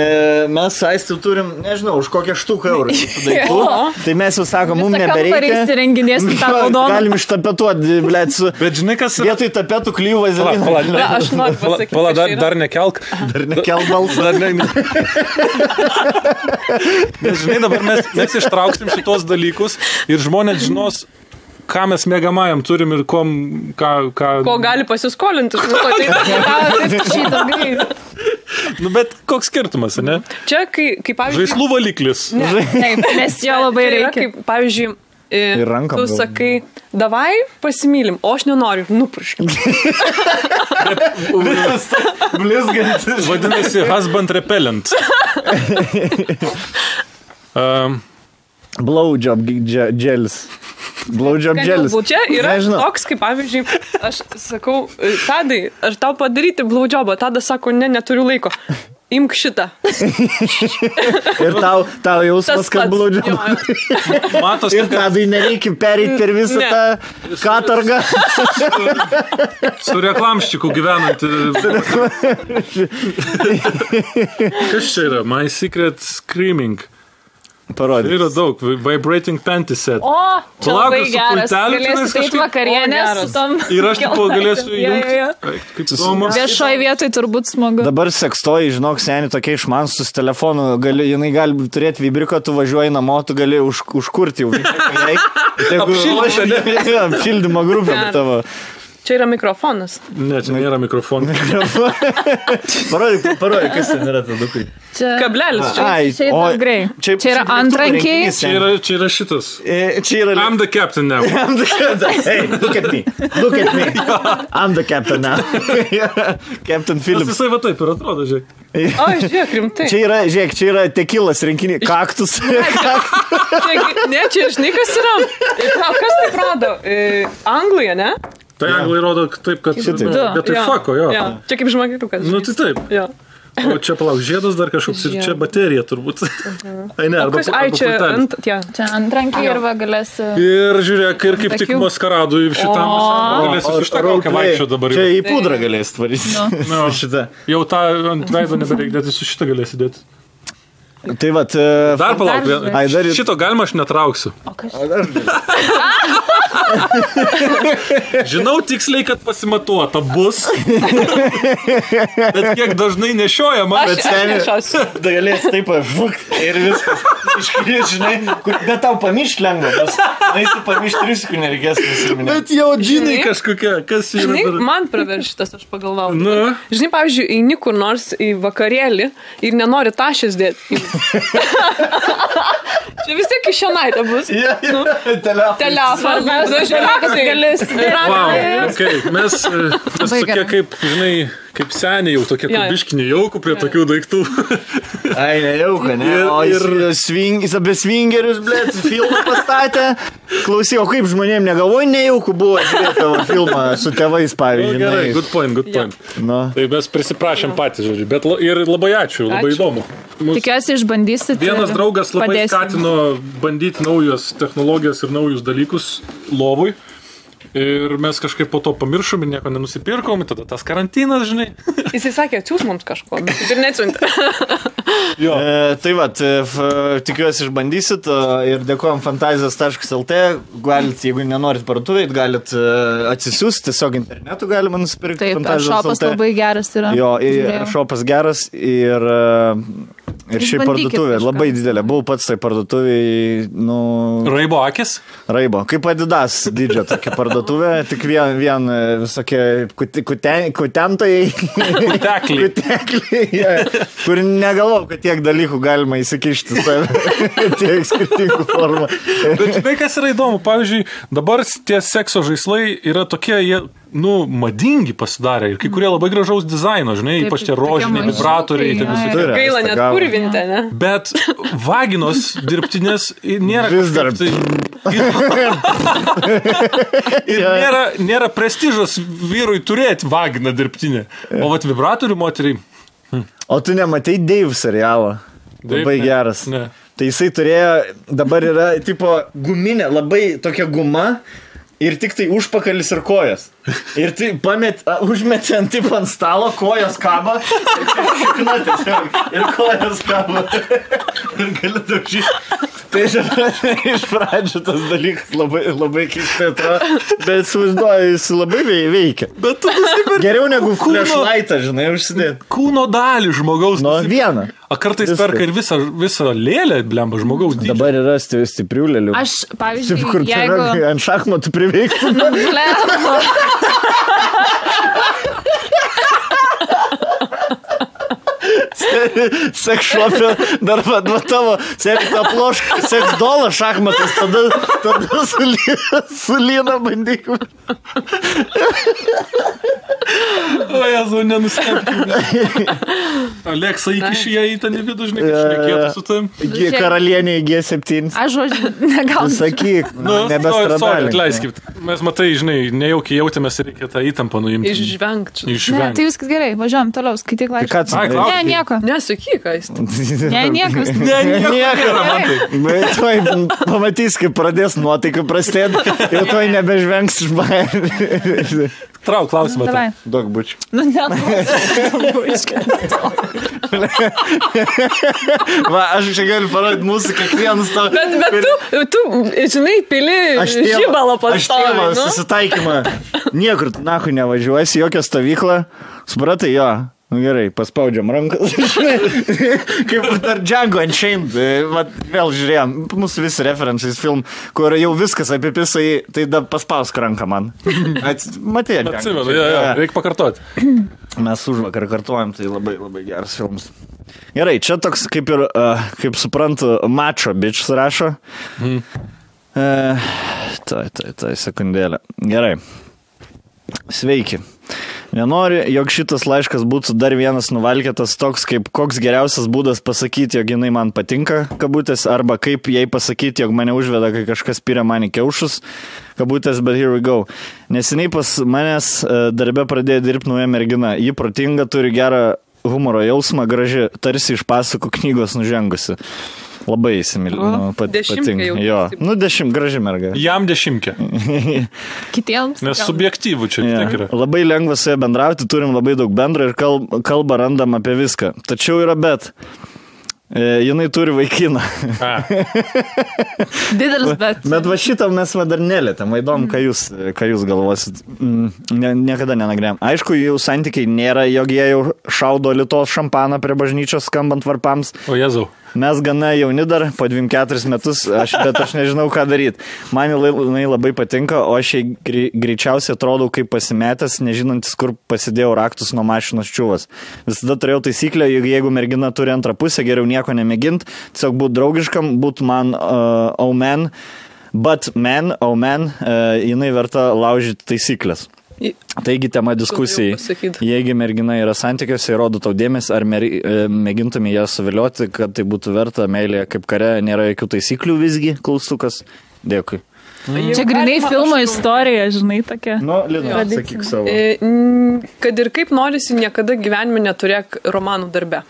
mes Aistiu turim, nežinau, už kokią štuką eurų daiktų. Tai mes jau sakom, mums nebereikia. Galim ištapetuoti, blėt, su... Bet žinai, kas... Vietoj tapetų klyjų vazeliną. Aš noriu pasakyti. Dar nekelk. Dar nekelk balsą. Nes žinai, dabar mes ištrauksim šitos dalykus ir žmonės žinos, ką mes mėgamajam turim ir ko gali pasiskolinti. Bet koks skirtumas, ne? Čia, kai pavyzdžiui... Žaislų valiklis. Taip, nes jo labai reikia. Kaip, pavyzdžiui, tu sakai, davai pasimylim, o aš nenoriu, nupurškim. Blizgantis. Vadinasi, husband repellent. Blowjob gelis. Blowjob gelis. Čia yra toks, kaip pavyzdžiui, aš sakau, Tadai, ar tau padaryti blowjobą? Tadas sako, neturiu laiko. Imk šitą. Ir tau jausmas, kad blowjobą. Ir Tadai nereikia pereiti per visą tą katargą. Su reklamščiku gyvenant. Kas čia yra? My Secret Screaming. Parodyk. Yra daug. Vibrating panty set. O, čia labai geras. Galėsiu eiti vakarienės su tom. Ir aš tipo galėsiu įjungti. Kaip įdomu. Viešoje vietoje turbūt smagu. Dabar sekstoji, žinok, seniai tokie išmansus su telefonu. Jinai gali turėti vibriko, tu važiuoji namo, tu gali užkurti jau. Apšildymo grupė tavo. Čia yra mikrofonas. Ne, čia nėra mikrofonas. Parodyk, kas ten yra tadukai. Kablelis. Čia yra grei. Čia yra antrankiai. Čia yra šitas. I'm the captain now. I'm the captain. Hey, look at me. Look at me. I'm the captain now. Captain Phillips. Jisai va taip ir atrodo, žiūrėk. O, žiūrėk, rimtai. Čia yra tekilas rinkinį. Kaktus. Ne, čia žinai, kas yra. Kas taip rodo? Anglija, ne? Tai anglai rodo taip, kad... Bet tai fako, jo. Čia kaip žmogeliukas. Nu, tai taip. O čia palauk, žiedas dar kažkoks ir čia baterija turbūt. Ai, ne, arba pultelis. Čia antrankiai ir va galėsi... Ir žiūrėk, ir kaip tik maskaradui šitam galėsi su šitą kaukę vaikščio dabar. Čia į pudrą galėsi tvaryti. Jau tą ant veido nebereik dėti, su šitą galėsi dėti. Tai vat... Dar palauk, šito galima aš netrauksiu. O kas? Žinau tiksliai, kad pasimatuota bus. Bet kiek dažnai nešiojama. Aš nešiosiu. Da galės taip ir viskas. Iškrės, žinai, bet tau pamišt lengva. Na, jis pamišt 3 sekundžių nereikės nusiminti. Bet jau džinai kažkokia. Kas yra? Žinai, man praverš šitas, aš pagalvau. Žinai, pavyzdžiui, eini kur nors į vakarėlį ir nenori tašės dėti. Čia vis tiek kišenaitė bus. Telefonas. Mes tokie kaip, žinai, kaip seniai jau tokie kubiškiniai jaukų prie tokių daiktų. Ai, nejauka, ne? O jis apie svingerius, blėt, filmą pastatė. Klausyk, o kaip žmonėm negalvoju, nejauku buvo žiūrėti tavo filmą su tėvais, pavyzdžiui. Gerai, good point. Tai mes prisiprašėm patys, žodžiu. Bet ir labai ačiū, labai įdomu. Tikiuosi išbandysit. Vienas draugas labai skatino bandyti naujas technologijas ir naujus dalykus lovui. Ir mes kažkaip po to pamiršom ir nieko nenusipirkom, tada tas karantinas, žinai. Jisai sakė, atsiūs mums kažko, bet ir neatsiuntė. Tai vat, tikiuosi išbandysit ir dėkojom fantazijos.lt. Galit, jeigu nenorit parduotuvėj, galit atsisiųsti, tiesiog internetu galima nusipirkti. Taip, šopas labai geras yra. Jo, šopas geras ir šiaip parduotuvė labai didelė. Buvau pats tai parduotuvėj, Raibo akis? Raibo, kaip Adidas didžio tokia parduotuvė, tik vien visokie kutentojai. Kutekliai, kur negalvau, kad tiek dalykų galima įsikišti tiek skirtingų formų. Bet žinai, kas yra įdomu, pavyzdžiui, dabar tie sekso žaislai yra tokie, jie madingi pasidarė ir kai kurie labai gražaus dizaino, žinai, ypač tie rožiniai vibratoriai. Gaila net purvinti, ne? Bet vaginos dirbtinės nėra vis dar. Ir nėra prestižos vyrui turėti vaginą dirbtinę. O vat vibratorių moteriai. O tu nematei Dave serialą? Labai geras. Ne. Tai jisai turėjo, dabar yra tipo guminė, labai tokia guma. Ir tik tai užpakalis ir kojas. Ir tai užmetė ant stalo, kojos kaba. Ir kojos kaba. Ir gali daužyti. Tai iš pradžių tas dalykas labai keistai atrodo. Bet suvaizduoju, jis labai veikia. Bet tu geriau negu flashlightą, žinai, užsidėti. Kūno dalį žmogaus. Vieną. A kartais perka ir visą lėlę, blemba, žmogaus dydžio. Dabar yra stiprių lėlių. Aš, pavyzdžiui, kur jeigu... ant šachmatų priveiktų. Blemba. Seksšopė, dar tavo seksdolą šachmatas, tada su lyna bandykum. O Jezu, nenustebkime. Aleksa įkiši ją į tą nevidų, žinai, kad šnekėtų su tam. Karalienė į G7. Aš žodžiu, negalbūt. Sakyk, nebestradalė. Atleiskit. Mes matai, žinai, nejaukiai jautėmės ir reikia tą įtampą nuimti. Išvengti. Ne, tai viskas gerai, važiuojam toliau, skaityk laišką. Ne, nieko. Nesakyk, ką jis. Ne, niekas. Bet tuoj pamatys, kaip pradės nuotaikų prastėti ir tuoj nebežvengs iš baimės. Trauk klausimą. Daug bučių. Nu, ne, bučkas. Va, aš čia galiu parodyti mūsų kiekvienus tau. Bet tu, žinai, pili žibalo pastovi. Aš tėvą susitaikymą. Niekur tu nahui nevažiuosi, jokią stovyklą. Supratai, jo. Nu gerai, paspaudžiam rankas. Kaip dar Django Unchained. Vėl žiūrėjom, mūsų visi referencijais film, kur jau viskas apipisai, tai da paspausk ranką man. Matė, Django. Atsimenu, reikia pakartoti. Mes užvakar kartuojam, tai labai, labai geras filmas. Gerai, čia toks kaip ir, kaip suprantu, mačo bič rašo. Tai sekundėlė. Gerai. Sveiki. Nenori, jog šitas laiškas būtų dar vienas nuvalkėtas toks, kaip koks geriausias būdas pasakyti, jog jinai man patinka, kabutės, arba kaip jai pasakyti, jog mane užveda, kai kažkas pyrė man į kiaušus, kabutės, but here we go. Neseniai pas manęs darbe pradėjo dirbti nauja mergina. Ji protinga, turi gerą humoro jausmą, graži, tarsi iš pasakų knygos nužengusi. Labai įsimylinu, patinka. Jo, nu graži merga. Jam 10. Kitiems. Nes subjektyvų čia tiek yra. Labai lengva su ja bendrauti, turim labai daug bendro ir kalbą randam apie viską. Tačiau yra bet. Jinai turi vaikiną. Didelis bet. Bet va šitą mes dar nelėtėm. Įdomu, ką jūs galvosit. Niekada nenagrėjom. Aišku, jų santykiai nėra, jog jie jau šaudo Lietuvos šampaną prie bažnyčios skambant varpams. O Jėzau. Mes gana jauni dar, po 24 metus, bet aš nežinau, ką daryti. Man jinai labai patinka, o aš greičiausiai atrodau kaip pasimetęs, nežinantis, kur pasidėjau raktus nuo mašinos čiuvas. Visada turėjau taisyklę, jeigu mergina turi antrą pusę, geriau nieko nemėgint, tiesiog būt draugiškam, būt man jinai verta laužyti taisyklės. Taigi tema diskusijai, jeigu mergina yra santykiuose ir rodo tau dėmesį, ar mėgintumė ją suvilioti, kad tai būtų verta, meilė kaip kare, nėra jokių taisyklių visgi, klaustukas. Dėkui. Čia grinai filmo istorija, žinai, tokia. Nu, Lina, sakyk savo. Kad ir kaip norisi, niekada gyvenime neturėk romanų darbe.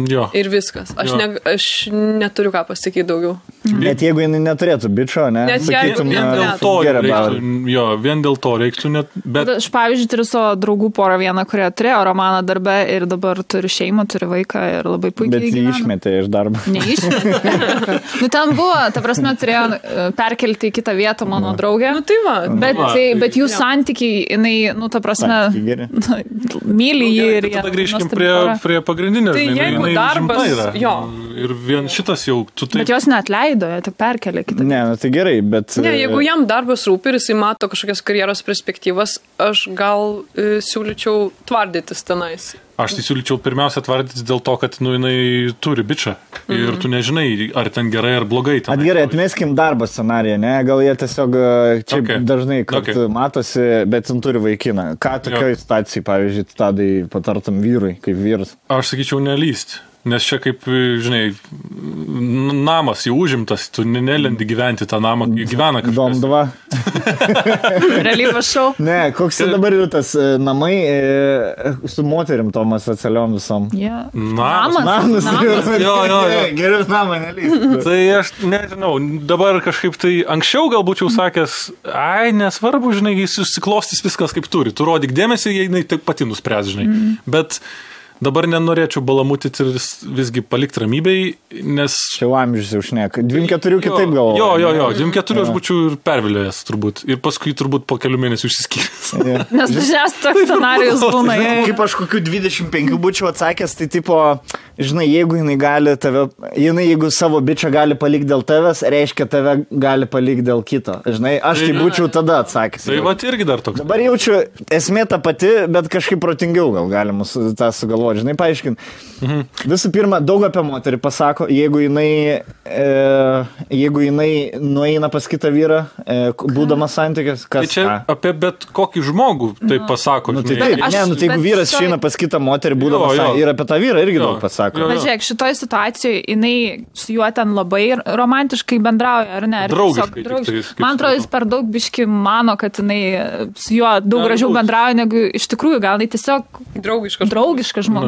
Jo. Ir viskas. Aš neturiu ką pasakyti daugiau. Net jeigu jinai neturėtų bičo, ne? Net jeigu vien dėl to reiktų net... Bet... Aš, pavyzdžiui, turiu savo draugų porą vieną, kurie turėjo romaną darbe ir dabar turi šeimą, turi vaiką ir labai puikiai gyvena. Bet jį išmetė iš darbo. Neišmetė. Nu, ten buvo, ta prasme, turėjo perkelti į kitą vietą mano draugę. Nu, tai va. Bet jų santykiai, jinai, nu, ta prasme, myli jį ir... Tada grįžkim prie pagrindinio. Jeigu darbas, jo. Ir vien šitas jau... Bet jos neatleido, jie tik perkelė kitą. Ne, nu tai gerai, bet... Ne, jeigu jam darbas rūpi ir jisai mato kažkokias karjeros perspektyvas, aš gal siūlyčiau tvardytis tenais. Aš tai siūlyčiau pirmiausia tvardytis dėl to, kad jinai turi bičą. Ir tu nežinai, ar ten gerai ar blogai. Gerai, atmeskim darbo scenariją, ne? Gal jie tiesiog čia dažnai matosi, bet jin turi vaikiną. Ką tokioj situacijai, pavyzdžiui, Tadai patartum vyrui, kaip vyras? Aš sakyčiau nelyst. Nes čia kaip, žinai, namas jau užimtas, tu nelendi gyventi tą namą, gyvena kažkas. Dom 2. Realybės šou. Ne, koks tai dabar yra tas namai su moterim tomas atsaliom visom. Yeah. Namas. Jo. Geriau namą nelįsti. Tai aš nežinau, dabar kažkaip tai anksčiau gal būčiau sakęs, nesvarbu, žinai, jis susiklostys viskas kaip turi. Tu rodyk dėmesį, jei jinai taip pati nuspręs, žinai. Bet... Dabar nenorėčiau balamutyti ir visgi palikti ramybei, nes... Čia amžius jau šneka. 24 kitaip galvoju. Jo, 24 aš būčiau ir pervilėjęs turbūt. Ir paskui turbūt po kelių mėnesių išsiskyręs. Nes dažniausiai toks scenarijus būna. Kaip aš kokių 25 būčiau atsakęs, tai tipo, žinai, jeigu jinai gali tave... Jeigu savo bičą gali palikti dėl tavęs, reiškia tave gali palikti dėl kito. Žinai, aš tai būčiau tada atsakęs. Tai va irgi dar toks. Dabar jaučiu, esmė ta pati, bet kažkaip protingiau gal galima tą sugalvoti. Žinai, paaiškint. Visų pirma, daug apie moterį pasako, jeigu jinai nueina pas kitą vyrą, būdamas santykis, kas... Tai čia apie bet kokį žmogų tai pasako. Nu, tai taip, jeigu vyras išeina pas kitą moterį, būdamas ir apie tą vyrą irgi daug pasako. Bet žiūrėk, šitoj situacijoje jinai su juo ten labai romantiškai bendrauja, ar ne? Draugiškai. Man atrodo, jis per daug biški mano, kad jinai su juo daug gražiau bendrauja, negu iš tikrųjų gal jinai tiesiog draugiškas žmogus.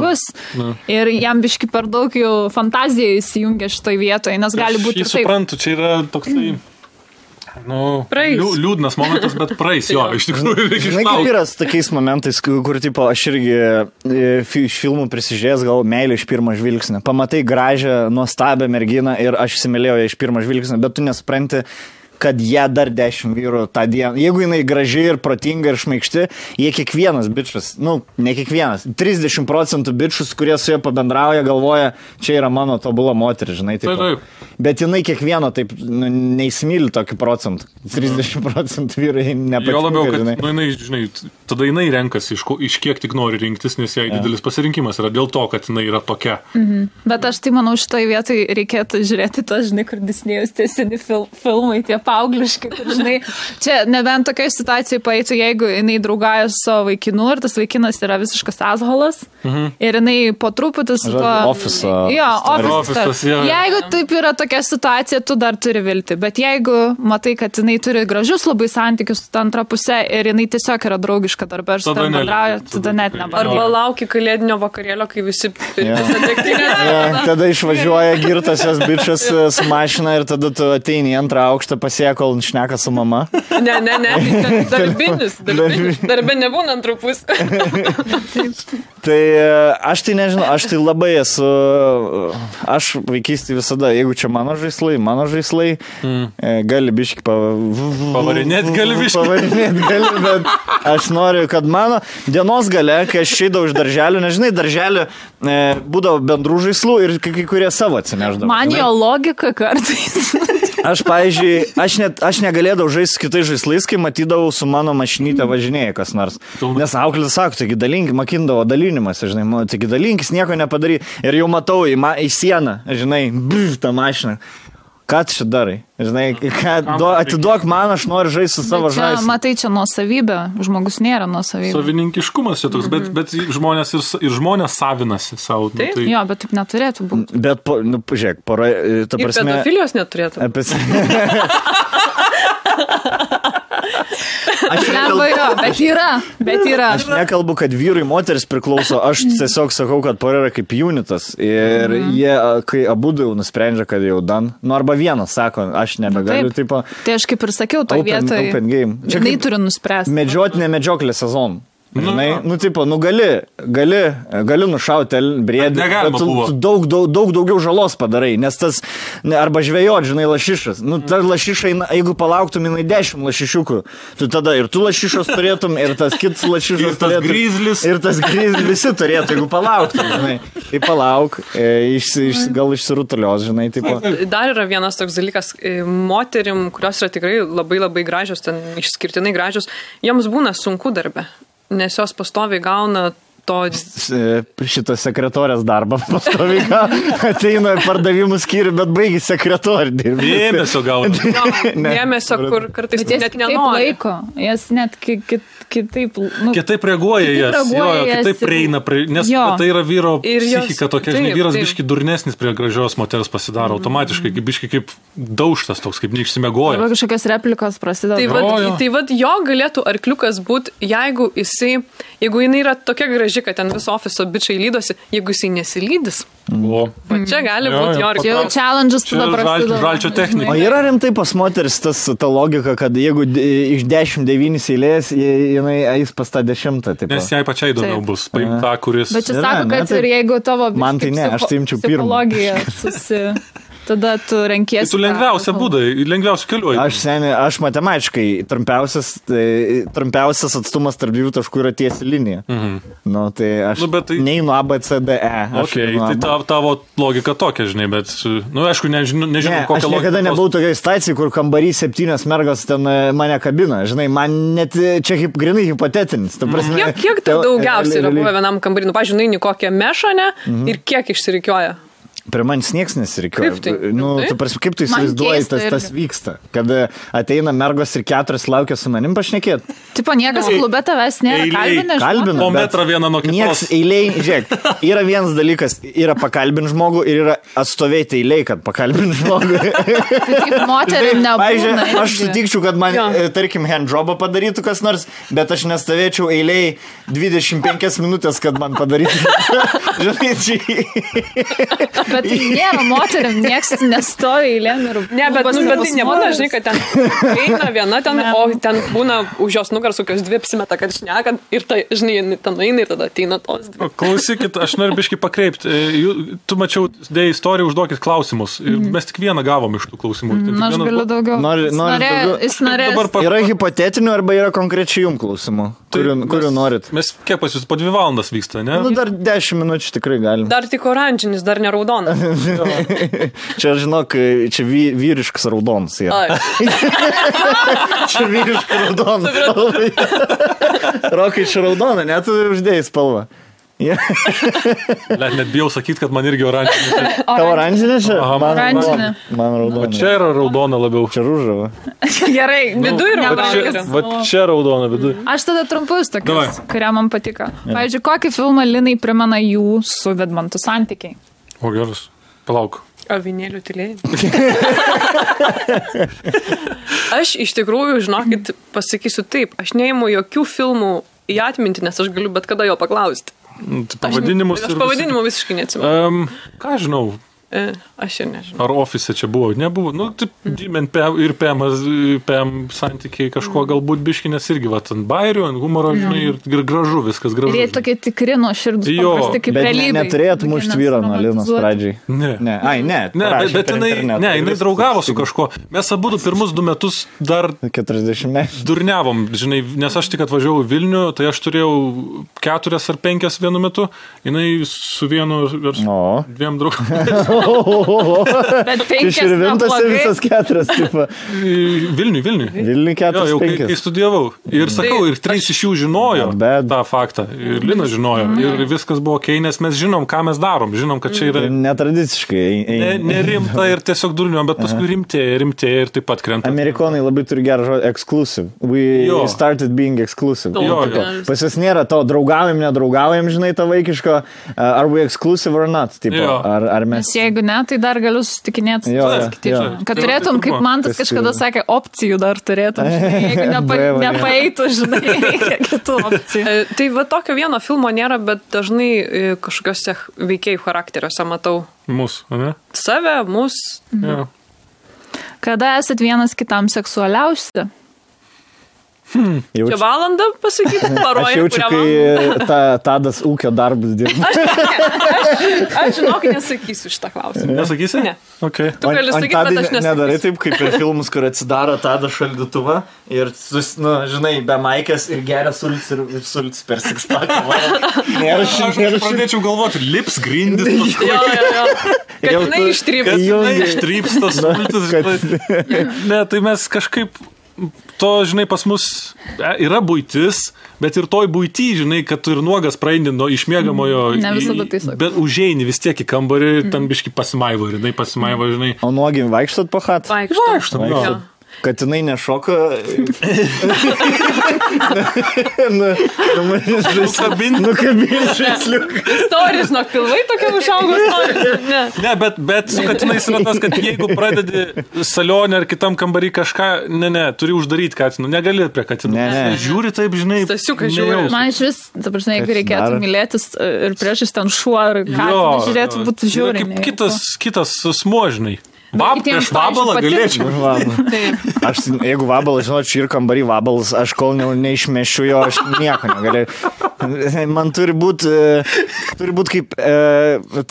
Ir jam biški per daug jau fantazija įsijungia šitoj vietoje, nes gali būti taip. Aš suprantu, čia yra toksai Liūdnas momentas, bet praeis, jo, iš tikrųjų reikia išlaukti. Kaip yra su tokiais momentais, kur, tipo, aš irgi iš filmų prisižiūrėjęs, gal meilė iš pirmo žvilgsnio. Pamatai gražią, nuostabią merginą ir aš įsimylėjau ją iš pirmo žvilgsnio, bet tu nesupranti, kad jie dar 10 vyrų tą dieną. Jeigu jinai graži ir protinga ir šmaikšti, jie kiekvienas bičas, ne kiekvienas, 30% bičus, kurie su jie pabendrauja, galvoja, čia yra mano tobula moteris, žinai. Taip. Bet jinai kiekvieno taip neįsimyli tokį procentą. 30% vyrai nepatinka. Jo labiau, kad jinai, žinai, tada jinai renkasi, iš kiek tik nori rinktis, nes jai didelis pasirinkimas yra dėl to, kad jinai yra tokia. Bet aš tai manau, šitoj vietoj reikėtų žiūrėti to, žinai, kur Disnėjus tie seni filmai, tie paaugliškai, kur, žinai, čia nebent tokiai situacijai paeitų, jeigu jinai draugauja su savo vaikinu ir tas vaikinas yra visiškas asholas ir jinai po truputį su to... Office. Jo, office. Jeigu taip yra tokia situacija, tu dar turi vilti, bet jeigu matai, kad jinai turi gražius labai santykius su antra pusė ir jinai tiesiog yra draugiška darbą ir su tam bendrauja, tada net nebendrauja. Arba lauki kalėdinio vakarėlio, kai visi degtinės. Tada išvažiuoja girtasios bičas su mašina ir tada tu ateini į antrą aukštą pasiekia, kol šneka su mama. Ne. Darbinis. Darbė nebūna antrų pusė. Tai aš tai nežinau, aš tai labai esu, aš vaikystėje visada, jeigu čia mano žaislai, gali biški pavarinėti gali, bet aš noriu, kad mano dienos gale, kai aš išeidavau iš darželio, nežinai, darželio būdavo bendrų žaislų ir kai kurie savo atsineždavo. Man jo logika kartais. Aš, pavyzdžiui, aš negalėdavau žaisti su kitais žaislais, kai matydavau su mano mašinytė važinėja kas nors. Nes auklės sako, taigi dalink, makindavo dalinimas, žinai, taigi dalinkis, nieko nepadary. Ir jau matau į sieną, žinai, tą mašiną. Ką tu čia darai? Žinai, atiduok man, aš noriu žaisti su savo žaislais. Matai, čia nuosavybė, žmogus nėra nuosavybė. Savininkiškumas čia toks, bet žmonės ir žmonės savinasi savo. Tai... Jo, bet taip neturėtų būti. Bet, žiūrėk, ta prasme... Ir pedofilijos neturėtų. Bet yra. Aš nekalbu, kad vyrui moteris priklauso, aš tiesiog sakau, kad pora yra kaip unitas. Ir jie, kai abudu jau nusprendžia, kad jau dan, arba vienas sako, aš nebegaliu, tipo... Tai aš kaip ir sakiau, toj vietoj, jinai turi nuspręsti. Medžiotinė medžioklė sezonų. Žinai, gali nušauti briedį, bet tu daug daugiau žalos padarai, nes tas, arba žvejot, žinai, lašišas. Ta lašiša, jeigu palauktum, jinai 10 lašišiukų, tu tada ir tu lašišos turėtum, ir tas kitas lašišas turėtum. Ir tas grizlis visi turėtų, jeigu palauktum, žinai. Tai palauk, gal išsirutulios, žinai. Tipo. Dar yra vienas toks dalykas, moterim, kurios yra tikrai labai labai gražios, ten išskirtinai gražios, joms būna sunku darbe. Nes jos pastoviai gauna to... Šitą sekretorės darbą pastoviai ateina pardavimų skyrių, bet baigi sekretorį dirbti. Dėmesio gauna. Dėmesio, kur kartais net nenori. Jas net kitaip... Kitaip reaguoja kitaip prieina, nes tai yra vyro psichika tokia, žinai, vyras biški durnesnis prie gražios moters pasidaro automatiškai, biški kaip daužtas toks, kaip neišsimiegoja. Arba kažkokios replikos prasideda. Tai vad jo galėtų arkliukas būti, jeigu jinai yra tokia graži, kad ten viso ofiso bičiai lydosi, jeigu jisai nesilydys. Čia gali būti jo arkliukas. Čia jau challenge'as tada prasideda. Žalčio technika. O yra rimtai pas moteris ta logika, kad jeigu iš 10-9 eilės, jinai eis pas tą 10. Nes jai pačiai įdomiau bus paimti tą, kuris... Bet čia sako, kad ir jeigu tavo psichologija tada tu renkiesi. Tai tu lengviausia būdai, lengviausia keliuoji. Aš matematiškai trumpiausias atstumas tarp dviejų taškų yra tiesi linija. Tai aš neinu A, B, C, D, E. Tai tavo logika tokia, žinai, bet, aišku, nežinau kokią logiką. Aš niekada nebuvau tokiai stacijai, kur kambarį 7 mergos ten mane kabina. Žinai, man net čia grinai hipotetinis. Kiek tai daugiausiai yra buvę vienam kambarį? Pavyzdžiui, nueini kokią mešonę ir kiek išsirikioja? Prie manęs nieks nesirikioja. Kaip tu įsivaizduoji, tas vyksta? Kad ateina mergos ir 4 laukia su manim pašnekėt. Tipo, niekas klube tavęs nėra kalbina. Po metrą vieną nuo kitos. Nieks eiliai, žiūrėk, yra vienas dalykas, yra pakalbinti žmogų ir yra atstovėti eiliai, kad pakalbinti žmogų. Kaip moterim nebūna. Pavyzdžiui, aš sutikčiau, kad man, tarkim, handjobą padarytų kas nors, bet aš nestovėčiau eiliai 25 minutės, kad man padarytų. Žinai, Bet tai nėra moteriam, nieks nestovi eilėm ir... Ne, bet tai nebūna, žinai, kad ten eina viena ten, o ten būna už jos nugaros kokios dvi apsimeta, kad šneka ir tai, žinai, ten eina ir tada ateina tos dvi. Klausykit, aš noriu biškį pakreipti. Tu mačiau, dėjai istoriją, užduokit klausimus. Mes tik vieną gavom iš tų klausimų. Aš galiu daugiau. Jis norės. Yra hipotetinių arba yra konkrečiai jums klausimų, kurių norit. Mes kiek pas jūs po 2 valandas vyksta, ne? Nu, dar 10 minučių tikrai galim. Dar tik oranžinis, dar ne raudonas. Čia, žinok, čia vyriškas raudonas. Čia vyriškas raudonas. Rokai, čia raudona, net tu uždėjai spalvą. Net bijau sakyti, kad man irgi oranžinė. Tavo oranžinė čia? Oranžinė. Man raudona. O čia yra raudona labiau. Čia rūžava. Gerai, vidu yra raudona. Va čia raudona vidu. Aš tada trumpus tokius, kurie man patiko. Pavyzdžiui, kokį filmą Linai primena jų su Vidmantu santykiai? O geras, palauk. Avinėlių tylėjimą. Aš iš tikrųjų, žinokit, pasakysiu taip, aš neimu jokių filmų į atmintį, nes aš galiu bet kada jo paklausti. Pavadinimus aš pavadinimų visiškai neatsimenu. Ką žinau? Aš ir nežinau. Ar ofise čia buvo? Nebuvo. Nu, taip, ir PM santykiai kažko galbūt biški, nes irgi, ant bairių, ant humoro, žinai, ir gražu, viskas gražu. Ir jie tokie tikri nuo širdus, paprasti kaip realybė. Bet neturėt mušt vyrą nuo Linos pradžiai. Ne. Ai, ne. Bet jinai draugavo su kažko. Mes abudu pirmus 2 metus dar 40 metų durniavom, žinai, nes aš tik atvažiavau Vilnių, tai aš turėjau 4 ar 5 vienu metu, jinai su vienu ar 2 draugų. Bet 5 išrivintas ir visas 4. Vilniui. Vilniui 4, jau, kai studijavau. Ir sakau, ir 3 iš jų žinojo tą faktą. Ir Lina žinojo. Ir viskas buvo okei, nes mes žinom, ką mes darom. Žinom, kad čia yra... Netradiciškai. Nerimta ir tiesiog durniuom, bet paskui rimtėja ir taip pat krenta. Amerikonai labai turi gerą žodį exclusive. We started being exclusive. Pas jas nėra to draugaujam, nedraugaujam, žinai, tą vaikiško. Are we exclusive or not? Ar mes... Jeigu ne, tai dar galiu susitikinėti. Kad turėtum, kaip Mantas kažkada sakė, opcijų dar turėtum. Jeigu nepaeitų, žinai, kitų opcijų. Tai va tokio vieno filmo nėra, bet dažnai kažkokiuose veikėjų charakteriuose matau. Mus, ne? Save, mus. Kada esat vienas kitam seksualiausi? Čia valandą pasakyti, paroja, aš jaučiu, kai Tadas ūkio darbus dirba. Aš žinok, nesakysiu šitą klausimą. Nesakysi? Ne. Okay. Tu gali sakyti, bet aš nesakysiu. Nedarai taip, kaip per filmus, kur atsidaro Tadas šaldytuvą ir, žinai, be maikės ir geria sults ir sults per sixpaką. Aš pradėčiau galvoti, lips grindis. Kad jinai ištryps tas sultis. Ne, tai mes kažkaip... To, žinai, pas mus yra buitis, bet ir toj buity, žinai, kad tu ir nuogas praeini nuo išmiegamojo, ne visada tai sakau. Bet užeini vis tiek į kambarį ir ten biški pasimaivo, ir jinai pasimaivo, žinai. O nuogi vaikštot po chat? Vaikštom. Kad jinai nešoka... Nukabinti žaisliuką. Istorija, žinok, pilvai tokia užaugo istorija. Ne, bet su katinais yra tas, kad jeigu pradedi salionę ar kitam kambarį kažką, turi uždaryti katinų. Negali prie katinų. Žiūri taip, žinai. Stasiukas žiūri. Man iš vis, dabar, žinai, jeigu reikėtų mylėtis ir priešais ten šuo ar katiną žiūrėtų, būtų žiūri. Kitas smuožnai. Prieš vabalą galėčiau. Jeigu vabalą, žinočiau, ir kambarį vabalas, aš kol neišmešiu jo, aš nieko negalėjau. Man turi būti kaip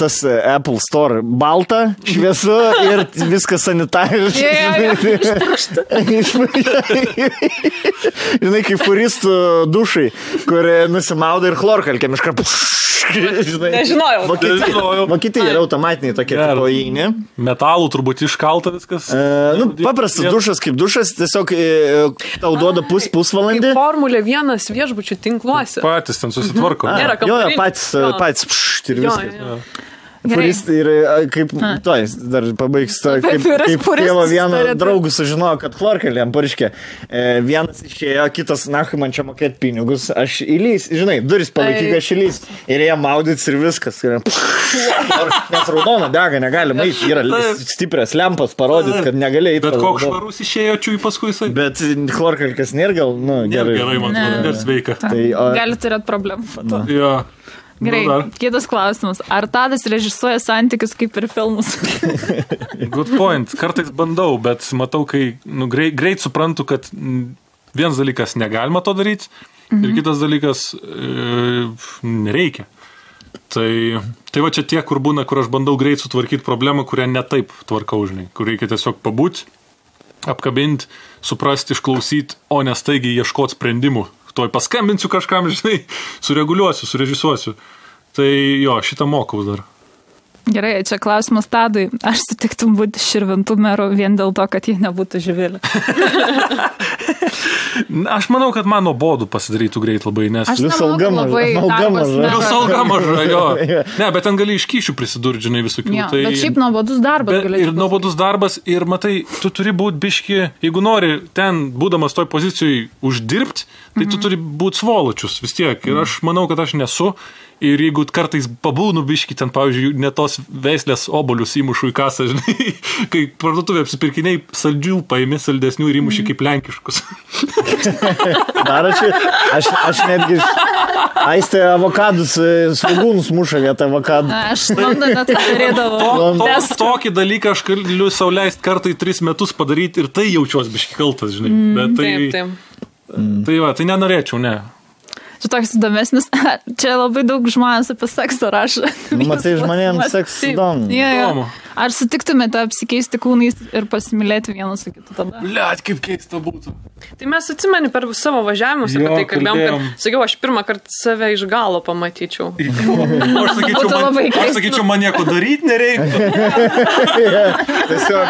tas Apple Store. Balta, šviesu ir viskas sanitariškai. Žinai, kaip furistų dušai, kur nusimauda ir chlorkalkėm iškart. Nežinojau. Vokietija yra automatiniai tokie tipojini. Metalų turbūt iškalta viskas. Paprastas dušas kaip dušas, tiesiog tau duoda pusvalandį. Formulė 1 viešbučių tinkluose. Patys ten susitvarko. Jo, patys ir viskas. Furistai ir kaip, dar pabaigs, kaip tėvo vieno draugų sužinojo, kad chlorkalkėm pariškė. Vienas išėjo, kitas, nahui, man čia mokėti pinigus, aš įlys, žinai, duris palaikyk, aš įlys. Ir jie maudytis ir viskas. Nes raudona dega, negali maiti, yra stiprias lempas parodyti, kad negali eiti. Bet koks švarus išėjo čiui paskui jisai. Bet chlorkalkės nėra gal, gerai. Gerai, man atrodo, sveika. Gali turėti problemų. Gerai, kitas klausimas. Ar Tadas režisuoja santykius kaip ir filmus? Good point. Kartais bandau, bet matau, kai greit suprantu, kad vienas dalykas negalima to daryti ir kitas dalykas nereikia. Tai va čia tie, kur būna, kur aš bandau greit sutvarkyti problemą, kurią netaip tvarkau, žinai, kur reikia tiesiog pabūti, apkabinti, suprasti, išklausyti, o ne staigiai ieškoti sprendimų. Tuoj paskambinsiu kažkam, žinai, sureguliuosiu, surežisuosiu. Tai jo, šitą mokau dar. Gerai, čia klausimas Tadui. Aš sutiktum būti Širvintų meru vien dėl to, kad jie nebūtų Živilė. Aš manau, kad man nuobodu pasidarytų greit labai, nes... Aš nemanau, labai Vis alga maža, jo. Ne, bet ten gali iš kyšių prisidurti, žinai, visokių. Jo, bet šiaip nuobodus darbas. Ir nuobodus darbas, ir matai, tu turi būti biški, jeigu nori ten, būdamas toj pozicijai, uždirbti, tai tu turi būti svoločius vis tiek. Ir aš manau, kad aš nesu. Ir jeigu kartais pabūnu biški, ten, pavyzdžiui, ne tos veislės obolius įmušu į kasą, žinai, kai parduotuvė apsipirkiniai saldžių paimi, saldesnių ir įmuši kaip lenkiškus. Dar aš netgi Aistė avokadus, svagūnus muša vietą avokadų. Aš Londone tai darydavau. Tokį dalyką aš galiu sau leisti kartai 3 metus padaryti ir tai jaučiuos biški kaltas, žinai. Bet tai nenorėčiau, ne. Čia toks įdomesnis. Čia labai daug žmonės apie seksą rašo. Matai, žmonėms seksas įdomu. Ja. Ar sutiktumėte apsikeisti kūnais ir pasimylėti vienas su kitu tada? Blet, kaip keista būtų. Tai mes atsimeni per savo važiavimus apie tai kalbėjom, kad sakiau, aš pirmą kartą save iš galo pamatyčiau. Aš sakyčiau, man nieko daryti nereikia. Tiesiog,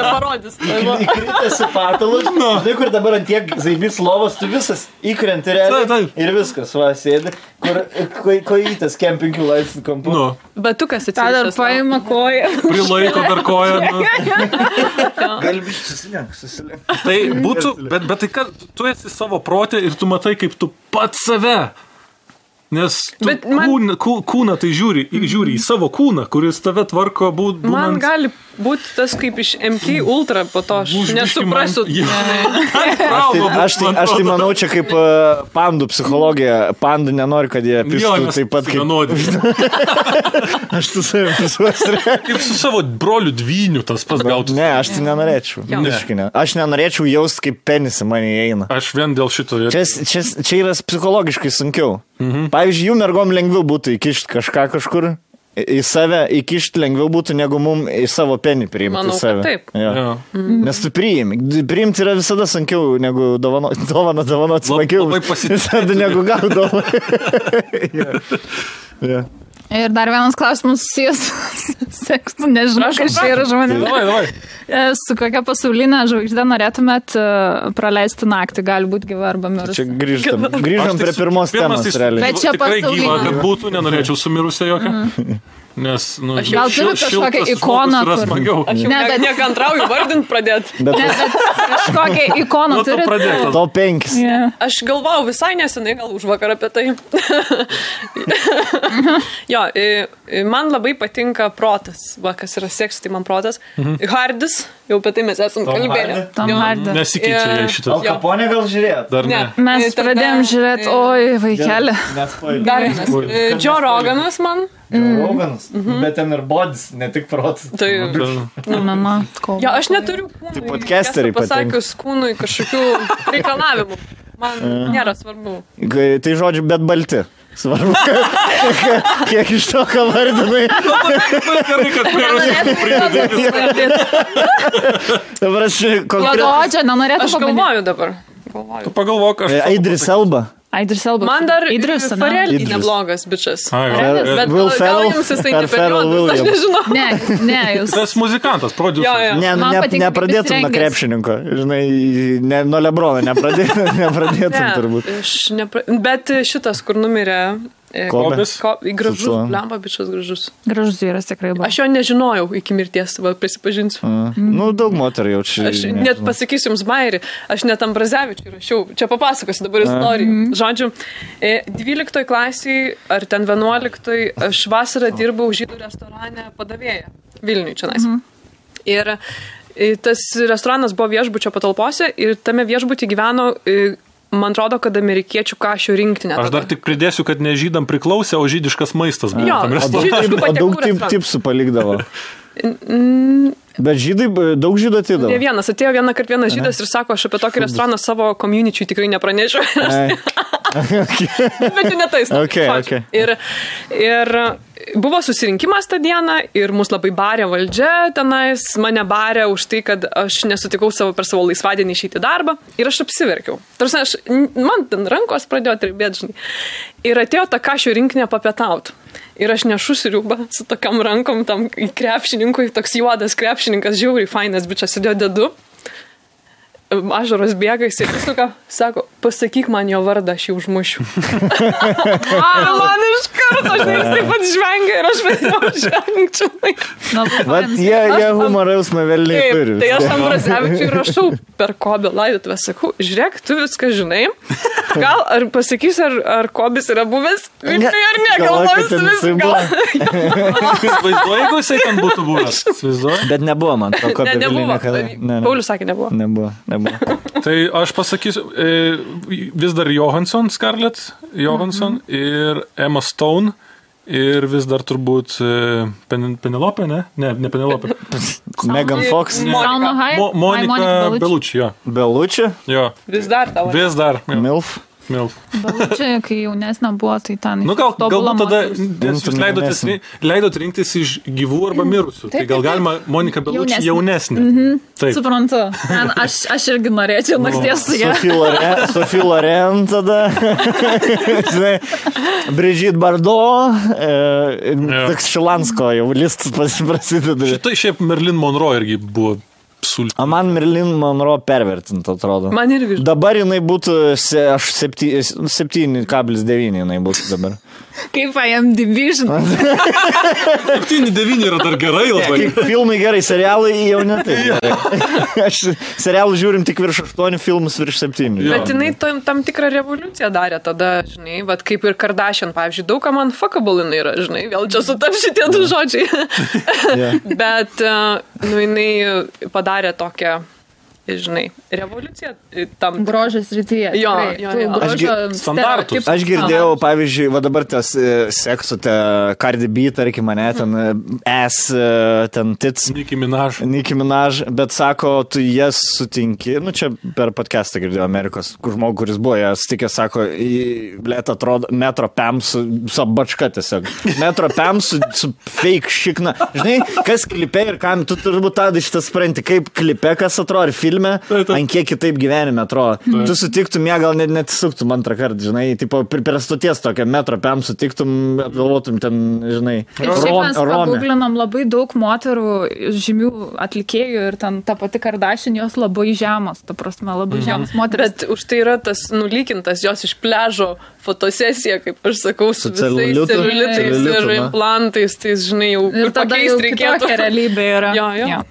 parodys. Įkritęs į patalus, žinai, kur dabar ant tiek zaibys lovos, tu visas įkrenti realiai ir viskas, sėdi, kur kojytas kempingių laipsnių kampu. Bet tu kas atsiprašau? Dar paima koją. Prilaiko dar koją. Galbiš susilenk. Tai būtų, bet tai kad tu esi savo protė ir tu matai, kaip tu pats save. Nes kūną tai žiūri į savo kūną, kuris tave tvarko būnant... Man gali būti tas kaip iš MK Ultra po to, aš nesuprasiu. Aš tai manau, čia kaip pandų psichologija. Pandų nenori, kad jie pistų taip pat kaip... Aš tu savim pisuosiu. Kaip su savo broliu dvyniu tas pats gautų. Ne, aš tai nenorėčiau. Aš nenorėčiau jausti, kaip penisai mane įeina. Aš vien dėl šito... Čia yra psichologiškai sunkiau. Pavyzdžiui, jų mergom lengviau būtų įkišti kažką kažkur, į save įkišti lengviau būtų, negu mum į savo penį priimti. Manau, save. Taip. Nes tu priimi. Priimti yra visada sunkiau, negu dovanoti smagiau. Visada negu gaudavo. Ir dar vienas klausimas susijęs seksu, nežinau, kas čia yra žmonėmis. Su kokia pasaulinė žvaigždė norėtumėt praleisti naktį, gali būti gyva arba mirusi? Čia grįžom prie pirmos temos, realiai. Bet čia pasaulinė. Gyva, kad būtų, nenorėčiau sumirusią jokią. Nes, gal turit kažkokią ikoną, kur... Aš jau nekantrauju vardint pradėti. Bet kažkokią ikoną turit? Top 5. Aš galvojau visai nesenai, gal už vakar apie tai. Jo, man labai patinka protas. Va, kas yra seksas, tai man protas. Hardis, jau apie tai mes esam kalbėję. Tom Hardy. Nesikeičia jie šitas. Al Capone gal žiūrėt? Dar ne. Mes pradėjom žiūrėti, oi, vaikelė. Dar vienas. Joe Roganas man. Roganas, bet ten ir bodis, ne tik protas. Tai, ja, aš neturiu kūnui, tai podcasteriai pasakius kūnui kažkokių reikalavimų. Man nėra svarbu. Tai žodžiu, bet balti. Svarbu, kiek iš to, ką vardinai. Gerai, kad perusų pridėti. Dabar aš Aš galvoju dabar. Tu pagalvok, aš... Idris Elba. Man dar Farrelly neblogas bičas. Bet gal jums jis tai neperiodus, aš nežinau. Ne, jūs. Tas muzikantas, prodiuseris. Nepradėtum nuo krepšininko. Žinai, nuo Lebrono nepradėtum turbūt. Bet šitas, kur numirė... Kobis? Gražus, blemba bičas gražus. Gražus vyras tikrai buvo. Aš jo nežinojau iki mirties, prisipažinsiu. Daug moterų jaučiu. Aš net pasakysiu jums bairį, aš net Ambrazevičiui rašiau, čia papasakosiu dabar istoriją. Žodžiu, 12 klasiai ar ten 11 aš vasarą dirbau žydų restorane padavėja Vilniui čionais. Ir tas restoranas buvo viešbučio patalpose ir tame viešbutyje gyveno man atrodo, kad amerikiečių kašių rinktinė. Aš dar tik pridėsiu, kad ne žydam priklausė, o žydiškas maistas. Jo, daug tipsų palikdavo. Bet žydai, daug žydų atidavo. Ne vienas, atėjo vienas žydas ir sako, aš apie tokį restoraną savo community tikrai nepranešiu. Bet jau netais. Okay. Ir buvo susirinkimas tą dieną ir mus labai barė valdžia tenais, mane barė už tai, kad aš nesutikau per savo laisvadienį išeiti darbą ir aš apsiverkiau. Tarsi, man ten rankos pradėjo tribėti, žinai. Ir atėjo ta kašių rinkinė papietauti. Ir aš nešu sriubą su tokiam rankom tam krepšininkui, toks juodas krepšininkas, žiauriai fainas bičas, sėdėjo dedu. Ašaros bėga, jis įsuka, sako, pasakyk man jo vardą, aš jį užmušiu. Man iš karto, aš taip pat žvengia ir aš vėliau žvengčiau. Vat jie humoriausmą vėliai turi. Tai aš Ambrazevičiui rašau per Kobio laidotuvę, sakau, žiūrėk, tu viską žinai, gal ar pasakys, ar Kobis yra buvęs, ar ne, galvoju, visą gal. Vaizduoju, jeigu jisai ten būtų buvęs. Bet nebuvo man to Kobio vėliai niekada. Paulius sakė, nebuvo. Tai aš pasakysiu, vis dar Johansson, Scarlett Johansson ir Emma Stone ir vis dar turbūt Penelope, ne? Ne Penelope. Megan Fox. Monika Bellucci, jo. Bellucci? Jo. Vis dar tavo. Vis dar. Milf. Čia, kai jaunesnė buvo, tai ten... Galbūt tada jūs leidot rinktis iš gyvų arba mirusių. Tai gal galima Monika Bellucci jaunesnė. Suprantu. Aš irgi norėčiau nakties su ją. Sophie Loren tada. Brigitte Bardot. Toks Šilansko jau listas prasideda. Šitai šiaip Marilyn Monroe irgi buvo sulti. O man Marilyn Monroe pervertinta, atrodo. Man irgi. Dabar jinai būtų, aš 7,9 jinai būtų dabar. Kaip IMDb, žinai. 7,9 yra dar gerai labai. Filmai gerai, serialai jau ne taip. Aš serialų žiūrim tik virš 8, filmus virš 7. Bet jinai tam tikrą revoliuciją darė tada, žinai, vat kaip ir Kardashian, pavyzdžiui, daug ką man fuckable jinai yra, žinai, vėl čia sutap šitie du žodžiai. Bet, jinai padarė tokią, žinai, revoliucija tam grožės rytyje. Jo. Standartus. Aš girdėjau, pavyzdžiui, va dabar tas seksu, Cardi B, tarkim, mane, ten ten tits. Nicki Minaj. Bet sako, tu jas sutinki, čia per podcastą girdėjau Amerikos, kur žmogus, kuris buvo, jas sutikė, sako, blėt, atrodo, Metro Pam su bačka tiesiog. Metro Pam su fake šikna. Žinai, kas klipe ir kam, tu turbūt tada šitą supranti, kaip klipe, kas atrodo, ir filme, ant kiek kitaip gyvenime atrodo. Tu sutiktum ją, gal net suktum antrą kartą, žinai, tipo, prie stoties tokią Metro Pam sutiktum, apgalvotum ten, žinai, Šiaip mes paguglinom labai daug moterų, žymių atlikėjų ir ten ta pati Kardashian, jos labai žemos, ta prasme, labai žemos moteris. Bet už tai yra tas nulykintas jos iš pliažo fotosesija, kaip aš sakau, su visais celiulitais ir implantais, tai, žinai, jau ir tada jau kitokia realybė yra. Jo.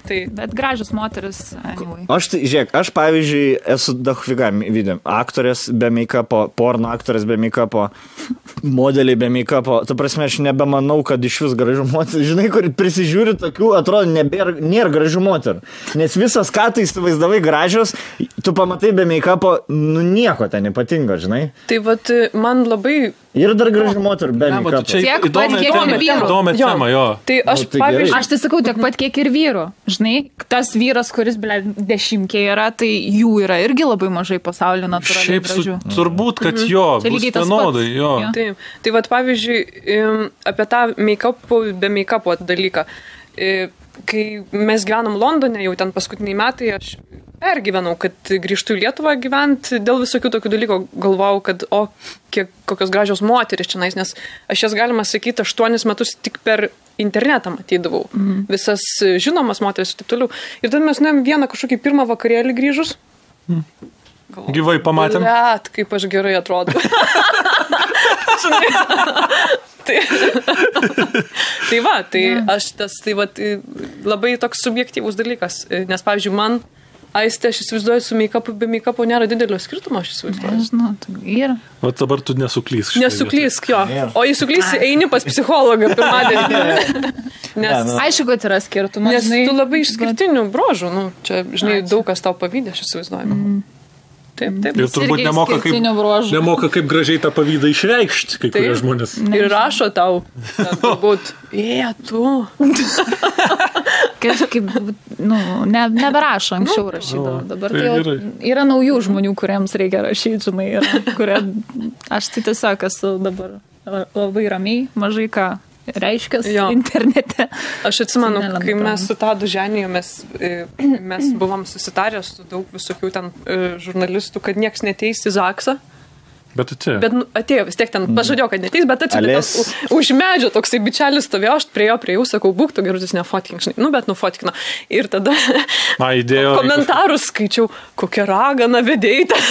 Tai, bet gražios moteris. Anyway. Aš pavyzdžiui, esu daugviga video. Aktorės be make-upo, porno aktorės be make-upo, modeliai be make-upo. Tu prasme, aš nebemanau, kad iš vis gražių moterų. Žinai, kur prisižiūri tokių, atrodo, nėra gražių moterų. Nes visas, ką tu įsivaizdavai gražios, tu pamatai be make-upo, nieko ten ypatingo, žinai. Tai vat, man labai... Ir dar gražių moterų be make-upo. Čia įdomi tema, jo. Tai aš, pavyzdžiui... Aš tai sakau, tiek pat kiek ir vyrų. Žinai, tas vyras, kuris, dešimkė yra, tai jų yra irgi labai mažai pasaulio natūraliai gražių. Šiaip turbūt, kad jo, bus vienodai, jo. Tai vat, pavyzdžiui, apie tą make-upų be make-upo dalyką. Kai mes gyvenam Londone, jau ten paskutiniai metai, aš pergyvenau, kad grįžtų į Lietuvą gyventi dėl visokių tokių dalykų. Galvojau, kad kokios gražios moteris čia, nes aš jas, galima sakyti, 8 metus tik per internetą matydavau. Visas žinomas moteris ir taip toliau. Ir tada mes nuėjom vieną kažkokį pirmą vakarėlį grįžus. Gyvai pamatėm. Blet, kaip aš gerai atrodo. Tai va, aš tai va, labai toks subjektyvus dalykas. Nes, pavyzdžiui, man Aistė, aš įsivaizduoju, su make-upu, be make-upo nėra didelio skirtumo, aš įsivaizduoju. Nežinau, tai yra. O dabar tu nesuklysk. Nesuklysk, jo. O jei suklysi, eini pas psichologą pirmadienį. Aišku, kad yra skirtumas. Nes tu labai išskirtinių brožų, čia, žinai, daug kas tau pavydė, aš įsivaizduoju. Taip. Ir turbūt nemoka kaip gražiai tą pavydą išreikšti, kai kurie žmonės. Ir rašo tau, turbūt, tu. Kažkaip, neberašo, anksčiau rašydavo. Dabar tai yra naujų žmonių, kuriems reikia rašyti, žinai, aš tai tiesiog esu dabar labai ramiai, mažai ką reiškia internete. Aš atsimenu, kai mes su Tadu Ženijo, mes buvom susitarę su daug visokių ten žurnalistų, kad nieks neteis į Zaksą. Bet atėjo. Bet atėjo vis tiek ten, pažadėjau, kad neteis, bet atėjo už medžio toksai bičelis stovėjo, aš prie jų, sakau, būk, tu gerutis nefotkink, žinai, bet nufotkino. Ir tada komentarus skaičiau, kokia ragana vedėjai ten.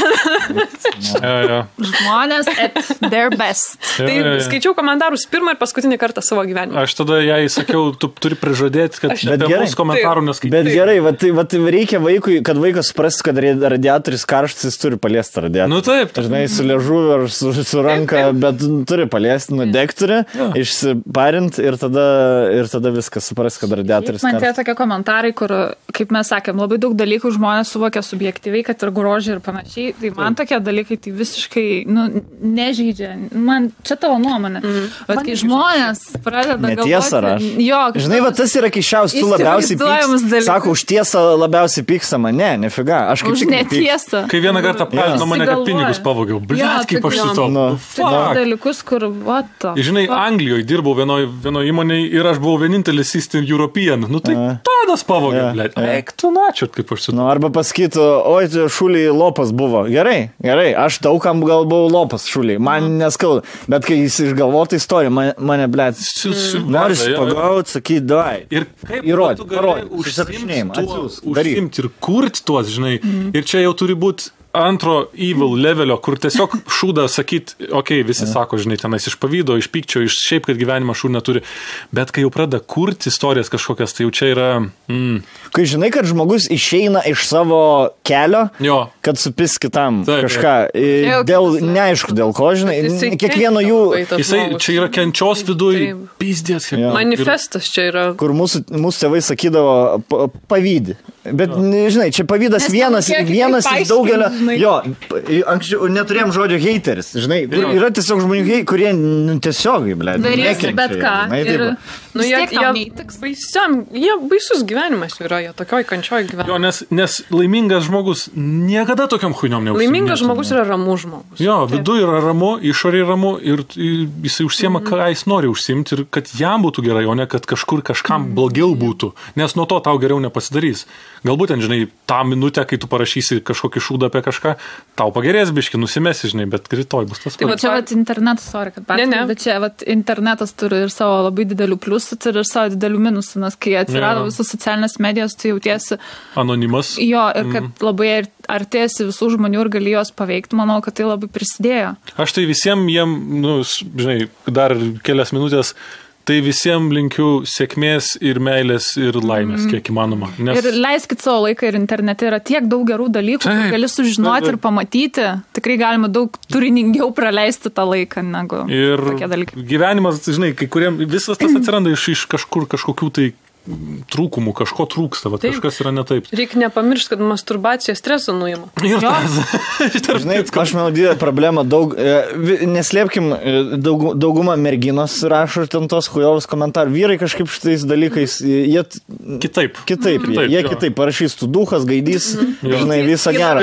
Žmonės at their best. Tai skaičiau komentarus pirmą ir paskutinį kartą savo gyvenime. Aš tada jai sakiau, tu turi prižadėti, kad apie mūsų komentarų neskaityti. Bet gerai, vat reikia vaikui, kad vaikas suprastų, kad radiatorius karštas, jis turi paliesti radiatorių. Nu taip. Žinai, su liežuviu ar su ranka, bet turi paliesti, nudegturi, išsiparint ir tada viskas supras, kad radiatorius karštas. Man tie tokie komentarai, kur, kaip mes sakėm, labai daug dalykų žmonės suvokia subjektyviai, kad ir grožį ir panašiai. Tai man tokie dalykai tai visiškai nežeidžia. Man čia tavo nuomonė. Bet kai žmonės pradeda galvoti... Netiesa raš. Žinai, va tas yra kišiaus, tu labiausiai pyksta. Sako, už tiesą labiausiai pykstama. Ne, nefiga. Aš kaip už netiesą. Kai vieną kartą apkaltino mane, kad pinigus pavogiau. Kaip aš su to. Dalykus, kur žinai, Anglijoje dirbau vienoje įmonėje ir aš buvau vienintelis Eastern European. Nu tai tadas pavogė, blėt. Eik, tu načiut, kaip aš su to. Arba pasakytų, oi, šuliai lopas buvo. Gerai, aš daugam gal buvau lopas šuliai. Man neskauda. Bet kai jis išgalvotų istoriją, mane, blėt, noris pagauti, sakyti, davai. Ir kaip tu gali užsimti ir kurti tuos, žinai. Ir čia jau turi būti antro evil levelio, kur tiesiog šūda sakyt, visi sako, žinai, tenais iš pavydo, iš pykčio, iš šiaip, kad gyvenimą šūd neturi, bet kai jau pradeda kurti istorijas kažkokias, tai jau čia yra... Kai žinai, kad žmogus išeina iš savo kelio, kad supis kitam kažką, neaišku dėl ko, žinai, kiekvieno jų... Jisai čia yra kenčios viduj, pizdės. Manifestas čia yra. Kur mūsų tėvai sakydavo pavydi. Bet, žinai, čia pavydas vienas iš daugelio... Anksčiau neturėjom žodžio hateris, žinai, yra tiesiog žmonių, kurie tiesiog, darysi bet ką. Jie baisus gyvenimas yra, jie tokioj kančioj gyvenimas. Nes laimingas žmogus niekada tokiam chuiniom neužsiminė. Laimingas žmogus yra ramus žmogus. Viduje yra ramu, išorėje ramu ir jisai užsiema, ką jis nori užsimti ir kad jam būtų gerai, o ne kad kažkur kažkam blogiau būtų, nes nuo to tau geriau nepasidarys. Galbūt, žinai, tą minutę, kai tu parašysi kažkokį šūdą apie kažką, tau pagerės biški, nusimesi, žinai, bet rytoj bus tas pats. Tai čia internetas, bet čia internetas turi ir savo labai didelių pliusų, turi ir savo didelių minusų, nes kai atsirado visos socialinės medijos, tu jautiesi anonimas. Ir kad labai artėsi visų žmonių ir gali juos paveikti, manau, kad tai labai prisidėjo. Aš tai visiems žinai, dar kelias minutės, tai visiems linkiu sėkmės ir meilės ir laimės, kiek įmanoma. Ir leiskit savo laiką ir internete yra tiek daug gerų dalykų, kur gali sužinoti ir pamatyti. Tikrai galima daug turiningiau praleisti tą laiką negu tokie dalykai. Ir gyvenimas, žinai, kai kuriem visas tas atsiranda iš kažkokių tai trūkumų, kažko trūksta, kažkas yra ne taip. Reikia nepamiršti, kad masturbacija stresą nuima. Žinai, aš manau, didelė problema, neslėpkim, dauguma merginos rašo ten tos chujovus komentarų. Vyrai kažkaip šitais dalykais, jie kitaip, jie kitaip parašys, tu duhas, gaidys, žinai, visą gerą.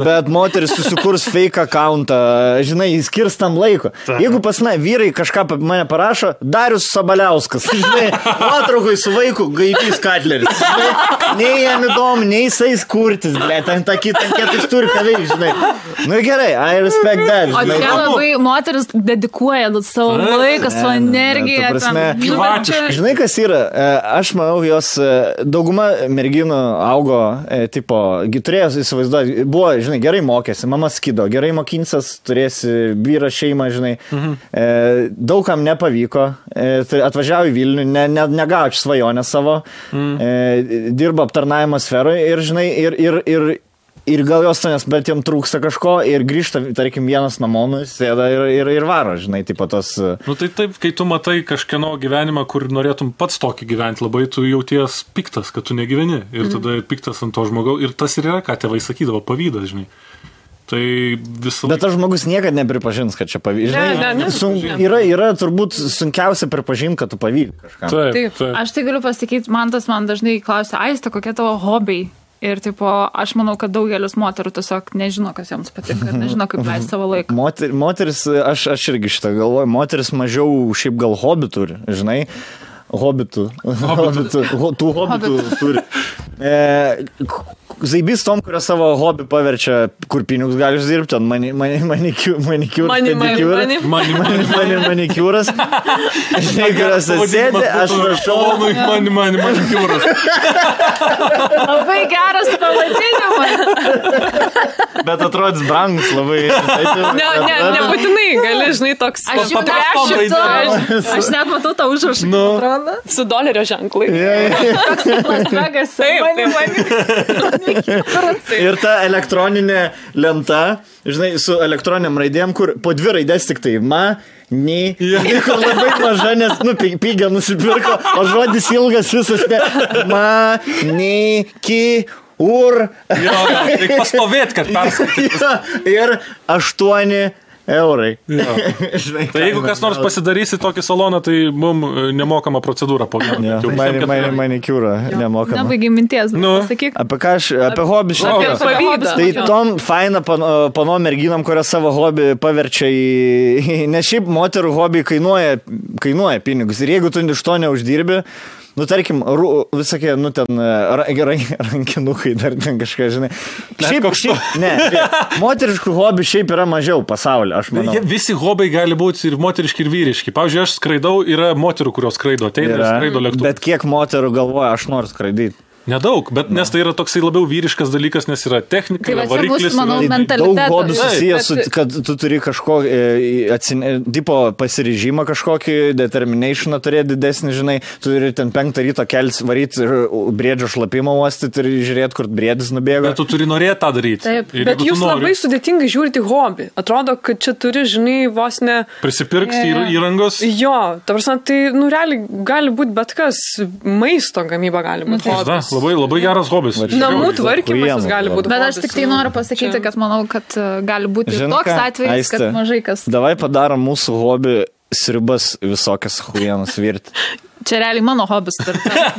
Bet moteris susikurs fake accountą, žinai, skirs tam laiko. Jeigu pas vyrai kažką mane parašo, Darius Sabaliauskas, žinai, nuotraukui su vaiku gaidys Katleris. Nei jam įdomu, nei jisai kurtis, ten tą kitą jis turi ką veikti, žinai. Nu gerai, I respect that. O čia labai moteris dedikuoja savo laiką, savo energiją. Žinai, kas yra? Aš manau, jos dauguma merginų augo, turėjo įsivaizduoti, buvo, žinai, gerai mokėsi, mama skido, gerai mokinsias, turėsi vyrą, šeimą, žinai. Daugam nepavyko, atvažiavo į Vilnių, negaučiu svajonę savo, dirba aptarnavimo sferoje ir, žinai, ir gal jos to, bet jam trūksta kažko ir grįžta, tarkim, vienas namo, sėda ir varo, žinai, tos... Tai taip, kai tu matai kažkieno gyvenimą, kur norėtum pats tokį gyventi, labai tu jauties piktas, kad tu negyveni ir tada piktas ant to žmogaus ir tas ir yra, ką tėvai sakydavo, pavydas, žinai. Tai visą... Bet tas žmogus niekada nepripažins, kad čia pavyzdžiui. Yra turbūt sunkiausia pripažinti, kad tu pavyzdžiui kažką. Taip. Aš tai galiu pasakyti, man dažnai klausia, Aiste, kokie tavo hobiai? Ir tipo, aš manau, kad daugelis moterų tiesiog nežino, kas joms patinka, nežino, kaip leisti savo laiką. Moteris, aš irgi šitą galvoju, moteris mažiau šiaip gal hobi turi, žinai. Hobitų turi. Zaibys tom, kurio savo hobį paverčia, kur pinigus gali uždirbti, ten manikiūras. Žinai, kurios atsėdė, aš rašau. Manikiūras. Labai geras pavadinimas. Bet atrodys brangus labai. Nebūtinai, gali, žinai, toks. Aš net matau tą užrašą. Su dolerio ženklai. Toks Las Vegas. Ir ta elektroninė lenta, žinai, su elektroniniam raidėm, kur po 2 raidės tik tai kur labai maža, nes, pigia nusipirko, o žodis ilgas visas, Reikia pastovėti, kad perskaitytų. Ir 8 eurai. Tai jeigu kas nors pasidarysi tokį saloną, tai mums nemokama procedūra po vieną. Manikiūra nemokama. Nebaigiai minties, pasakyk. Apie hobį šnekės. Tai tom faina panom merginam, kurios savo hobį paverčia į... Nes šiaip moterų hobį kainuoja pinigus. Ir jeigu tu iš to neuždirbi, tarkim, visokie, ten rankinukai dar ten kažką, žinai. Moteriškų hobių šiaip yra mažiau pasaulyje, aš manau. Visi hobiai gali būti ir moteriški, ir vyriški. Pavyzdžiui, aš skraidau, yra moterų, kurios skraido, ateina ir skraido lėktuvą. Bet kiek moterų galvoja, aš noriu skraidyti? Nedaug, bet nes tai yra toksai labiau vyriškas dalykas, nes yra technika, variklis. Daug hobių susijęs, kad tu turi kažko, tipo pasiryžimą kažkokį, determinationą turėti didesnį, žinai, tu turi ten 5 ryto kelis varyti ir briedžio šlapimą uostyti ir žiūrėti, kur briedis nubėga. Bet tu turi norėti tą daryti. Taip, bet jūs labai sudėtingai žiūrite hobį. Atrodo, kad čia turi, žinai, vos ne... Prisipirkti įrangos. Jo, ta prasme, tai, realiai gali būti bet kas, maisto gamyba gali būti hobis. Labai geras hobis. Namų tvarkymas gali būti. Bet aš tik tai noriu pasakyti, kad manau, kad gali būti toks atvejis, kad mažai kas. Davai padarom mūsų hobį sriubas visokias hujienas virti. Čia realiai mano hobis,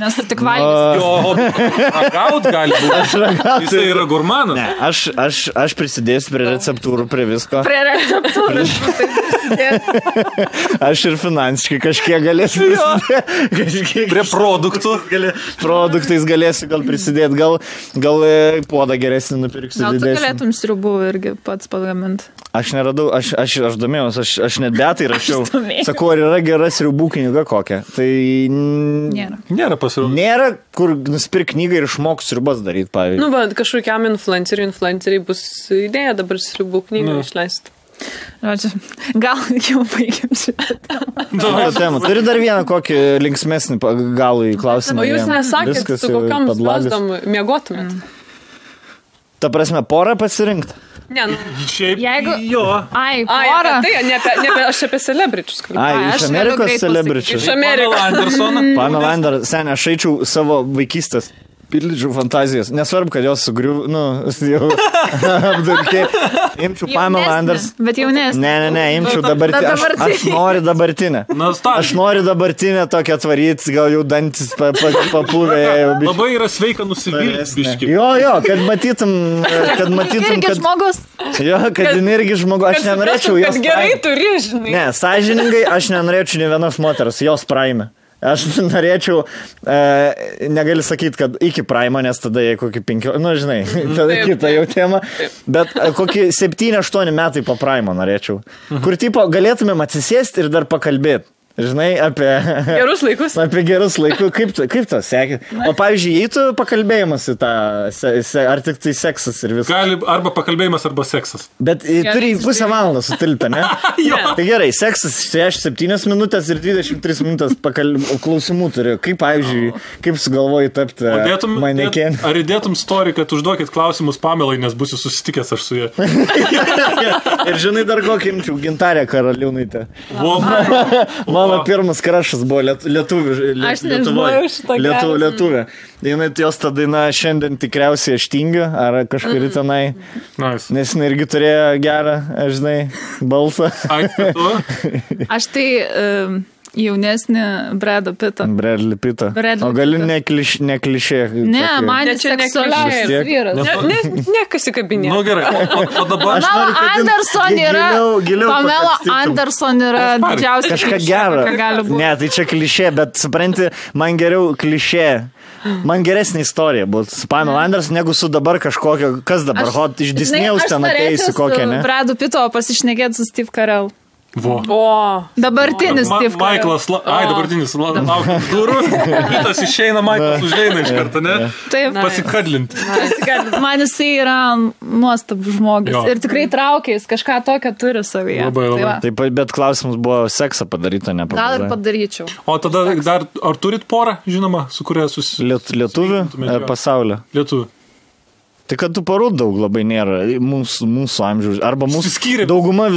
nes tu tik valgys. Jo hobis. Ragaut gali būti. Jis yra gurmanas. Ne, aš prisidėsiu prie receptūrų, prie visko. Prie receptūrų prisidėsiu. Aš ir finansiškai kažkiek galėsiu prisidėti. Prie produktų. Produktais galėsiu gal prisidėti. Gal puodą geresnį nupirksiu. Gal tu galėtum sriubų irgi pats pagaminti? Aš neradau, aš domėjausi, aš net betai rašiau. Sakau, ar yra gera sriubų knyga kokia? Tai nėra pasirodė. Nėra, kur nusipirk knygą ir išmok sriubas daryti, pavyzdžiui. Bet kažkokiam influenceriai bus idėja dabar sriubų knygą išleisti. Gal jau baigėm šitą temą. Turi dar vieną kokį linksmesnį galų į klausimą. O jūs nesakėt, su kokiam slasdom miegotumėt? Ta prasme, porą pasirinkti? Ne, šiaip jo. Porą. Tai, aš apie celebričius kalbėjau. Iš Amerikos celebričius. Iš Amerikos. Pamela Anderson, sen, aš eičiau savo vaikystės. Pildžiau fantazijas. Nesvarbu, kad jos sugriuv, jau apdurkiai. Imčiau Pamela Anderson. Bet jaunesnė. Ne, imčiau dabartinę. Aš noriu dabartinę. Aš noriu dabartinę tokią atvaryti, gal jau dantis papūvė. Labai yra sveika nusivilti. Jo, kad matytum, irgi žmogus. Jo, kad irgi žmogus. Aš nenorėčiau jos. Kad gerai turi, žinai. Ne, sąžiningai, aš nenorėčiau ne vienos moters, jos praime. Aš norėčiau, negali sakyti, kad iki Primo, nes tada jie kokį 5, žinai, tada kita jau tema, bet kokį 7-8 metai po Primo norėčiau, kur tipo galėtumėm atsisėsti ir dar pakalbėti. Žinai, apie gerus laikus. Apie gerus laikus. Kaip to sekė? O pavyzdžiui, jei tu pakalbėjimas į tą, ar tik tai seksas ir viskas? Gali arba pakalbėjimas, arba seksas. Bet turi pusę valandą sutilpti, ne? Tai gerai, seksas 7 minutės ir 23 minutės klausimų turi. Kaip, pavyzdžiui, kaip sugalvoji tapti manekėn? Ar įdėtum story, kad užduokit klausimus Pamelai, nes būsiu susitikęs aš su jie? Ir žinai dar kokį imčiau, Gintarę Karaliūnaitę. Mano pirmas krašas buvo lietuvė. Jos ta daina šiandien tikriausiai aš tingiu, ar kažkuri tenai. Nice. Nes jinai irgi turėjo gerą, žinai, balsą. Aš tai jaunesnį Brado Pittą. Bradley Pittą. O gali neklišė. Ne, man seksualiausias vyras. Ne, kas įkabinė. Nu gerai, o dabar... Pamela Anderson yra didžiausias. Kažką gero. Ne, tai čia klišė, bet supranti, man geriau klišė. Man geresnė istorija buvo su Pamela Anderson, negu su dabar kažkokio, kas dabar, iš Disney'aus ten ateisi kokią, ne? Aš Bradu Pitto pasišnekėti su Steve Carell. Vo. Dabartinis Steve Carell. Michaelas, dabartinis, laukia durų, kitas išeina, Michaelas užeina iš karto, ne? Taip. Pasikadlinti. Man jisai yra nuostabus žmogus. Jo. Ir tikrai traukia, jis kažką tokio turi savyje. Labai. Taip, bet klausimas buvo seksą padaryta, ne? Gal ir padaryčiau. O tada dar, ar turit porą, žinoma, su kuria Lietuvių pasaulio? Lietuvių. Tai kad tų porų daug labai nėra mūsų amžiaus. Arba dauguma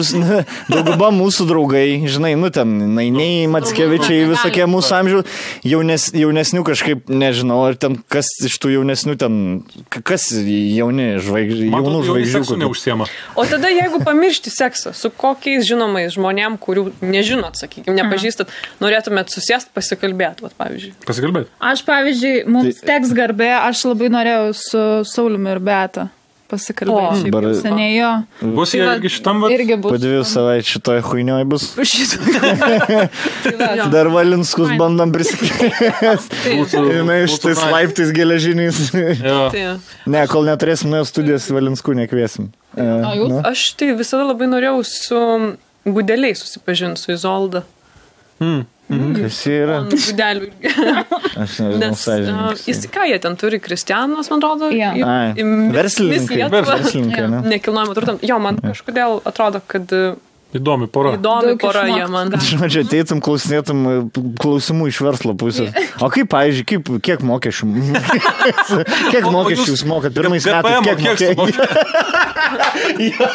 mūsų draugai, žinai, ten Nainiai, Mackevičiai, visokie mūsų amžiaus, jaunesnių kažkaip, nežinau, ar ten kas iš tų jaunesnių ten, kas jaunų žvaigždžių. Neužsiema. O tada jeigu pamiršti seksą, su kokiais žinomais žmonėm, kurių nežinot, sakykime, nepažįstat, norėtumėt susėst pasikalbėti, vat, pavyzdžiui. Pasikalbėti. Aš, pavyzdžiui, mums teks garbė, aš labai norėjau su Sauliumi ir Beata pasikalbėti. Šiaip seniai jo. Bus jie irgi šitam vat? Irgi bus. Po 2 savaičių šitoje chuinioj bus. Dar Valinskus bandom prisikviesti. Žinai, šitais laiptais geležiniais. Ne, kol neturėsim nuo studijos Valinskų nekviesim. O jūs? Aš tai visada labai norėjau su Gudeliai susipažinti, su Izolda. Kas yra? Gudelių. Aš nežinau, sąžininkas. Jis ką jie ten turi? Kristianas, man atrodo. Verslininkai, ne? Nekilnojamo turto. Jo, man kažkodėl atrodo, kad... Įdomi pora. Įdomi pora jie man. Žodžiu, ateitum, klausinėtum klausimų iš verslo pusės. O kaip, pavyzdžiui, kiek mokesčių? Kiek mokesčių jūs mokat? Pirmais metais kiek mokesčių?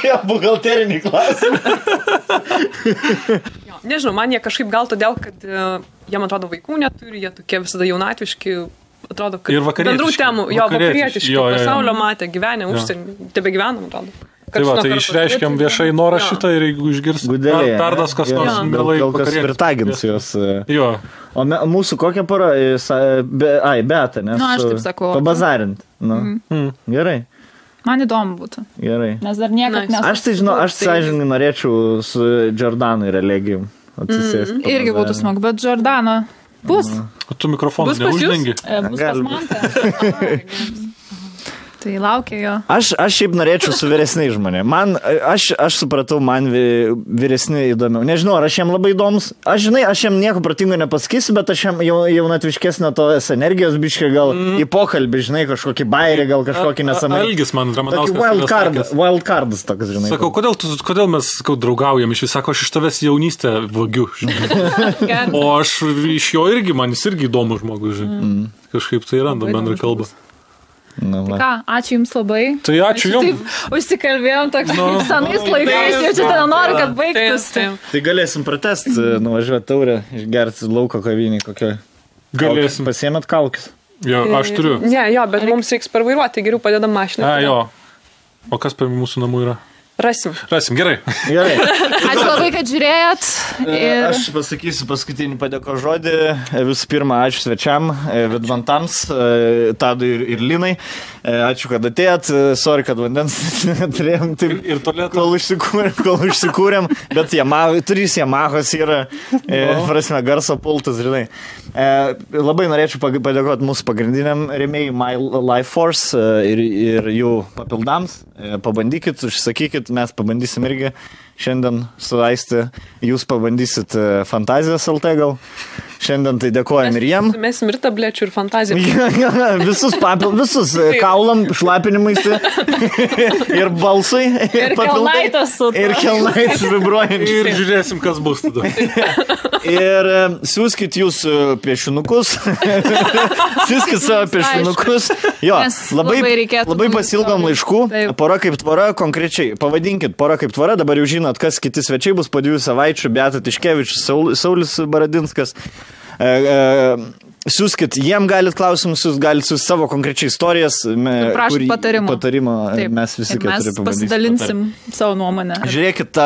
Jo, buhalterinį klausimą. Nežinau, man jie kažkaip gal todėl, kad jie, man atrodo, vaikų neturi, jie tokie visada jaunatviški, atrodo, kad bendrų temų, vakarietiški, pasaulio matė, gyvenę, užsienį, tebe gyvenam, atrodo. Tai va, tai išreiškiam viešai norą šitą ir jeigu išgirs perdas kas nors mielai gal kas pritagins jos. Jo. O mūsų kokia pora? Beata, nes aš taip sakau. Pabazarint. Gerai. Man įdomu būtų. Gerai. Nes dar niekad nesu. Aš tai žinau, aš sąžininkai norėčiau su Jordanu ir Elegijum atsisėsti. Irgi būtų smagu, bet Jordana bus. O tu mikrofoną neuždengi? Bus pas Mantą. Tai laukia jo. Aš šiaip norėčiau su vyresniais žmonėmis. Aš supratau, man vyresni įdomiau. Nežinau, ar aš jam labai įdomus. Aš jam nieko protingo nepasakysiu, bet aš jam jaunatviškesnio tos energijos biškai gal į pokalbį, žinai, kažkokį bairį, gal kažkokį nesamai. Algis man Ramanauskas. Wildcardas toks, žinai. Sakau, kodėl mes draugaujam? Iš vis sako, aš iš tavęs jaunystę vagiu. O aš iš jo irgi, man jis irgi įdomus žmogus, žinai. Kažkaip tai randam bendrą kalbą. Tai ką, ačiū jums labai. Tai ačiū jums. Taip, užsikalbėjom toks senais laikais, jau čia ten noriu, kad baigtųsi. Tai galėsim pratesti, nuvažiuoti taurę, išgerti lauko kavinį kokią. Galėsim. Pasiėmėt kaukis. Jo, aš turiu. Ne, jo, bet mums reiks parvairuoti, tai geriau padedam mašiną. Jo. O kas per mūsų namų yra? Rasim, gerai. Ačiū labai, kad žiūrėjot. Aš pasakysiu paskutinį padėko žodį. Visų pirma, ačiū svečiam, Vidmantams, Tadui ir Linai. Ačiū, kad atėjot. Sorry, kad vandens turėjom taip, ir kol užsikūrėm. Bet 3 Yamahos yra, prasme, garso pultas, žinai. Labai norėčiau padėkoti mūsų pagrindiniam rėmėjai My Life Force ir jų papildams. Pabandykit, užsakykit, mes pabandysim irgi šiandien su Aisti. Jūs pabandysit Fantazijos LT gal. Šiandien tai dėkojam ir jiem. Mes ir tablečių ir fantaziją. Visus kaulam, šlapinimaisi ir balsai. Ir kelnaitas su to. Ir kelnaitas vibruojant. Ir žiūrėsim, kas bus tada. Ir siūskit jūs piešinukus. Siūskit savo piešinukus. Jo, labai pasilgom laiškų. Pora kaip tvora, konkrečiai. Pavadinkit Pora kaip tvora. Dabar jau žinot, kas kiti svečiai bus po 2 savaičių. Beata Tiškevičius, Saulis Baradinskas. Siūskit, jiem galit klausimus, jūs galit su savo konkrečiai istorijas. Prašom patarimo. Mes visi keturi pavadysim. Mes pasidalinsim savo nuomonę. Žiūrėkit,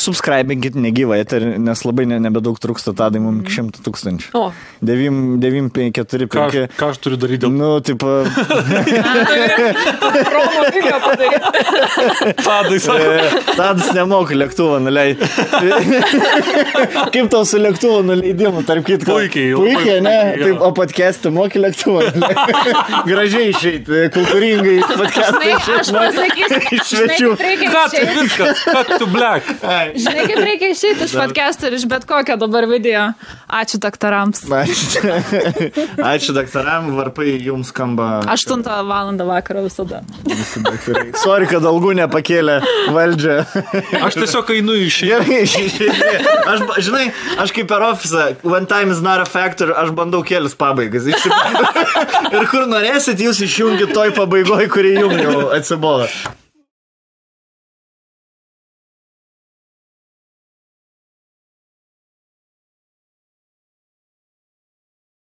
subscribinkit negyvą, nes labai nebedaug trūksta tadai mums 100 000. O. 9, 5, 4, 5. Ką aš turiu daryti dėl... Nu, taip... Promo video padaryti. Tadai sako. Tadas nemoka lėktuvą nuleisti. Kaip tau su lėktuvo nuleidimu, tarp kitko? Puikiai, ne? Taip, o podcast'ą moki lėktuvą. Gražiai išeiti, kultūringai podcast'ą išeiti. Aš pasakysiu, iš svečių. Cut to black. Žinai, kaip reikia išeiti iš podcast'ą ir iš bet kokio dabar video. Ačiū daktarams. Ačiū daktaram, varpai jums skamba. 8 valandą vakaro visada. Sorry, kad algų nepakėlė valdžia. Aš tiesiog einu Gerai, žinai, aš kaip per ofisą, one time is not a factor, aš bandau kelis pabaigas. Ir kur norėsit, jūs išjungit toj pabaigoj, kuri jums jau atsibodo.